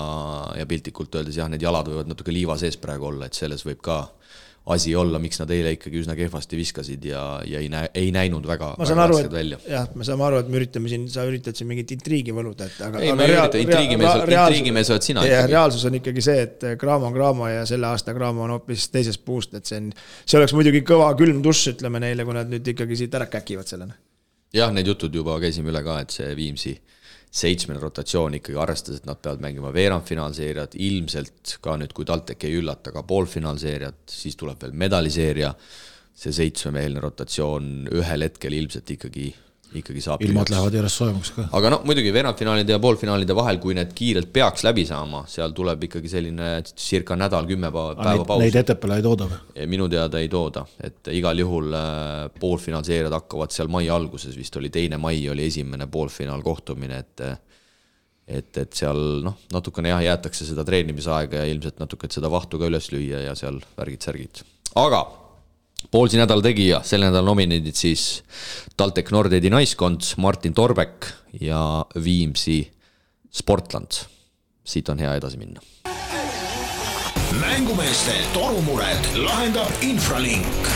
piltlikult öeldes need jalad võivad natuke liiva sees praegu olla, et selles võib ka asi olla, miks nad eile ikkagi üsna kehvasti viskasid ja ei näinud väga rasked välja. Jah, me saame aru, et me üritame siin, sa üritad siin mingit intriigi võluda. Ei, me ürita, intriigimees oled sina. Reaalsus on ikkagi see, et Graamo on Graamo ja selle aasta Graamo on hoopis teisest puust, et see oleks muidugi kõva külm duss, ütleme neile, kui nad nüüd ikkagi siit ära käkivad sellena. Jah, need jutud juba käisime üle ka, et see Viimsi 7 rotatsioon ikkagi arvestas, et nad peavad mängima veerandfinaalseeriat, ilmselt ka nüüd, kui TalTech ei üllata ka poolfinaalseeriat, siis tuleb veel medaliseeria, see 7-meelne rotatsioon ühel hetkel ilmselt ikkagi saab. Ilmad lähevad järjest soojamaks ka. Aga muidugi veerandfinaalide ja poolfinaalide vahel, kui need kiirelt peaks läbi saama, seal tuleb ikkagi selline circa nädal 10 päeva paus. Neid etepele ei tooda? Minu teada ei tooda, et igal juhul poolfinaalseeriad hakkavad seal mai alguses, vist oli 2. mai oli esimene poolfinaal kohtumine, et seal natukene jäetakse seda treenimisaega ja ilmselt natuke seda vahtu ka üles lüüa ja seal värgid-särgid. Aga Poolsi nädal tegija, selle nädal nominendid siis TalTech Nordedi naiskond, Martin Torbek ja Viimsi Sportland. Siit on hea edasi minna. Mängumeeste torumured lahendab Infralink.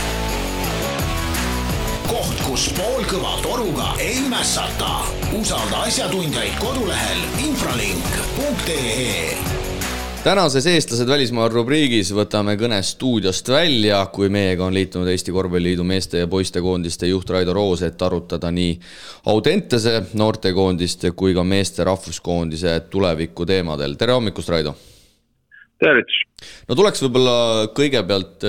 Koht, kus poolkõva toruga ei mässata. Usalda asjatundjaid kodulehel infralink.ee. Tänases eestlased välismaal rubriigis võtame kõne stuudiost välja, kui meiega on liitunud Eesti Korvpalliliidu meeste ja poistekoondiste juht Raido Roos, et arutada nii Audentese noortekoondiste kui ka meeste rahvuskoondise tuleviku teemadel. Tere hommikust, Raido! Tervits! No tuleks võib-olla kõigepealt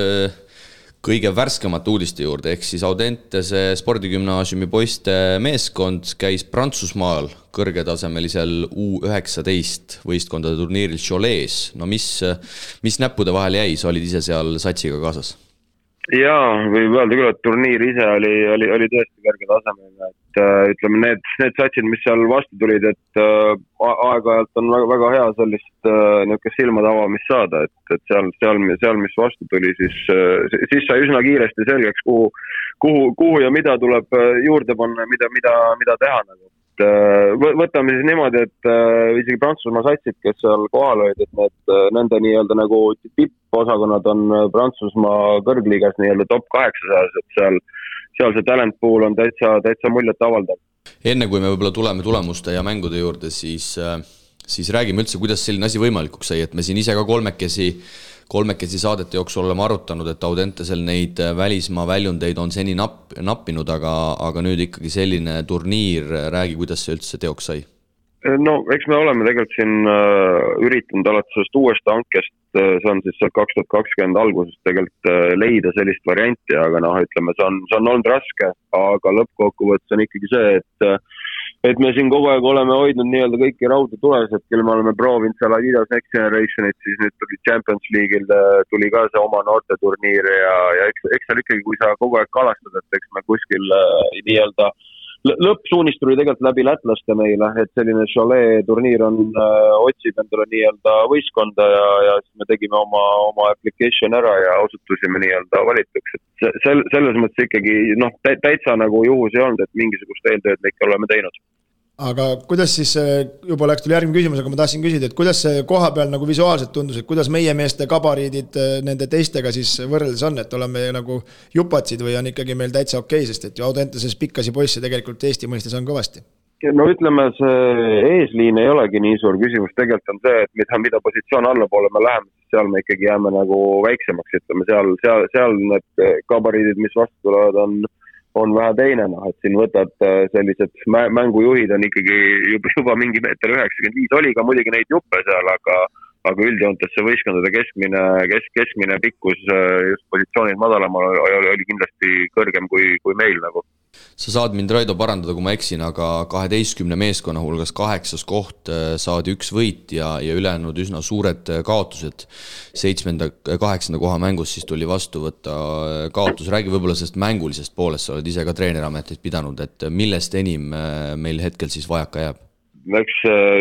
kõige värskemate uudiste juurde, ehk siis Audentese spordigümnaasiumi poiste meeskond käis Prantsusmaal kõrgetasemelisel U19 võistkondade turniiril Cholet's. No mis näppude vahel jäi, sa olid ise seal satsiga kaasas? Jaa, võib öelda küll, et turniir ise oli tõesti kõrge tasemega, et ütleme, need satsid, mis seal vastu tulid, et aeg-ajalt on väga, väga hea sellist niisugust silmade avamist saada, et seal, mis vastu tuli, siis sai üsna kiiresti selgeks, kuhu ja mida tuleb juurde panna, mida teha nagu. Võtame siis niimoodi, et isegi Prantsusmaa satsid, kes seal kohal olid, et nende nii-öelda nagu tipposakonnad on Prantsusmaa kõrgliigas nii-öelda top 800, et seal see talent pool on täitsa muljet avaldav. Enne kui me võib-olla tuleme tulemuste ja mängude juurde, siis räägime üldse, kuidas selline asi võimalikuks sai, et me siin ise ka kolmekesi saadete jooksul oleme arutanud, et Audentesel neid välismaa väljundeid on seni nappinud, aga nüüd ikkagi selline turniir, räägi, kuidas see üldse teoks sai? No, eks me oleme tegelikult siin üritanud alates sellest uuest hankest, see on siis 2020 algusest tegelikult leida sellist varianti, aga ütleme, see on olnud raske, aga lõppkokkuvõttes on ikkagi see, et me siin kogu aeg oleme hoidnud nii-öelda kõiki rauda tules, et küll me oleme proovinud seal Adidas Next Generationit, siis nüüd tuli Champions League'il, tuli ka see oma noorteturniir ja eks seal ikkagi, kui sa kogu aeg kalastad, et eks me kuskil nii-öelda lõppsuunist tuli tegelikult läbi lätlaste meile, et selline Cholet turniir otsib endale nii-öelda võistkonda ja siis me tegime oma application ära ja osutusime nii-öelda valituks. Selles mõttes ikkagi täitsa nagu juhus ei olnud, et mingisugust eeltööd me ikka oleme teinud. Aga kuidas siis, juba läks tuli järgmine küsimus, aga ma tahtsin küsida, et kuidas see koha peal nagu visuaalselt tundus, et kuidas meie meeste kabariidid nende teistega siis võrreldes on, et oleme nagu jupatsid või on ikkagi meil täitsa okei, sest et ju Audenteses pikkasi poisse tegelikult Eesti mõistes on kõvasti? No ütleme, see eesliin ei olegi nii suur küsimus, tegelikult on see, et mida positsioon allapoole me läheme, seal me ikkagi jääme nagu väiksemaks, ütleme, seal need kabariidid, mis vastu tulevad, on vähe teine, et siin võtad sellised mängujuhid on ikkagi juba mingi meeter 95, oli ka muidugi neid juppe seal, aga üldjoontes see võistkondade keskmine pikkus just positsioonid madalamal oli kindlasti kõrgem kui meil nagu. Sa saad mind, Raido, parandada, kui ma eksin, aga 12 meeskonna hulgas 8. koht saadi 1 võit ja ülejäänud üsna suured kaotused. 7.-8. koha mängus siis tuli vastu võtta kaotus. Räägi võib-olla sellest mängulisest poolest, sa oled ise ka treenerametit pidanud, et millest enim meil hetkel siis vajaka jääb? Eks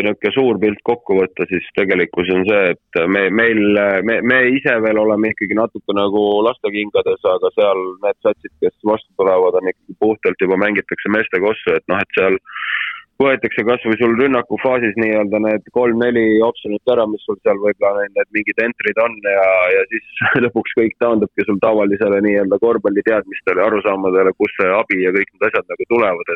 niisugune suur pilt kokku võtta, siis tegelikkus on see, et me ise veel oleme ikkagi natuke nagu lastekingades, aga seal need satsid, kes vastu tulevad, on ikkagi puhtalt juba mängitakse meeste kossu, et noh, et seal võetakse kas või sul rünnaku faasis nii-öelda need 3-4 optsionit ära, mis sul seal võib-olla need mingid entrid on ja siis lõpuks kõik taandubki sul tavalisele nii-öelda korvpalli teadmistele, arusaamadele, kus see abi ja kõik need asjad nagu tulevad,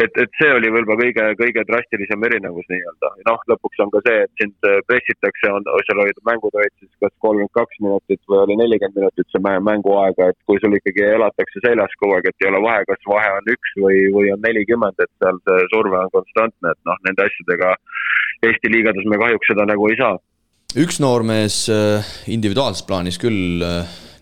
et see oli võib-olla kõige drastilisem erinevus nii-öelda. Noh, lõpuks on ka see, et sind pressitakse, seal olid mängud olid siis kas 32 minutit või oli 40 minutit see mänguaega, et kui sul ikkagi elatakse seljas kogu aeg, et ei ole vahe, kas vahe on 1 või on 40, et seal see surve on konstantne, et noh, nende asjadega Eesti liigades me kahjuks seda nagu ei saa. Üks noormees individuaalses plaanis küll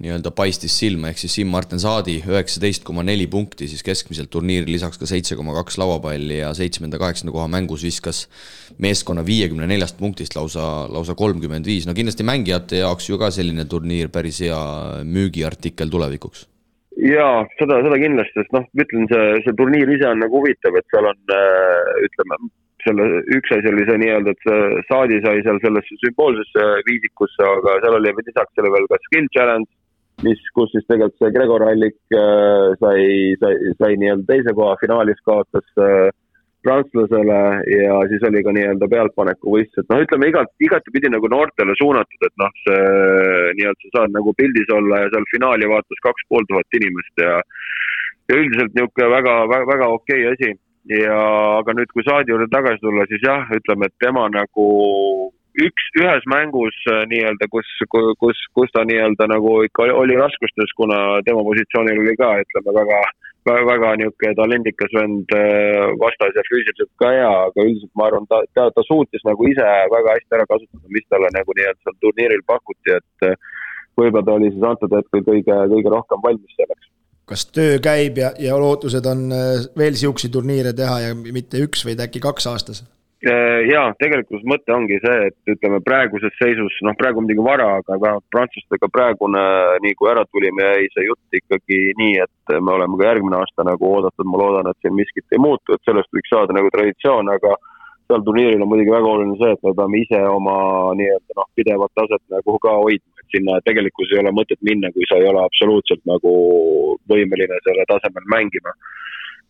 nii-öelda paistis silma, ehk siis Siim-Martin Saadi 19,4 punkti siis keskmiselt turniiri, lisaks ka 7,2 lauapalli ja 7.-8. koha mängus viskas meeskonna 54 punktist lausa 35. No kindlasti mängijate jaoks ju ka selline turniir päris hea müügiartikkel tulevikuks. Jaa, seda kindlasti, sest noh, ütlen, see turniir ise on nagu huvitav, et seal on, ütleme, selle üks asi oli see nii-öelda, et Saadi sai seal sellesse sümboolsesse viisikusse, aga seal oli lisaks selle veel ka skill challenge, kus siis tegelikult see Gregor Hallik sai nii-öelda teise koha finaalis kaotas prantslasele ja siis oli ka nii-öelda pealtpaneku võistlus, et noh, ütleme igati pidi nagu noortele suunatud, et noh, see nii-öelda sa saad nagu pildis olla ja seal finaali vaatas 2500 inimest ja üldiselt niisugune väga okei asi. Ja aga nüüd, kui Saadi juurde tagasi tulla, siis jah, ütleme, et tema nagu ühes mängus nii-öelda, kus ta nii-öelda nagu ikka oli raskustes, kuna tema positsioonil oli ka, ütleme, väga niisugune talendikas vend vastas ja füüsiliselt ka hea, aga üldiselt ma arvan, ta suutis nagu ise väga hästi ära kasutada, mis talle nagu nii-öelda seal turniiril pakuti, et võib-olla ta oli siis antud hetkel kõige rohkem valmis selleks. Kas töö käib ja lootused on veel siuksi turniire teha ja mitte 1 või äkki 2 aastas? Jaa, tegelikult mõte ongi see, et ütleme praeguses seisus, noh praegu midagi vara, aga vähemalt prantslastega praegune, nii kui ära tulime, jäi see jutt ikkagi nii, et me oleme ka järgmine aasta nagu oodatud, ma loodan, et siin miskit ei muutu, et sellest võiks saada nagu traditsioon, aga seal turniiril on muidugi väga oluline see, et me peame ise oma nii-öelda pidevat taset nagu ka hoidma, et sinna tegelikult ei ole mõtet minna, kui sa ei ole absoluutselt nagu võimeline selle tasemel mängima.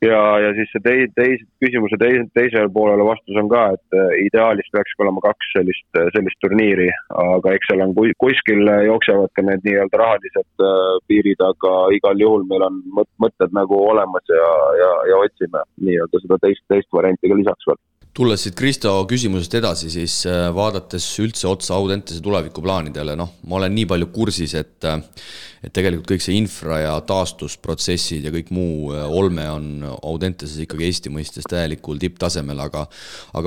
Ja siis see küsimuse teisele poolele vastus on ka, et ideaalis peaks olema 2 sellist turniiri, aga eks seal on kuskil jooksevad ka need nii-öelda rahalised piirid, aga igal juhul meil on mõtted nagu olemas ja otsime nii-öelda seda teist varianti ka lisaks veel. Tulles siit Kristo küsimusest edasi, siis vaadates üldse otsa Audentese tulevikuplaanidele, noh, ma olen nii palju kursis, et tegelikult kõik see infra ja taastusprotsessid ja kõik muu olme on Audenteses ikkagi Eesti mõistes täielikul tipptasemel, aga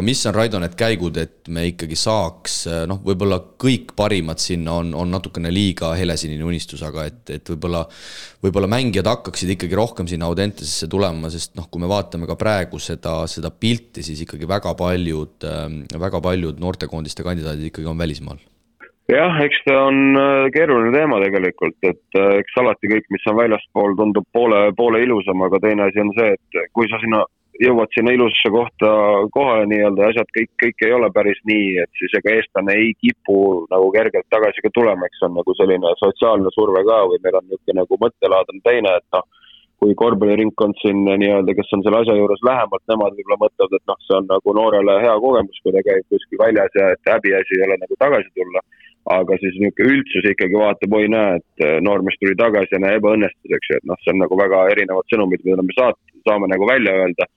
mis on, Raido, need käigud, et me ikkagi saaks, noh, võib-olla kõik parimad sinna on natukene liiga helesinine unistus, aga et võib-olla mängijad hakkaksid ikkagi rohkem sinna Audentesesse tulema, sest noh, kui me vaatame ka praegu seda pilti, siis ikkagi väga paljud noortekoondiste kandidaadid ikkagi on välismaal. Jah, eks ta on keeruline teema tegelikult, et eks alati kõik, mis on väljaspool, tundub poole ilusam, aga teine asi on see, et kui sa jõuad sinna ilusasse kohale nii-öelda ja asjad kõik ei ole päris nii, et siis ega eestlane ei kipu nagu kergelt tagasi ka tulema, eks on nagu selline sotsiaalne surve ka või meil on niisugune nagu mõttelaad on teine, et noh, kui korvpalliringkond siin nii-öelda, kes on selle asja juures lähemalt, nemad võib-olla mõtlevad, et noh, see on nagu noorele hea kogemus, kui ta käib kuskil väljas ja et häbiasi ei ole nagu tagasi tulla. Aga siis niisugune üldsus ikkagi vaatab, oi näe, et noormees tuli tagasi ja näe ebaõnnestuseks, et noh, see on nagu väga erinevad sõnumid, mida me saame nagu välja öelda.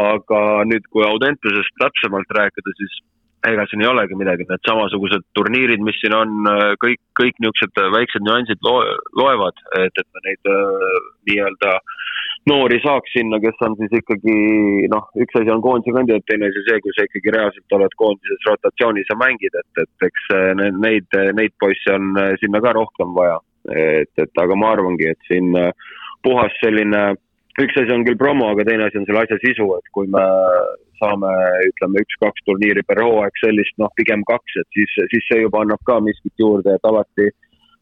Aga nüüd, kui Audentesest täpsemalt rääkida, siis ega siin ei olegi midagi, need samasugused turniirid, mis siin on, kõik niisugused väiksed nüansid loevad, et me neid nii-öelda noori saaks sinna, kes on siis ikkagi, noh, üks asi on koondise kandidaat, teine asi see, kui sa ikkagi reaalselt oled koondises rotatsioonis ja mängid, et eks neid poisse on sinna ka rohkem vaja. Et aga ma arvangi, et siin puhas selline üks asi on küll promo, aga teine asi on selle asja sisu, et kui me saame, ütleme, 1-2 turniiri per hooaeg sellist, pigem 2, et siis see juba annab ka miskit juurde, et alati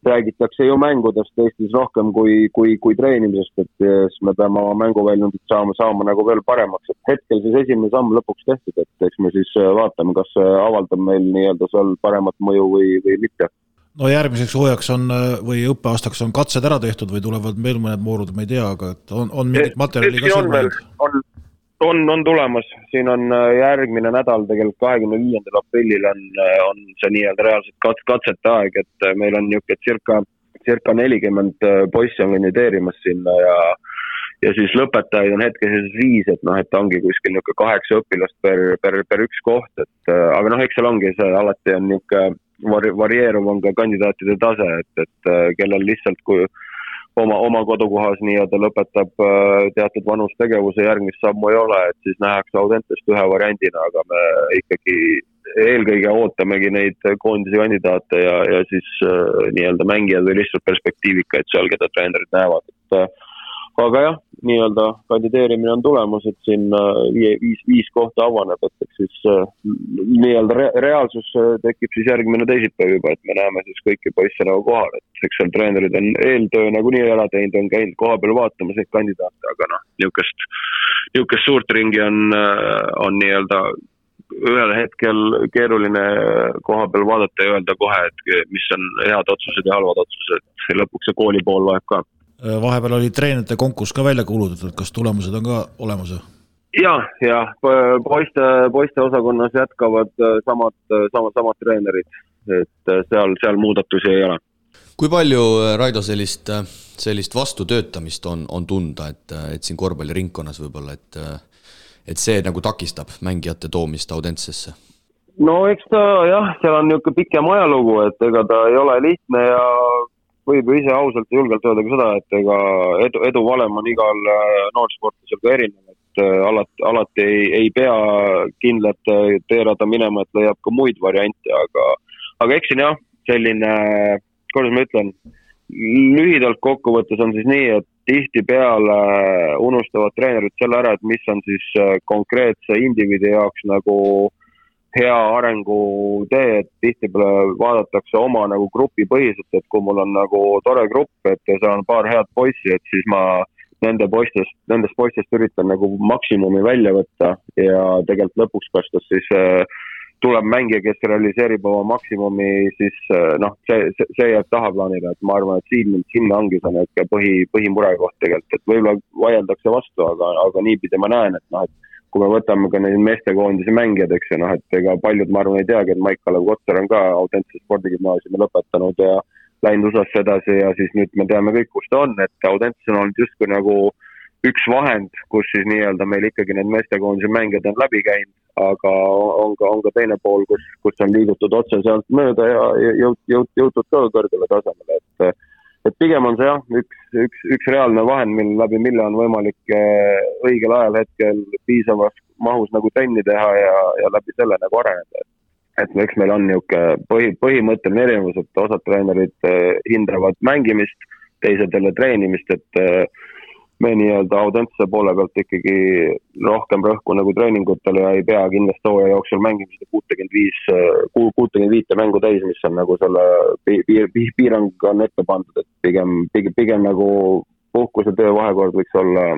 räägitakse ju mängudest Eestis rohkem kui treenimisest, et siis me peame oma mänguväljundit saama nagu veel paremaks, et hetkel siis esimene samm lõpuks tehtud, et eks me siis vaatame, kas see avaldab meil nii-öelda seal paremat mõju või mitte. No järgmiseks hooajaks on või õppeaastaks on katsed ära tehtud või tulevad veel mõned moorud, ma ei tea, aga on mingit materjali ka silma? On tulemas, siin on järgmine nädal, tegelikult 25. aprillil on see nii-öelda reaalselt katsete aeg, et meil on niisugune circa 40 poissi on kandideerimas sinna ja siis lõpetajaid on hetkes 5, et ongi kuskil niisugune 8 õpilast per üks koht, et aga eks seal ongi see, alati on niisugune varieeruv on ka kandidaatide tase, et kellel lihtsalt kui oma kodukohas nii-öelda lõpetab teatud vanustegevuse, järgmist sammu ei ole, et siis nähakse Audentest ühe variandina, aga me ikkagi eelkõige ootamegi neid koondise kandidaate ja siis nii-öelda mängijad või lihtsalt perspektiivikaid seal, keda treenerid näevad. Aga jah, nii-öelda kandideerimine on tulemas, et siin 5 kohta avaneb, et siis nii-öelda reaalsus tekib siis järgmine teisipäev juba, et me näeme siis kõiki poisse nagu kohal, et eks seal treenerid on eeltöö nagu nii ära teinud, on käinud koha peal vaatamas neid kandidaate, aga niisugust suurt ringi on nii-öelda ühel hetkel keeruline koha peal vaadata ja öelda kohe, et mis on head otsused ja halvad otsused, lõpuks see kooli pool loeb ka. Vahepeal oli treenerite konkurss ka välja kuulutatud, kas tulemused on ka olemas? Ja, poiste osakonnas jätkavad samad treenerid, et seal muudatusi ei ole. Kui palju, Raido, sellist vastutöötamist on tunda, et siin korvpalliringkonnas võib-olla, et see nagu takistab mängijate toomist Audentsesse? No eks ta jah, seal on niisugune pikem ajalugu, et ega ta ei ole lihtne ja võib ju ise ausalt ja julgelt öelda ka seda, et ega edu valem on igal noorsportlasel ka erinev, et alati ei pea kindlat teerada minema, et leiab ka muid variante, aga eks siin jah, selline, kuidas ma ütlen, lühidalt kokkuvõttes on siis nii, et tihtipeale unustavad treenerid selle ära, et mis on siis konkreetse indiviidi jaoks nagu hea arengu tee, et tihtipeale vaadatakse oma nagu grupi põhiselt, et kui mul on nagu tore grupp, et seal on paar head poissi, et siis ma nendest poistest üritan nagu maksimumi välja võtta ja tegelikult lõpuks kastas siis tuleb mängija, kes realiseerib oma maksimumi, siis see jääb tahaplaanile, et ma arvan, et sinna ongi see põhimurekoht tegelikult, et võib-olla vaieldakse vastu, aga niipidi ma näen, et kui me võtame ka neid meestekoondise mängijad, eks ju, et ega paljud, ma arvan, ei teagi, et Maik-Kalev Kotsar on ka Audentse spordigümnaasiumi lõpetanud ja läinud USA-sse edasi ja siis nüüd me teame kõik, kus ta on, et Audentse on olnud justkui nagu üks vahend, kus siis nii-öelda meil ikkagi need meestekoondise mängijad on läbi käinud, aga on ka teine pool, kus on liigutud otse sealt mööda ja jõutud ka kõrgele tasemele, et pigem on see jah, üks reaalne vahend, mille on võimalik õigel ajal hetkel piisavas mahus nagu trenni teha ja läbi selle nagu areneda. Et eks meil on niisugune põhimõtteline erinevus, et osad treenerid hindavad mängimist, teised jälle treenimist, et me nii-öelda Audentse poole pealt ikkagi rohkem rõhku nagu treeningutele ja ei pea kindlasti hooaja jooksul mängimist 65 mängu täis, mis on nagu selle piirang on ette pandud, et pigem nagu puhkuse töö vahekord võiks olla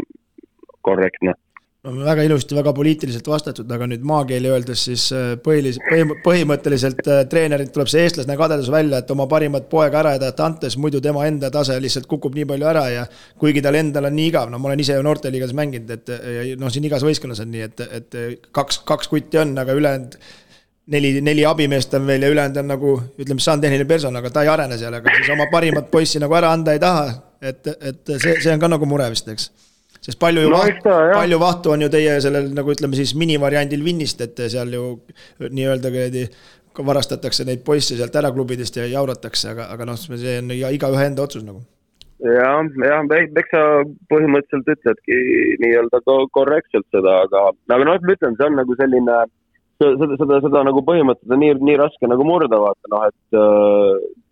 korrektne. Väga ilusti, väga poliitiliselt vastatud, aga nüüd maakeeli öeldes siis põhimõtteliselt treenerid tuleb see eestlasne kadedus välja, et oma parimat poega ära edata antes, muidu tema enda tase lihtsalt kukub nii palju ära ja kuigi tal endal on nii igav, ma olen ise ju noorteliigas mänginud, et siin igas võistkonnas on nii, et kaks kutti on, aga ülejäänud 4 abimeest on veel ja ülejäänud on nagu, ütleme, see on tehniline person, aga ta ei arene seal, aga siis oma parimat poissi nagu ära anda ei taha, et see on ka nagu mure vist, eks. Sest palju vahtu on ju teie sellel, nagu ütleme siis minivariandil Vinnist, et seal ju nii-öelda varastatakse neid poisse sealt ära klubidest ja jauratakse, aga see on igaühe enda otsus nagu. Jah, eks sa põhimõtteliselt ütledki nii-öelda korrektselt seda, aga ma ütlen, see on nagu selline seda nagu põhimõtted on nii raske nagu murda, vaata, et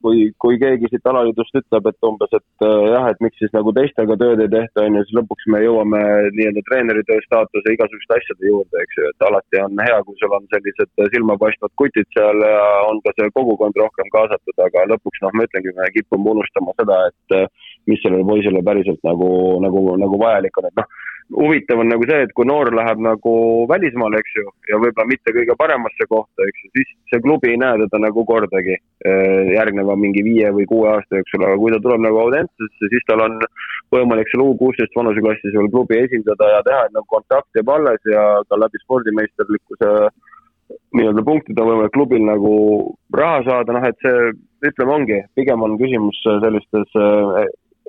kui keegi siit alaliidust ütleb, et umbes, et jah, et miks siis nagu teistega tööd ei tehta, on ju, siis lõpuks me jõuame nii-öelda treeneritöö staatuse igasuguste asjade juurde, eks ju, et alati on hea, kui sul on sellised silmapaistvad kutid seal ja on ka see kogukond rohkem kaasatud, aga lõpuks, ma ütlengi, me kipume unustama seda, et mis sellele poisele päriselt nagu vajalik on, et huvitav on nagu see, et kui noor läheb nagu välismaale, eks ju, ja võib-olla mitte kõige paremasse kohta, eks ju, siis see klubi ei näe teda nagu kordagi järgneva mingi 5 või 6 aasta jooksul, aga kui ta tuleb nagu Audentesesse, siis tal on võimalik seal U16 vanuseklassis veel klubi esindada ja teha, et nagu kontakt jääb alles ja ka läbi spordimeisterlikkuse nii-öelda punktid on võimalik klubil nagu raha saada, et see, ütleme ongi, pigem on küsimus sellistes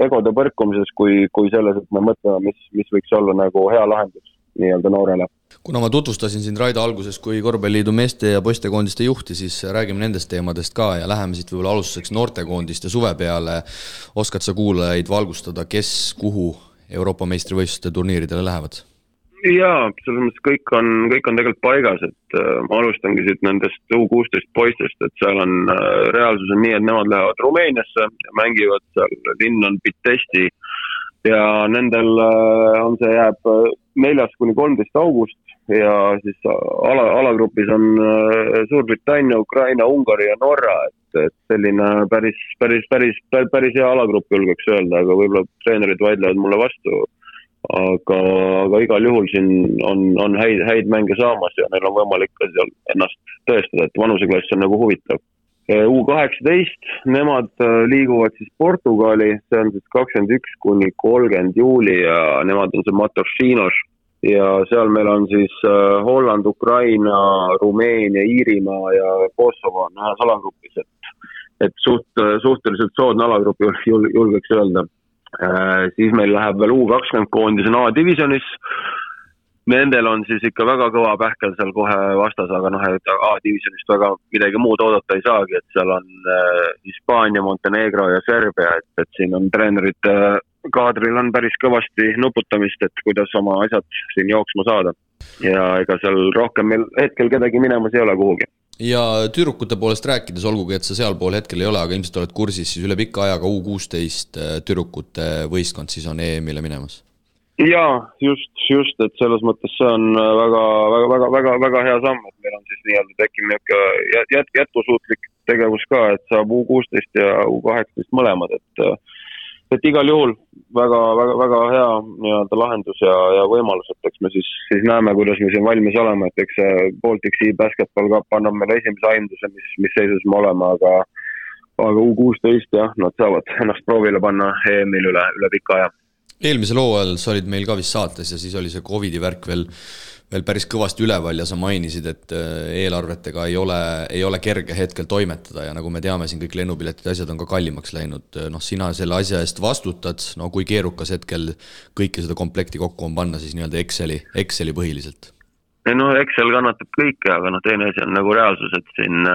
egode põrkumises kui selles, et me mõtleme, mis võiks olla nagu hea lahendus nii-öelda noorele. Kuna ma tutvustasin sind Raido alguses kui korvpalliliidu meeste ja poistekoondiste juhti, siis räägime nendest teemadest ka ja läheme siit võib-olla alustuseks noortekoondiste suve peale. Oskad sa kuulajaid valgustada, kes kuhu Euroopa meistrivõistluste turniiridele lähevad? Jaa, selles mõttes kõik on tegelikult paigas, et ma alustangi siit nendest U16 poistest, et seal on reaalsus on nii, et nemad lähevad Rumeeniasse ja mängivad seal, linn on Pitesti ja nendel on see jääb 4-13 august ja siis alagrupis on Suurbritannia, Ukraina, Ungari ja Norra, et selline päris hea alagrupp julgeks öelda, aga võib-olla treenerid vaidlevad mulle vastu. Aga igal juhul siin on häid mänge saamas ja neil on võimalik ka seal ennast tõestada, et vanuseklass on nagu huvitav. U18, nemad liiguvad siis Portugali, see on siis 21-30 juuli ja nemad on see Matosinhos ja seal meil on siis Holland, Ukraina, Rumeenia, Iirimaa ja Kosovo on ühes alagrupis, et suhteliselt soodne alagrupp julgeks öelda. Siis meil läheb veel U20 koondis on A-divisionis. Nendel on siis ikka väga kõva pähkel seal kohe vastas, aga et A-divisionist väga midagi muud oodata ei saagi, et seal on Hispaania, Montenegro ja Serbia, et siin on treenerite kaadril on päris kõvasti nuputamist, et kuidas oma asjad siin jooksma saada. Ja ega seal rohkem meil hetkel kedagi minemas ei ole kuhugi. Ja tüdrukute poolest rääkides, olgugi et sa seal pool hetkel ei ole, aga ilmselt oled kursis, siis üle pikka ajaga U16 tüdrukute võistkond siis on EM-ile minemas? Jaa, just, et selles mõttes see on väga hea samm, et meil on siis nii-öelda tekkimine jätkusuutlik tegevus ka, et saab U16 ja U18 mõlemad, et igal juhul väga hea nii-öelda lahendus ja võimalus, et eks me siis näeme, kuidas me siin valmis oleme, et eks see Baltic Sea Basketball Cup annab meile esimese aimduse, mis seisus me oleme, aga U16 jah, nad saavad ennast proovile panna EM-il üle pika aja. Eelmisel hooajal sa olid meil ka vist saates ja siis oli see COVID-i värk veel päris kõvasti üleval ja sa mainisid, et eelarvetega ei ole kerge hetkel toimetada ja nagu me teame, siin kõik lennupiletid asjad on ka kallimaks läinud. Sina selle asja eest vastutad, kui keerukas hetkel kõike seda komplekti kokku on panna siis nii-öelda Exceli põhiliselt? Excel kannatab kõike, aga teine asi on nagu reaalsus, et siin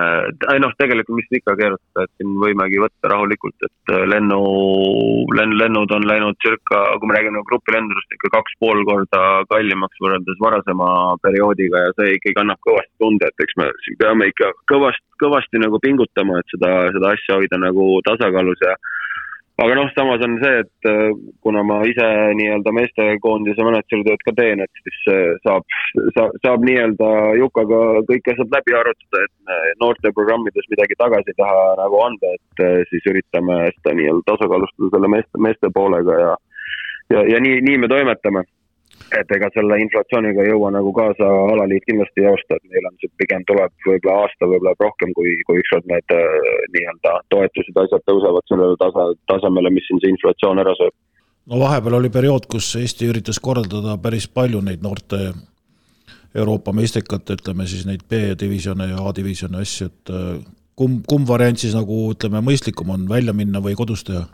tegelikult mis ikka keerutada, et siin võimegi võtta rahulikult, et lennud on läinud kui me räägime grupilendudest ikka 2,5 korda kallimaks võrreldes varasema perioodiga ja see ikkagi annab kõvasti tunde, et eks me siin peame ikka kõvasti nagu pingutama, et seda asja hoida nagu tasakaalus ja aga samas on see, et kuna ma ise nii-öelda meestekoondise managertööd ka teen, et siis saab nii-öelda Jukaga kõik asjad läbi arutada, et noorte programmides midagi tagasi taha nagu anda, et siis üritame seda nii-öelda tasakaalustada selle meeste poolega ja nii me toimetame. Et ega selle inflatsiooniga ei jõua nagu kaasa alaliit kindlasti ei osta, et meil on see pigem tuleb võib-olla aasta võib-olla rohkem, kui ükskord need nii-öelda toetused asjad tõusevad sellele tasemele, mis siin see inflatsioon ära sööb. Vahepeal oli periood, kus Eesti üritas korraldada päris palju neid noorte Euroopa meistrikate, ütleme siis neid B-divisjone ja A-divisjone asju, et kumb variant siis nagu ütleme mõistlikum on välja minna või kodus teha?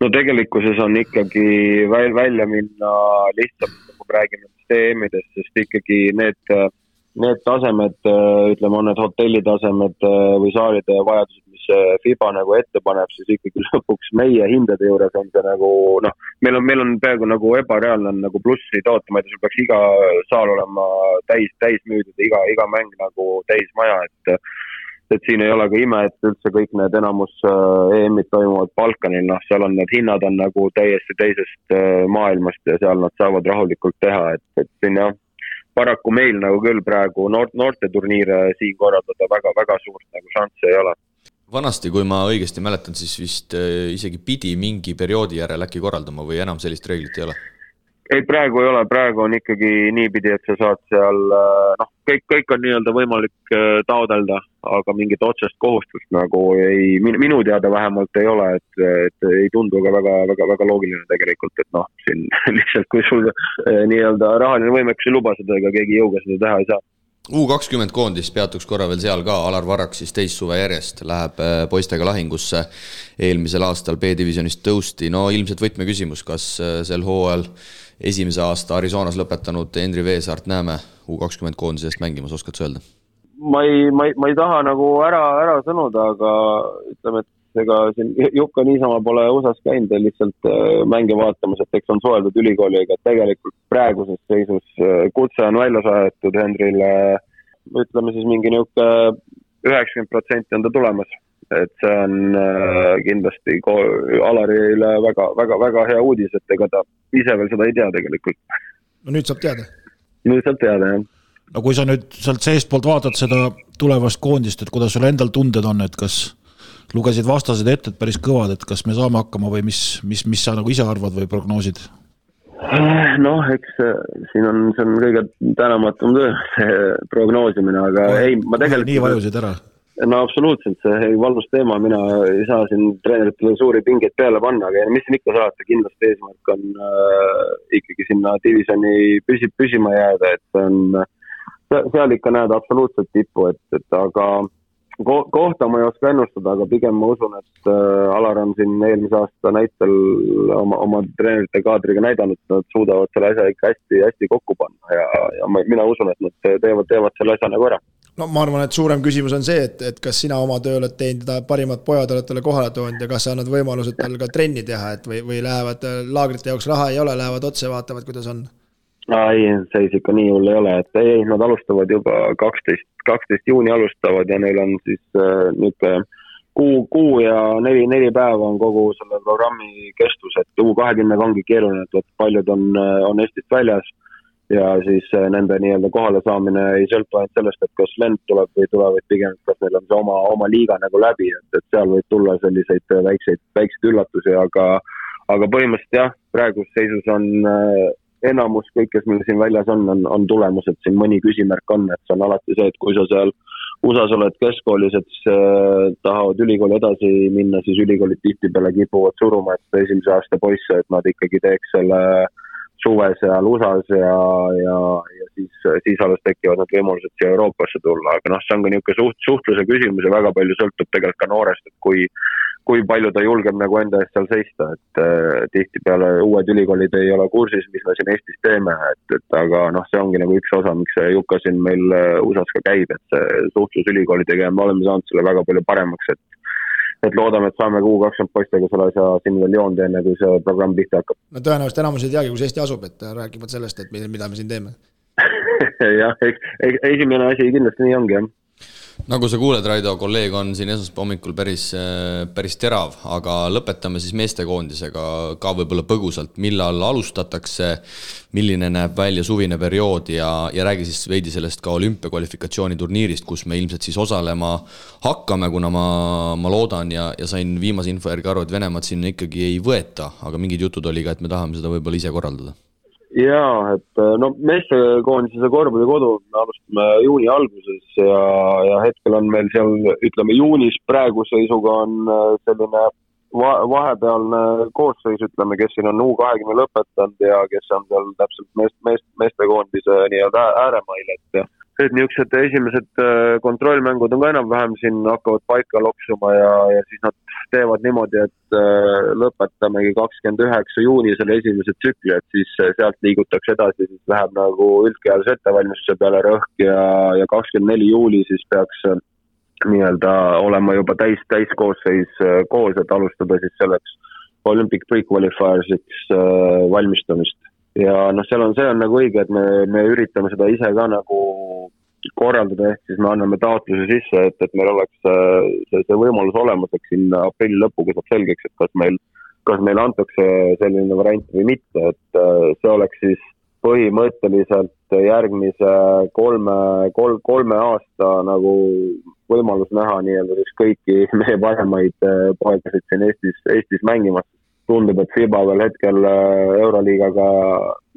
Tegelikkuses on ikkagi välja minna lihtsalt, kui räägime EM-idest, sest ikkagi need tasemed, ütleme, on need hotellitasemed või saalide vajadused, mis FIBA nagu ette paneb, siis ikkagi lõpuks meie hindade juures on see nagu, noh, meil on peaaegu nagu ebareaalne nagu plussi toota, ma ei tea, sul peaks iga saal olema täis müüdud, iga mäng nagu täis maja, et siin ei ole ka ime, et üldse kõik need enamus EM-id toimuvad Balkanil, noh, seal on need hinnad on nagu täiesti teisest maailmast ja seal nad saavad rahulikult teha, et siin jah, paraku meil nagu küll praegu noorte turniire siin korraldada väga suurt nagu šanssi ei ole. Vanasti, kui ma õigesti mäletan, siis vist isegi pidi mingi perioodi järel äkki korraldama või enam sellist reeglit ei ole? Ei, praegu ei ole, praegu on ikkagi niipidi, et sa saad seal, noh, kõik on nii-öelda võimalik taodelda, aga mingit otsest kohustust nagu ei, minu teada vähemalt ei ole, et ei tundu ka väga loogiline tegelikult, et noh, siin lihtsalt kui sul nii-öelda rahaline võimekus ei luba seda, ega keegi jõuga seda teha ei saa. U20 koondis peatuks korra veel seal ka, Alar Varrak siis teist suve järjest läheb poistega lahingusse, eelmisel aastal B-divisionist tõusti, no ilmselt võtmeküsimus, kas sel hooajal esimese aasta Arizonas lõpetanud Henri Veesaart näeme U20 koondisest mängimas, oskad sa öelda? Ma ei taha nagu ära sõnuda, aga ütleme, et ega siin Jukka niisama pole USAs käinud lihtsalt mänge vaatamas, et eks on suheldud ülikooliga, et tegelikult praeguses seisus kutse on välja saadetud Henrile, ütleme siis mingi niuke 90% on ta tulemas. Et see on kindlasti Alarile väga hea uudis, et ega ta ise veel seda ei tea tegelikult. No nüüd saab teada. Nüüd saab teada, jah. No kui sa nüüd sealt seest poolt vaatad seda tulevast koondist, et kuidas sul endal tunded on, et kas lugesid vastased ette, et päris kõvad, et kas me saame hakkama või mis sa nagu ise arvad või prognoosid? Noh, eks siin on kõige tänamatum töö, see prognoosimine, aga ei, ma tegelikult... Nii vajusid ära? No absoluutselt, see valus teema, mina ei saa siin treeneritele suuri pingeid peale panna, aga mis siin ikka saata, kindlasti eesmärk on ikkagi sinna divisioni püsima jääda, et on, seal ikka näed absoluutselt tippu, et aga kohta ma ei oska ennustada, aga pigem ma usun, et Alar on siin eelmise aasta näitel oma treenerite kaadriga näidanud, et nad suudavad selle asja ikka hästi kokku panna ja mina usun, et nad teevad selle asja nagu ära. No ma arvan, et suurem küsimus on see, et kas sina oma töö oled teinud, parimad pojad oled talle kohale toonud ja kas sa annad võimalused tal ka trenni teha, et või lähevad laagrite jaoks raha ei ole, lähevad otse vaatavad, kuidas on? Ei, seis ikka nii hull ei ole, et ei, nad alustavad juba 12 juuni alustavad ja neil on siis niisugune kuu ja 4 päeva on kogu selle programmi kestus, et U20 ongi keeruline, et paljud on Eestist väljas ja siis nende nii-öelda kohale saamine ei sõltu ainult sellest, et kas lend tuleb või tuleb, et pigem kas neil on see oma liiga nagu läbi, et seal võib tulla selliseid väikseid üllatusi, aga põhimõtteliselt jah, praegus seisus on enamus kõik, kes meil siin väljas on tulemus, et siin mõni küsimärk on, et see on alati see, et kui sa seal USAs oled keskkoolis, et tahavad ülikooli edasi minna, siis ülikoolid tihtipeale kipuvad suruma, et esimese aasta poisse, et nad ikkagi teeks selle suve seal USAs ja siis alles tekivad need võimalused siia Euroopasse tulla, aga noh, see on ka niisugune suhtluse küsimus ja väga palju sõltub tegelikult ka noorest, et kui palju ta julgeb nagu enda eest seal seista, et tihtipeale uued ülikoolid ei ole kursis, mis me siin Eestis teeme, et aga noh, see ongi nagu üks osa, miks see Jukka siin meil USAs ka käib, et see suhtlus ülikoolidega ja me oleme saanud selle väga palju paremaks, et loodame, et saame U20 poistega selle asja siin veel joon teeme, kui see programm pihta hakkab. No tõenäoliselt enamus ei teagi, kus Eesti asub, et räägivad sellest, et mida me siin teeme. Jah, esimene asi kindlasti nii ongi, jah. Nagu sa kuuled, Raido, kolleeg on siin esmaspäeva hommikul päris terav, aga lõpetame siis meestekoondisega ka võib-olla põgusalt, millal alustatakse, milline näeb välja suvine periood ja räägi siis veidi sellest ka olümpiakvalifikatsiooni turniirist, kus me ilmselt siis osalema hakkame, kuna ma loodan ja sain viimase info järgi aru, et Venemaad sinna ikkagi ei võeta, aga mingid jutud oli ka, et me tahame seda võib-olla ise korraldada. Jaa, et no meestekoondise korvpallikodu me alustame juuni alguses ja hetkel on meil seal, ütleme juunis praegu seisuga on selline vahepealne koosseis, ütleme, kes siin on U20 lõpetanud ja kes on seal täpselt meestekoondise nii-öelda ääremail, et niisugused esimesed kontrollmängud on ka enam-vähem siin hakkavad paika loksuma ja siis nad teevad niimoodi, et lõpetamegi 29 juuni selle esimese tsükli, et siis sealt liigutakse edasi, siis läheb nagu üldkehalise ettevalmistuse peale rõhk ja 24 juuli siis peaks nii-öelda olema juba täiskoosseis koos, et alustada siis selleks Olympic Pre-Qualifiersiks valmistamist. Ja see on nagu õige, et me üritame seda ise ka nagu korraldada, ehk siis me anname taotluse sisse, et meil oleks see võimalus olemas, et siin aprilli lõpuga saab selgeks, et kas meil antakse selline variant või mitte, et see oleks siis põhimõtteliselt järgmise kolme aasta nagu võimalus näha nii-öelda siis kõiki meie paremaid poegasid siin Eestis mängimas. Tundub, et FIBA veel hetkel Euroliigaga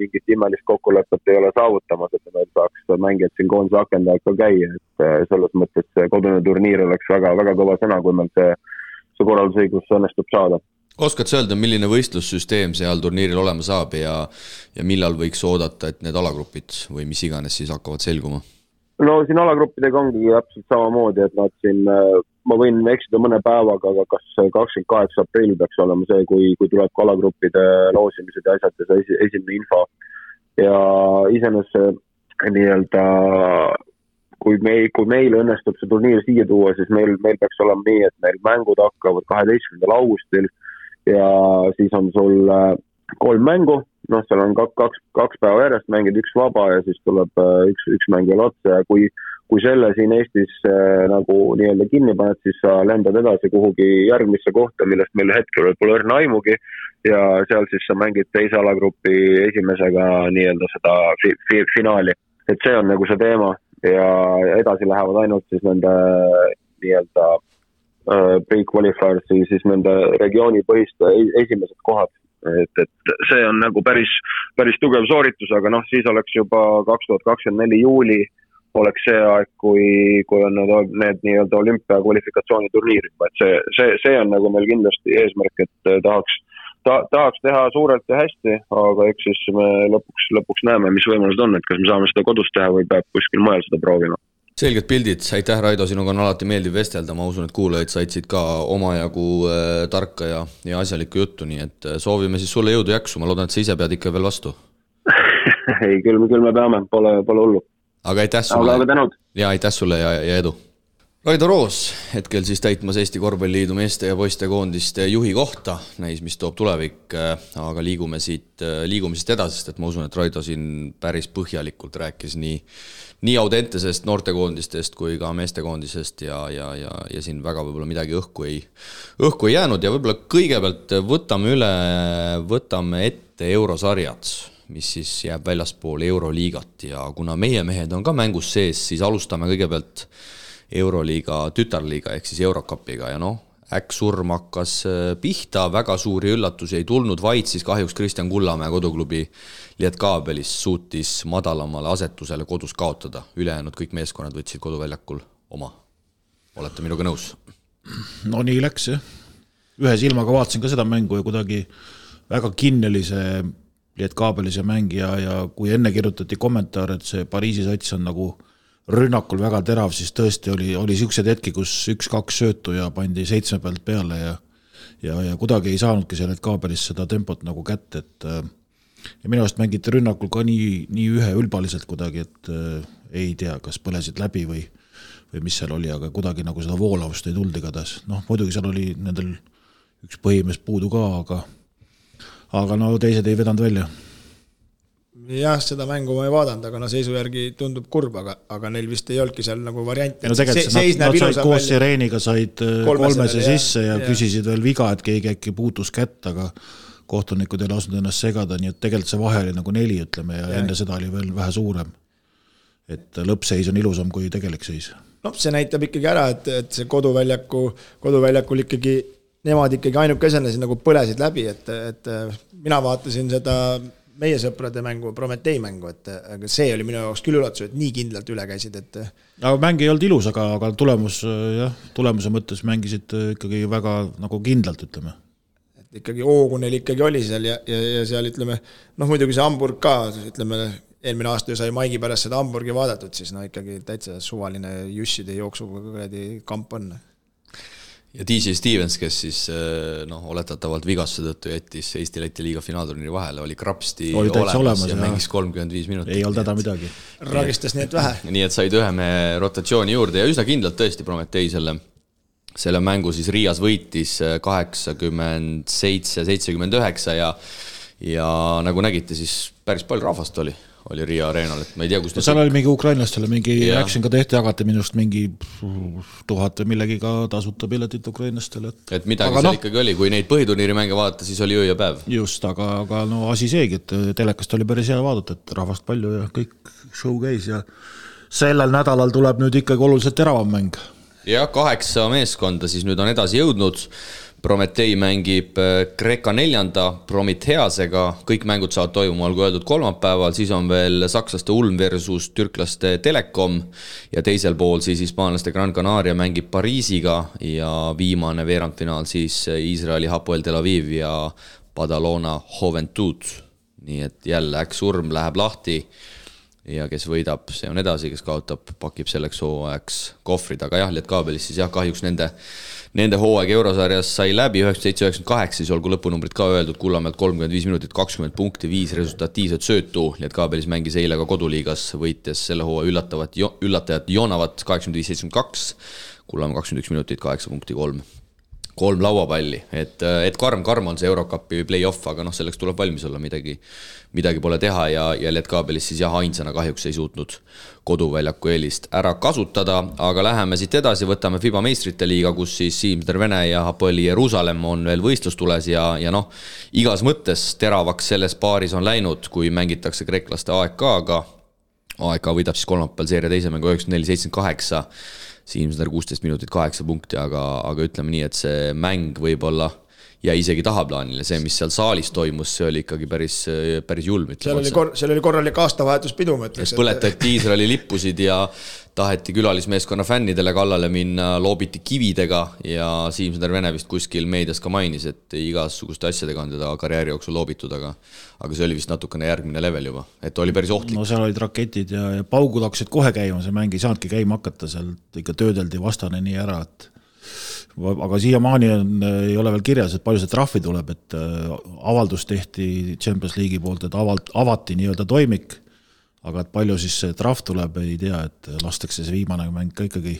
mingit imelist kokkulepet ei ole saavutamas, et meil saaks mängijad siin koondise akendajad ka käia, et selles mõttes see kodune turniir oleks väga, väga kõva sõna, kui meil see korraldusõigus õnnestub saada. Oskad sa öelda, milline võistlussüsteem seal turniiril olema saab ja millal võiks oodata, et need alagrupid või mis iganes siis hakkavad selguma? No siin alagruppidega ongi täpselt samamoodi, et nad siin, ma võin eksida mõne päevaga, aga kas 28. aprill peaks olema see, kui tuleb ka alagruppide loosimised ja asjad ja see esimene info. Ja iseenesest nii-öelda, kui meil õnnestub see turniir siia tuua, siis meil peaks olema nii, et meil mängud hakkavad 12. augustil ja siis on sul 3 mängu, seal on kaks päeva järjest mängid, 1 vaba ja siis tuleb üks mäng veel otsa ja kui selle siin Eestis nagu nii-öelda kinni paned, siis sa lendad edasi kuhugi järgmisse kohta, millest meil hetkel pole õrna aimugi ja seal siis sa mängid teise alagrupi esimesega nii-öelda seda finaali. Et see on nagu see teema ja edasi lähevad ainult siis nende nii-öelda pre-qualifiers siis nende regioonipõhiste esimesed kohad. Et see on nagu päris tugev sooritus, aga siis oleks juba 2024 juuli oleks see aeg, kui on need nii-öelda olümpia kvalifikatsiooniturniirid. Et see on nagu meil kindlasti eesmärk, et tahaks teha suurelt ja hästi, aga eks siis me lõpuks näeme, mis võimalused on, et kas me saame seda kodus teha või peab kuskil mujal seda proovima. Selged pildid, aitäh Raido, sinuga on alati meeldiv vestelda, ma usun, et kuulajad saitsid ka omajagu tarka ja asjalikku juttu, nii et soovime siis sulle jõudu jaksu, ma loodan, et sa ise pead ikka veel vastu. Ei, küll me peame, pole hullu. Aga aitäh sulle. Aga tänud. Ja aitäh sulle ja edu. Raido Roos, hetkel siis täitmas Eesti Korvpalliliidu meeste ja poiste koondiste juhi kohta, näis, mis toob tulevik, aga liigume siit edasi, sest et ma usun, et Raido siin päris põhjalikult rääkis nii Audentesest, noortekoondistest kui ka meestekoondisest ja siin väga võib-olla midagi õhku ei jäänud ja võib-olla kõigepealt võtame ette eurosarjad, mis siis jääb väljaspool Euroliigat ja kuna meie mehed on ka mängus sees, siis alustame kõigepealt Euroliiga tütarliiga ehk siis Eurocupiga ja äksurm hakkas pihta, väga suuri üllatusi ei tulnud, vaid siis kahjuks Kristjan Kullamäe koduklubi Lietkabelis suutis madalamale asetusele kodus kaotada. Ülejäänud kõik meeskonnad võtsid koduväljakul oma. Olete minuga nõus? No nii läks, jah. Ühe silmaga vaatasin ka seda mängu ja kuidagi väga kinneli see Lietkabelis ja mängija ja kui enne kirjutati kommentaar, et see Pariisi sats on nagu rünnakul väga terav, siis tõesti oli siuksed hetki, kus 1-2 söötu ja pandi 7 pealt peale ja kuidagi ei saanudki seal kaabelis seda tempot nagu kätte, et ja minu arust mängiti rünnakul ka nii üheülbaliselt kuidagi, et ei tea, kas põlesid läbi või mis seal oli, aga kuidagi nagu seda voolavust ei tulnud igatahes. Muidugi seal oli nendel üks põhimees puudu ka, aga teised ei vedanud välja. Jah, seda mängu ma ei vaadanud, aga seisu järgi tundub kurb, aga neil vist ei olnudki seal nagu varianti. Tegelikult nad said koos Sireeniga said kolmese sisse ja küsisid veel viga, et keegi äkki puutus kätt, aga kohtunikud ei lasknud ennast segada, nii et tegelikult see vahe oli nagu 4, ütleme, ja enne seda oli veel vähe suurem. Et lõppseis on ilusam kui tegelik seis. See näitab ikkagi ära, et see koduväljakul ikkagi, nemad ikkagi ainukesena nagu põlesid läbi, et mina vaatasin seda meie sõprade mängu, Prometei mängu, aga see oli minu jaoks küll üllatus, et nii kindlalt üle käisid. Aga mäng ei olnud ilus, aga tulemuse mõttes mängisid ikkagi väga nagu kindlalt, ütleme. Et ikkagi hoogu neil ikkagi oli seal ja seal ütleme, muidugi see Hamburg ka, ütleme, eelmine aasta sai Maigi pärast seda Hamburgi vaadatud, siis ikkagi täitsa suvaline jusside jooksuga kamp on. ja DJ Stevens, kes siis oletatavalt vigastuse tõttu jättis Eesti-Läti liiga finaalturniiri vahele, oli krapsti olemas ja mängis 35 minutit. Ei olnud häda midagi. Ragistas nii et vähe. Nii et said ühe mehe rotatsiooni juurde ja üsna kindlalt tõesti Prometei selle mängu siis Riias võitis 87-79 ja nagu nägite, siis päris palju rahvast oli Riia areenal, et ma ei tea, kus seal oli mingi ukrainlastele, mingi action ka tehti, jagati minust mingi 1000 või millegiga tasuta piletit ukrainlastele. Et midagi seal ikkagi oli, kui neid põhiturniiri mänge vaadata, siis oli öö ja päev. Just, aga no asi seegi, et telekast oli päris hea vaadata, et rahvast palju ja kõik show käis ja sellel nädalal tuleb nüüd ikkagi oluliselt teravam mäng. Ja 8 meeskonda siis nüüd on edasi jõudnud. Prometei mängib Kreeka 4. Prometheasega, kõik mängud saavad toimuma, olgu öeldud kolmapäeval, siis on veel sakslaste Ulm versus türklaste Telekom ja teisel pool siis hispaanlaste Gran Canaria mängib Pariisiga ja viimane veerandfinaal siis Iisraeli Hapoel Tel Aviv ja Badalona Juventud. Nii et jälle Urm läheb lahti ja kes võidab, see on edasi, kes kaotab, pakib selleks hooajaks kohvrid, aga jah, Lietkaabelis siis kahjuks nende hooaeg Eurosarjas sai läbi 97-98, siis olgu lõpunumbrid ka öeldud, Kullamäelt 35 minutit, 20 punkti, 5 resultatiivset söötu. Lietkaabelis mängis eile ka koduliigas, võites selle hooaja üllatajat Joonavat 85-72, Kullamäe 21 minutit, 8 punkti, 3 lauapalli, et karm on see Eurocupi play-off, aga selleks tuleb valmis olla, midagi pole teha ja Lietkaabelis siis ainsana kahjuks ei suutnud koduväljaku eelist ära kasutada, aga läheme siit edasi, võtame FIBA meistrite liiga, kus siis Siim Tervene ja Hapoeli Jeruusalemm on veel võistlustules ja igas mõttes teravaks selles paaris on läinud, kui mängitakse kreeklaste AEK-ga. AEK võidab siis kolmapäeval seeria teise mängu 94-78, Siimsner 16 minutit 8 punkti, aga ütleme nii, et see mäng võib-olla ja isegi tahaplaanile, see, mis seal saalis toimus, see oli ikkagi päris julm. Seal oli korralik aastavahetuspidu, ma ütleks. Põletati Iisraeli lippusid ja taheti külalismeeskonna fännidele kallale minna, loobiti kividega ja Siimsner Vene vist kuskil meedias ka mainis, et igasuguste asjadega on teda karjääri jooksul loobitud, aga see oli vist natukene järgmine level juba, et oli päris ohtlik. No seal olid raketid ja paugud hakkasid kohe käima, see mäng ei saanudki käima hakata, seal ikka töödeldi vastane nii ära, et aga siiamaani ei ole veel kirjas, et palju see trahvi tuleb, et avaldus tehti Champions League'i poolt, et avati nii-öelda toimik, aga et palju siis see trahv tuleb, ei tea, et lastakse see viimane mäng ka ikkagi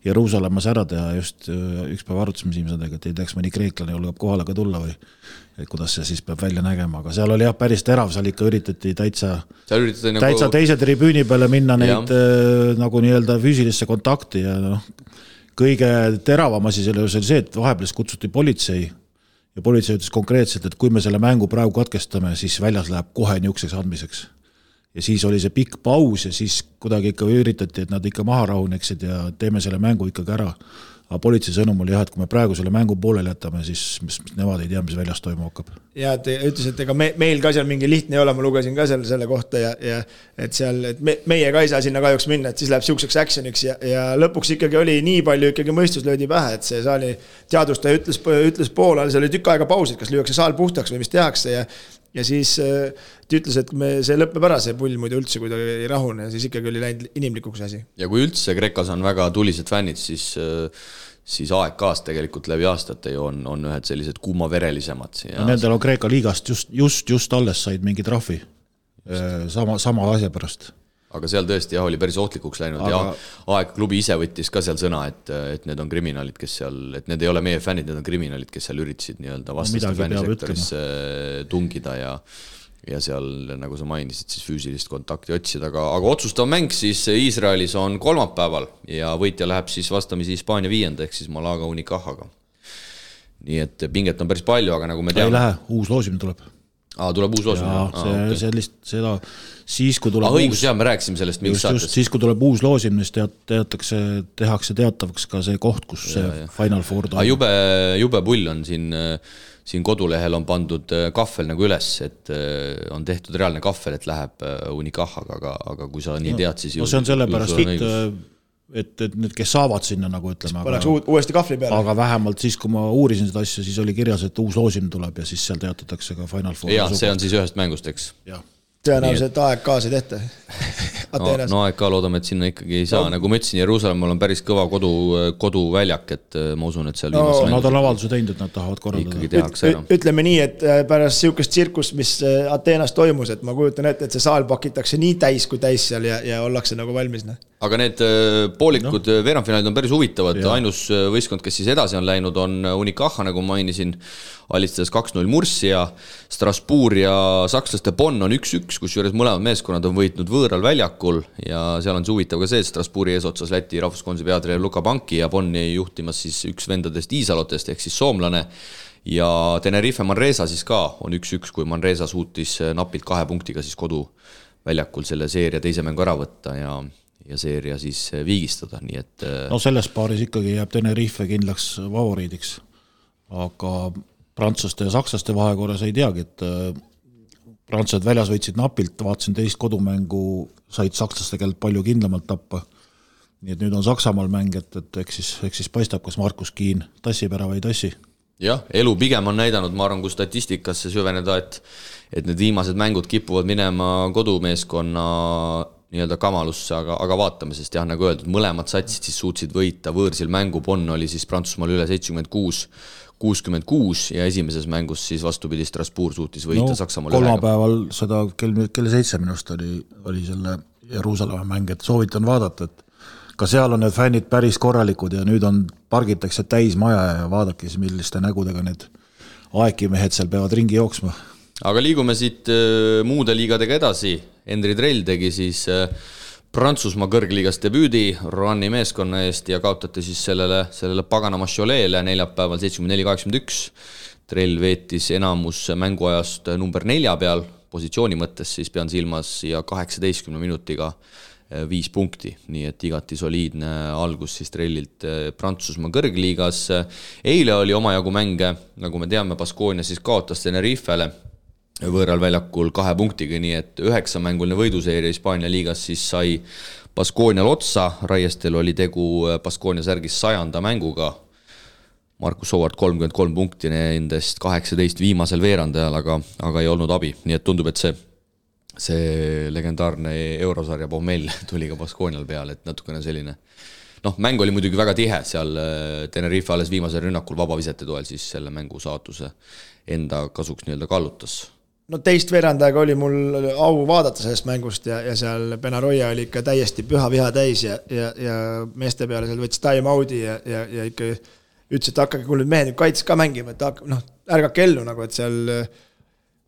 Jeruusalemmas ära teha, just üks päev arutasime Siimsadega, et ei teaks mõni kreeklane julgeb kohale ka tulla või et kuidas see siis peab välja nägema, aga seal oli päris terav, seal ikka üritati täitsa teise tribüüni peale minna neid nagu nii-öelda füüsilisse kontakti ja kõige teravam asi selle oli see, et vahepeal kutsuti politsei ja politsei ütles konkreetselt, et kui me selle mängu praegu katkestame, siis väljas läheb kohe niukseks andmiseks. Ja siis oli see pikk paus ja siis kuidagi ikka üritati, et nad ikka maha rahuneksid ja teeme selle mängu ikkagi ära. Aga politsei sõnum oli et kui me praegu selle mängu pooleli jätame, siis nemad ei tea, mis väljas toimu hakkab. Ja te ütles, et ega meil ka seal mingi lihtne ei ole, ma lugesin ka selle kohta ja et seal, et meie ka ei saa sinna kahjuks minna, et siis läheb siukseks actioniks ja lõpuks ikkagi oli nii palju ikkagi mõistus löödi pähe, et see saali teadustaja ütles poolel, see oli tükk aega pausid, kas lüüakse saal puhtaks või mis tehakse ja siis ta ütles, et see lõppeb ära see pull muidu üldse, kui ta ei rahune, siis ikkagi oli läinud inimlikuks asi. Ja kui üldse Kreekas on väga tulised fännid, siis AEK-st tegelikult läbi aastate ju on ühed sellised kuumaverelisemad. Ja nendel on Kreeka liigast just alles said mingi trahvi sama asja pärast. Aga seal tõesti oli päris ohtlikuks läinud ja AEK klubi ise võttis ka seal sõna, et need on kriminaalid, kes seal, et need ei ole meie fännid, need on kriminaalid, kes seal üritasid nii-öelda vastaste fännisektorisse tungida ja seal, nagu sa mainisid, siis füüsilist kontakti otsida, aga otsustav mäng siis Iisraelis on kolmapäeval ja võitja läheb siis vastamisi Hispaania 5. ehk siis Malaga Unicajaga. Nii et pinget on päris palju, aga nagu me teame... Ei lähe, uus loosimine tuleb. Tuleb uus loosimine? Seda siis, kui tuleb õigus, me rääkisime sellest mingis saates. Siis, kui tuleb uus loosimine, tehakse teatavaks ka see koht, kus see Final Four toimub. Jube pull on siin kodulehel on pandud kahvel nagu üles, et on tehtud reaalne kahvel, et läheb Unicajaga, aga kui sa nii tead, siis... No see on sellepärast, et need, kes saavad sinna nagu ütleme, uuesti kahvli peale. Aga vähemalt siis, kui ma uurisin seda asja, siis oli kirjas, et uus loosim tuleb ja siis seal teatatakse ka Final Four. Ja see on siis ühest mängust, eks? Jah. Tõenäoliselt AEK-s ei tehta. Ateenas. No AEK loodame, et sinna ikkagi ei saa, nagu ma ütlesin, Jeruusalemmal on päris kõva koduväljak, et ma usun, et seal nad on avalduse teinud, et nad tahavad korraldada. Ütleme nii, et pärast siukest tsirkust, mis Ateenas toimus, et ma kujutan ette, et see saal pakitakse nii täis kui täis seal ja ollakse nagu valmis. Aga need poolikud veerandfinaalid on päris huvitavad, ainus võistkond, kes siis edasi on läinud, on Unicaja, nagu mainisin, alistades 2-0 Murcia, Strasbourg ja sakslaste Bonn on 1-1, kus juures mõlemad meeskonnad on võitnud võõral väljakul ja seal on see huvitav ka see, et Strasbourgi eesotsas Läti rahvuskonsi peatreener Luka Banki ja Bonni juhtimas siis üks vendadest Iisalotest ehk siis soomlane ja Tenerife Manresa siis ka on 1-1, kui Manresa suutis napilt 2 punktiga siis koduväljakul selle seeria teise mängu ära võtta ja seeria siis viigistada, nii et no selles paaris ikkagi jääb Tenerife kindlaks favoriidiks, aga prantslaste ja sakslaste vahekorras ei teagi, et prantslased väljas võitsid napilt, vaatasin teist kodumängu, said sakslaste käelt palju kindlamalt tappa, nii et nüüd on Saksamaal mäng, et eks siis paistab, kas Markus Kiin tassib ära või ei tassi. Jah, elu pigem on näidanud, ma arvan, kui statistikasse süveneda, et need viimased mängud kipuvad minema kodumeeskonna nii-öelda kamalusse, aga vaatame, sest jah, nagu öeldud, mõlemad satsid siis suutsid võita võõrsil mängu, Bonn oli siis Prantsusmaal üle 76-66 ja esimeses mängus siis vastupidi Strasbourg suutis võita Saksamaal kolmapäeval seda kell 7 minust oli selle Jeruusalemma mäng, et soovitan vaadata, et ka seal on need fännid päris korralikud ja nüüd pargitakse täis maja ja vaadake siis, milliste nägudega need aekimehed seal peavad ringi jooksma. Aga liigume siit muude liigadega edasi. Henri Trell tegi siis Prantsusmaa kõrgliigas debüüdi Roanni meeskonna eest ja kaotati siis sellele paganama Cholet'le neljapäeval 74-81. Trell veetis enamus mänguajast number 4 peal, positsiooni mõttes siis pean silmas ja 18 minutiga 5 punkti, nii et igati soliidne algus siis Trellilt Prantsusmaa kõrgliigas. Eile oli omajagu mänge, nagu me teame, Baskonia siis kaotas Tenerifele võõral väljakul 2 punktiga, nii et 9-mänguline võiduseeria Hispaania liigas siis sai Baskonial otsa, Raiestel oli tegu Baskonia särgis 100. mänguga, Markus Howard 33 punkti nendest 18 viimasel veerandajal, aga ei olnud abi, nii et tundub, et see legendaarne eurosarja pohmell tuli ka Baskonial peale, et natukene selline mäng oli muidugi väga tihe, seal Tenerife alles viimasel rünnakul vabavisete toel siis selle mängu saatuse enda kasuks nii-öelda kallutas. No teist veerandajaga oli mul au vaadata sellest mängust ja seal Benaroya oli ikka täiesti püha viha täis ja meeste peale seal võttis time out'i ja ikka ütles, et hakkage, kui nüüd mehed kaitses ka mängima, et ärgake ellu nagu, et seal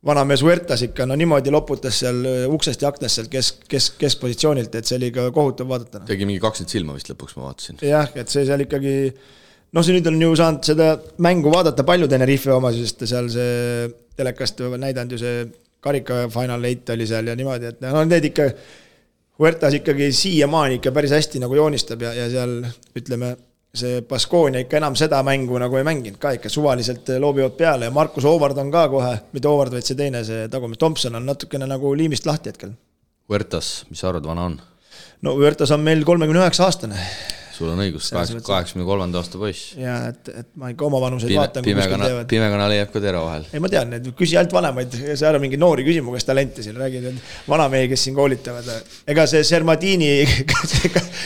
vanamees Huertas ikka niimoodi loputas seal uksest ja aknast seal keskpositsioonilt, et see oli ka kohutav vaadata. Tegi mingi 20 silma vist lõpuks, ma vaatasin. Jah, et see seal ikkagi see nüüd on ju saanud seda mängu vaadata palju Tenerife oma, sest seal see telekast näidanud ju see karika final 8 oli seal ja niimoodi, et need ikka Huertas ikkagi siiamaani ikka päris hästi nagu joonistab ja seal ütleme see Baskonia ikka enam seda mängu nagu ei mänginud ka, ikka suvaliselt loobivad peale ja Markus Howard on ka kohe, mitte Howard, vaid see teine, see tagumis Thompson on natukene nagu liimist lahti hetkel. Huertas, mis sa arvad, vana on? No Huertas on meil 39 aastane. Sul on õigus, 83. aasta poiss. Ja, et ma ikka oma vanuseid vaatan, kui kuskil teevad. Pimekana leiab ka tera vahel. Ei, ma tean, et küsi ainult vanemaid, see ära mingi noori küsimu, kes talente siin räägid, vanamehi, kes siin koolitavad. Ega see Sermadini,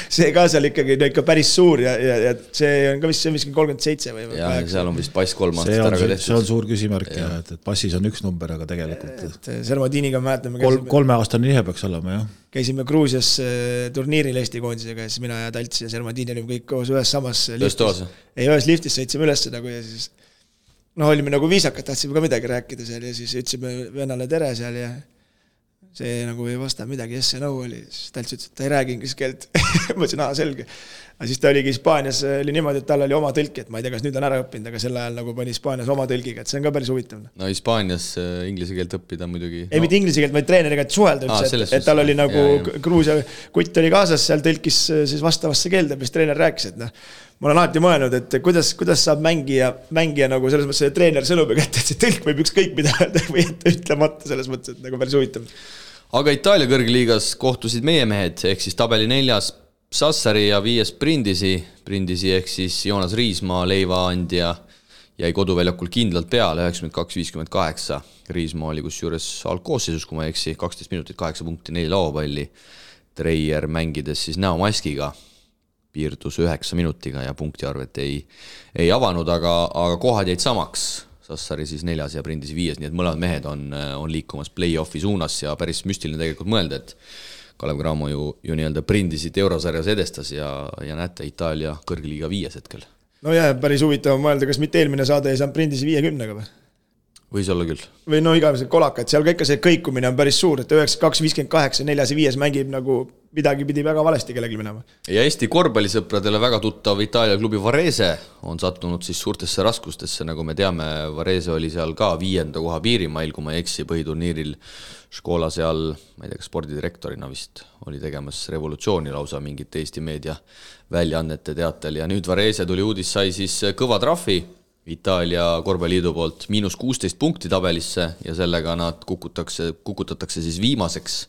see ka seal ikkagi ikka päris suur ja see on ka vist 37 või 8. Ja seal on vist pass 3 aastat ära ka tehtud. See on suur küsimärk, et passis on üks number, aga tegelikult Sermadiniga mäletame 3-aastane nihe peaks olema, jah. Käisime Gruusias turniiril Eesti koondisega ja siis mina ja Talts ja Sermadini olime kõik koos ühes samas liftis. Ühes liftis sõitsime üles nagu ja siis olime nagu viisakad, tahtsime ka midagi rääkida seal ja siis ütlesime vennale tere seal ja see nagu ei vasta midagi, yes ja no oli. Siis Talts ütles, et ta ei räägi inglise keelt. Ma ütlesin, selge. Aga siis ta oligi Hispaanias, oli niimoodi, et tal oli oma tõlki, et ma ei tea, kas nüüd on ära õppinud, aga sel ajal nagu pani Hispaanias oma tõlgiga, et see on ka päris huvitav. No Hispaanias inglise keelt õppida muidugi. Ei, mitte inglise keelt, vaid treeneriga suhelda üldse, et tal oli nagu Gruusia kutt oli kaasas, seal tõlkis siis vastavasse keelde, mis treener rääkis, et ma olen alati mõelnud, et kuidas saab mängija nagu selles mõttes, et treener sõnub ja kätte, et see tõlk võib ükskõik mida või ütlemata selles mõttes, et nagu päris huvitav. Aga Itaalia kõrgliigas kohtusid meie mehed, ehk siis tabeli 4. Sassari ja 5. Brindisi ehk siis Joonas Riismaa leivaandja jäi koduväljakul kindlalt peale 92-58. Riismaa oli kus juures algkoosseisus, kui ma eksi, 12 minutit, 8 punkti, 4 lauapalli. Treier mängides siis näomaskiga, piirdus 9 minutiga ja punktiarvet ei avanud, aga kohad jäid samaks. Sassari siis 4. ja Prindisi 5, nii et mõlemad mehed on liikumas play-offi suunas ja päris müstiline tegelikult mõelda, et Kalev Cramo ju nii-öelda Prindisit eurosarjas edestas ja näete Itaalia kõrgliiga 5 hetkel. No jah, päris huvitav mõelda, kas mitte eelmine saade ei saanud Prindisi 50-ga või? Võis olla küll. Või no igavesed kolakad, seal ka ikka see kõikumine on päris suur, et 92, 58, 4 ja 5 mängib nagu midagi pidi väga valesti kellelgi minema. Ja Eesti korvpallisõpradele väga tuttav Itaalia klubi Varese on sattunud siis suurtesse raskustesse, nagu me teame, Varese oli seal ka 5. koha piirimail, kui ma ei eksi põhiturniiril Škola seal, ma ei tea, spordidirektorina vist oli tegemas revolutsiooni lausa mingit Eesti meedia väljaannete teatel ja nüüd Varese tuli uudis, sai siis kõva trahvi Itaalia korvpalliliidu poolt -16 punkti tabelisse ja sellega nad kukutatakse siis viimaseks.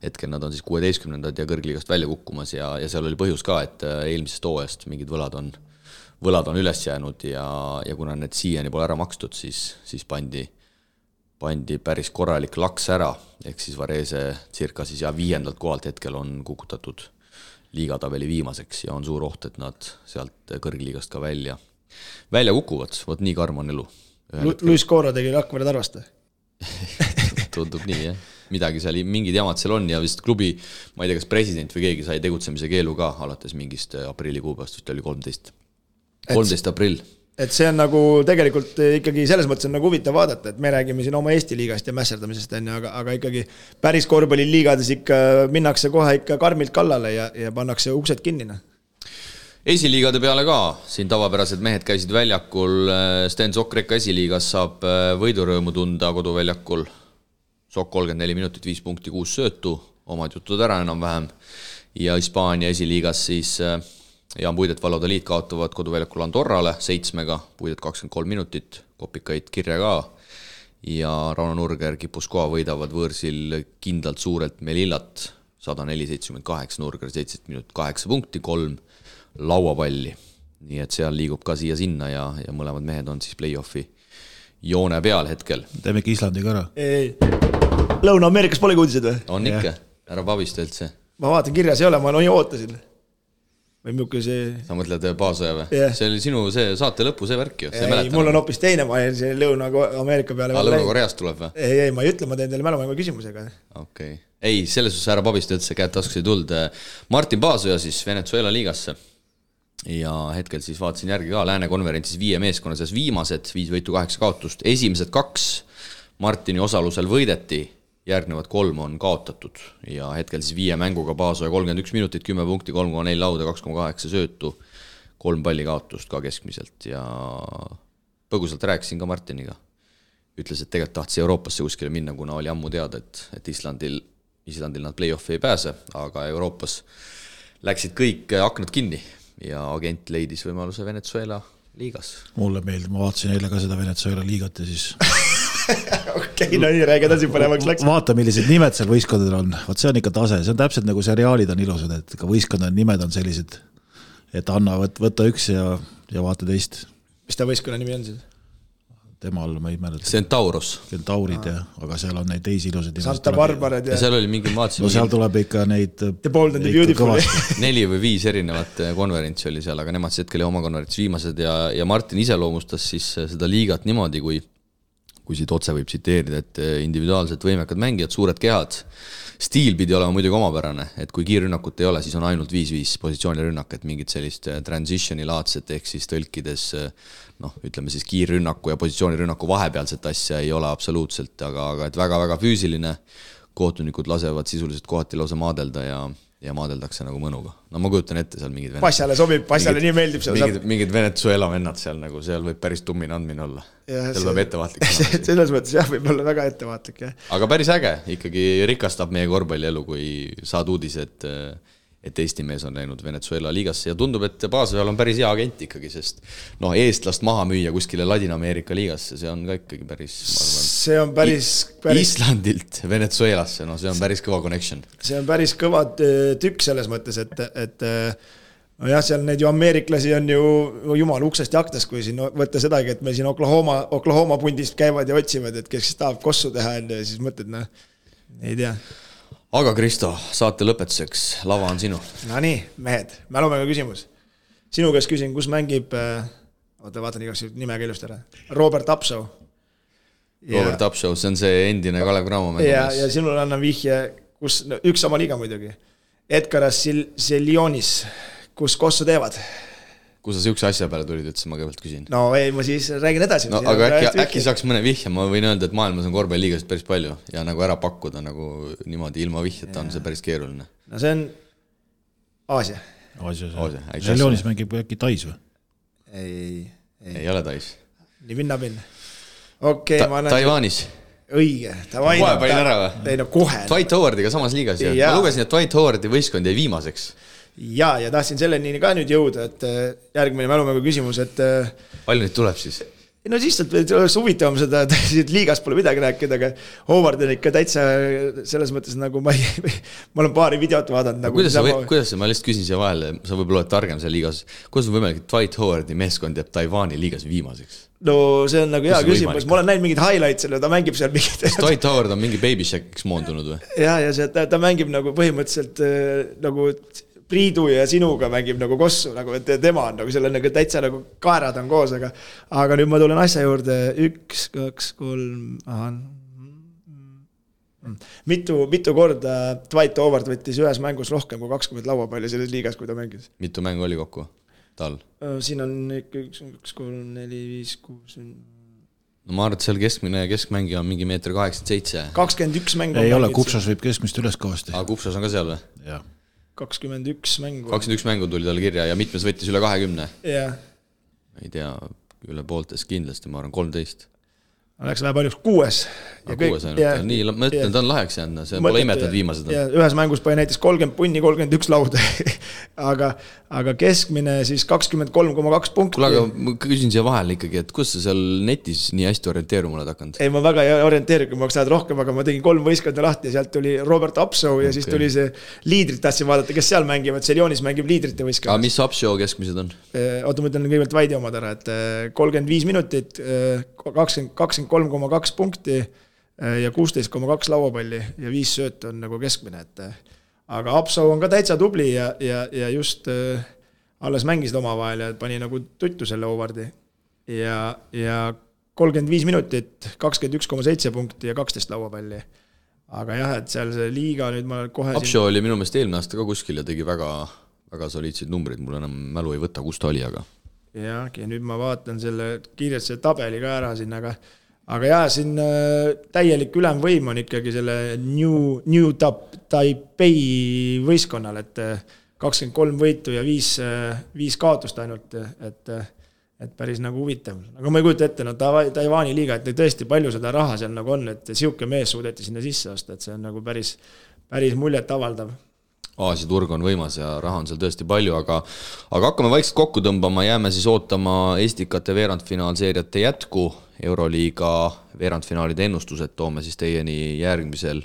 Hetkel nad on siis 16. ja kõrgliigast välja kukkumas ja seal oli põhjus ka, et eelmisest hooajast mingid võlad on üles jäänud ja kuna need siiani pole ära makstud, siis pandi päris korralik laks ära, ehk siis Varese circa siis 5. kohalt hetkel on kukutatud liigatabeli viimaseks ja on suur oht, et nad sealt kõrgliigast ka välja kukuvad, vot nii karm on elu. Luis Coro tegi Rakvere Tarvast? Tundub nii, jah. Midagi seal, mingid jamad seal on ja vist klubi, ma ei tea, kas president või keegi sai tegutsemise keelu ka alates mingist aprillikuupäevast, vist oli 13 aprill. Et see on nagu tegelikult ikkagi selles mõttes on nagu huvitav vaadata, et me räägime siin oma Eesti liigast ja mässerdamisest, aga ikkagi päris korvpalliliigades ikka minnakse kohe ikka karmilt kallale ja pannakse uksed kinnina. Esiliigade peale ka, siin tavapärased mehed käisid väljakul, Sten Sokreka esiliigas saab võidurõõmu tunda koduväljakul, Sok 34 minutit, 5 punkti, 6 söötu, omad jutud ära enam-vähem, ja Hispaania esiliigas siis Jaan Puidet Valladoliid kaotavad koduväljakul Andorrale 7-ga, Puidet 23 minutit, kopikaid kirja ka, ja Rauno Nurger Kipuskoa võidavad võõrsil kindlalt suurelt Melillat, 104-78, Nurger 17 minutit, 8 punkti, 3 lauapalli, nii et seal liigub ka siia-sinna ja mõlemad mehed on siis play-offi joone peal hetkel. Teeme ikka Islandiga ära. Ei. Lõuna-Ameerikas pole uudised või? On ikka, ära pabista üldse. Ma vaatan, kirjas ei ole, ma ootasin. Või mjuke see... Sa mõtled Paasoja või? Yeah. See oli sinu see saate lõpu, see värk ju. Ei, mul on hoopis teine, ma jäin see Lõuna-Ameerika peale. Lõuna-Koreast tuleb või? Ei, ma ei ütle, ma teen teile mälumängu küsimusega. Okei. Ei, selles suhtes ära pabista üldse, käed taskus ei tuld. Martin Paasoja siis Venezuela liigasse. Ja hetkel siis vaatasin järgi ka Lääne konverentsis 5 meeskonna seas viimased, 5 võitu 8 kaotust, esimesed 2 Martini osalusel võideti, järgnevad 3 on kaotatud ja hetkel siis 5 mänguga Paasoja 31 minutit, 10 punkti, 3,4 lauda, 2,8 söötu, 3 palli kaotust ka keskmiselt ja põgusalt rääkisin ka Martiniga. Ütles, et tegelikult tahtis Euroopasse kuskile minna, kuna oli ammu teada, et Islandil nad play-offi ei pääse, aga Euroopas läksid kõik aknad kinni ja agent leidis võimaluse Venezuela liigas. Mulle meeldib, ma vaatasin eile ka seda Venezuela liigat ja siis Okei, no nii räägid asi põnevaks läks. Vaata, millised nimed seal võistkondadel on. Vaat see on ikka tase, see on täpselt nagu seriaalid on ilusad, et ka võistkondade nimed on sellised, et anna võtta üks ja vaata teist. Mis ta võistkonna nimi on siis? Temal ma ei mäleta. Centauros. Centaurid, aga seal on neid teisi ilusad. Santa Barbared ja seal oli mingi no seal tuleb ikka neid The Bold and the Beautiful 4 või 5 erinevat konverentsi oli seal, aga nemad hetkel oma konverentsi viimased ja Martin iseloomustas siis seda liigat niimoodi, kui siit otse võib tsiteerida, et individuaalselt võimekad mängijad, suured kehad, stiil pidi olema muidugi omapärane, et kui kiirrünnakut ei ole, siis on ainult 5-5 positsioonirünnak, et mingit sellist transitioni laadset ehk siis tõlkides ütleme siis kiirrünnaku ja positsioonirünnaku vahepealset asja ei ole absoluutselt, aga et väga-väga füüsiline, kohtunikud lasevad sisuliselt kohati lausa maadelda ja maadeldakse nagu mõnuga. No ma kujutan ette seal mingid Passale sobib, Passale nii meeldib seal. Mingid Venezuela vennad seal nagu, seal võib päris tummine andmine olla. Seal peab ettevaatlik. Selles mõttes jah, võib olla väga ettevaatlik. Aga päris äge, ikkagi rikastab meie korvpallielu, kui saad uudis, et Eesti mees on läinud Venezuela liigasse ja tundub, et Paasojal on päris hea agent ikkagi, sest eestlast maha müüa kuskile Ladina-Ameerika liigasse, see on ka ikkagi päris, ma arvan, see on päris Islandilt Venezuelasse, see on päris kõva connection. See on päris kõva tükk selles mõttes, et no jah, seal neid ju ameeriklasi on ju jumal uksest ja aknast, kui siin võtta sedagi, et meil siin Oklahoma pundist käivad ja otsivad, et kes tahab kossu teha ja siis mõtled, ei tea. aga Kristo, saate lõpetuseks, lava on sinu. No nii, mehed, mälumängu küsimus. Sinu käest küsin, kus mängib, vaatan igaks nime keelust ära, Robert Apsoo. Robert Apsoo, see on see endine Kalev Cramo mängumees. Ja sinul annan vihje, kus üks sama liiga muidugi. Edgaras Seljonis, kus kossu teevad. Kus sa siukse asja peale tulid, et ma kõigepealt küsin? No ei, ma siis räägin edasi. No, aga äkki saaks mõne vihje, ma võin öelda, et maailmas on korvpalliliigast päris palju ja nagu ära pakkuda nagu niimoodi ilma vihjeta on see päris keeruline. No see on Aasia. Seljonis mängib äkki Tais või? Ei ole Tais. Nii pinnapinn. Okei, ma annan... Taiwanis. Õige. Kohe panin ära või? Ei, no kohe. Dwight Howardiga samas liigas. Ma lugesin, et Dwight Howardi võistkond jäi viimaseks. Ja tahtsin selleni ka nüüd jõuda, et järgmine mälumängu küsimus, et... Palju nüüd tuleb siis? No siis oleks huvitavam seda, et liigas pole midagi rääkida, aga Howard on ikka täitsa selles mõttes nagu ma olen paari videot vaadanud. Nagu kuidas ma lihtsalt küsin siia vahele, sa võib-olla oled targem seal liigas, kuidas on võimalik, et Dwight Howardi meeskond jääb Taiwani liigas viimaseks? No see on nagu hea küsimus, ma olen näinud mingid highlights selle, ta mängib seal mingid... Dwight Howard on mingi baby shack'iks moondunud või? Ja ta mängib nagu põhimõtteliselt nagu... Priidu ja sinuga mängib nagu kossu, nagu, et tema on nagu selle nagu täitsa nagu kaerad on koos, aga nüüd ma tulen asja juurde 1, 2, 3, mitu korda Dwight Howard võttis ühes mängus rohkem kui 20 lauapalli selles liigas, kui ta mängis. Mitu mängu oli kokku tal? Siin on 1, 2, 3, 4, 5, 6... No ma arvan, et seal keskmängija on mingi 1,87 m. 21 mängu. Ei ole, Kupsas võib keskmist üles kõvasti. Kupsas on ka seal või? Jah. 21 mängu. 21 mängu tuli tal kirja ja mitmes võttis üle 20. Jah. Ei tea, üle pooltes kindlasti, ma arvan 13. Läks vähe paljuks 6. Nii, ma ütlen, ta on laheks jäänud, see pole imetanud viimased. Ühes mängus pani näiteks 30 punni, 31 lauda, aga keskmine siis 23,2 punkti. Kuule, aga ma küsin siia vahel ikkagi, et kus sa seal netis nii hästi orienteeruma oled hakanud? Ei, ma väga ei orienteeri, kui ma oleks tahad rohkem, aga ma tegin 3 võistkonna lahti ja sealt tuli Robert Apsoo ja siis tuli see liidrit tahtsin vaadata, kes seal mängivad, Seljonis mängib liidrite võistkonna. Aga mis Apsoo keskmised on? Oota, ma ütlen kõigepealt Vaidi omad ära, et 35 minutit, 23,2 punkti ja 16,2 lauapalli ja 5 sööt on nagu keskmine, aga Apsoo on ka täitsa tubli ja just alles mängisid oma vahel ja pani nagu tuttu selle Howardi ja 35 minutit, 21,7 punkti ja 12 lauapalli. Aga jah, et seal see liiga nüüd ma kohe... Apsoo oli minu meelest eelmine aasta ka kuskil ja tegi väga, väga soliidseid numbrid, mul enam mälu ei võta, kus ta oli, aga... Ja nüüd ma vaatan selle kiirelt selle tabeli ka ära siin, aga jah, siin täielik ülemvõim on ikkagi selle New Taipei võistkonnal, et 23 võitu ja 5 kaotust ainult, et päris nagu huvitav. Aga ma ei kujuta ette, no Taiwani liiga, et tõesti palju seda raha seal nagu on, et siuke mees suudeti sinna sisse osta, et see on nagu päris muljet avaldav. Aasia turg on võimas ja raha on seal tõesti palju, aga hakkame vaikselt kokku tõmbama, jääme siis ootama Estikate veerandfinaalseeriate jätku, Euroliiga veerandfinaalide ennustused toome siis teieni järgmisel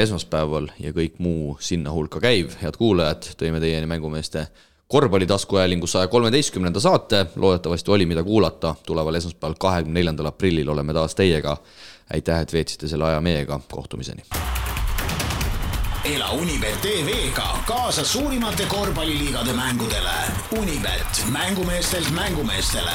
esmaspäeval ja kõik muu sinna hulka käiv. Head kuulajad, tõime teieni mängumeeste korvpallitaskuajalingu 113. saate, loodetavasti oli mida kuulata, tuleval esmaspäeval 24. aprillil oleme taas teiega. Aitäh, et veetsite selle aja meiega, kohtumiseni. Ela Unibet TV-ga kaasa suurimate korvpalliliigade mängudele. Unibet, mängumeestelt mängumeestele.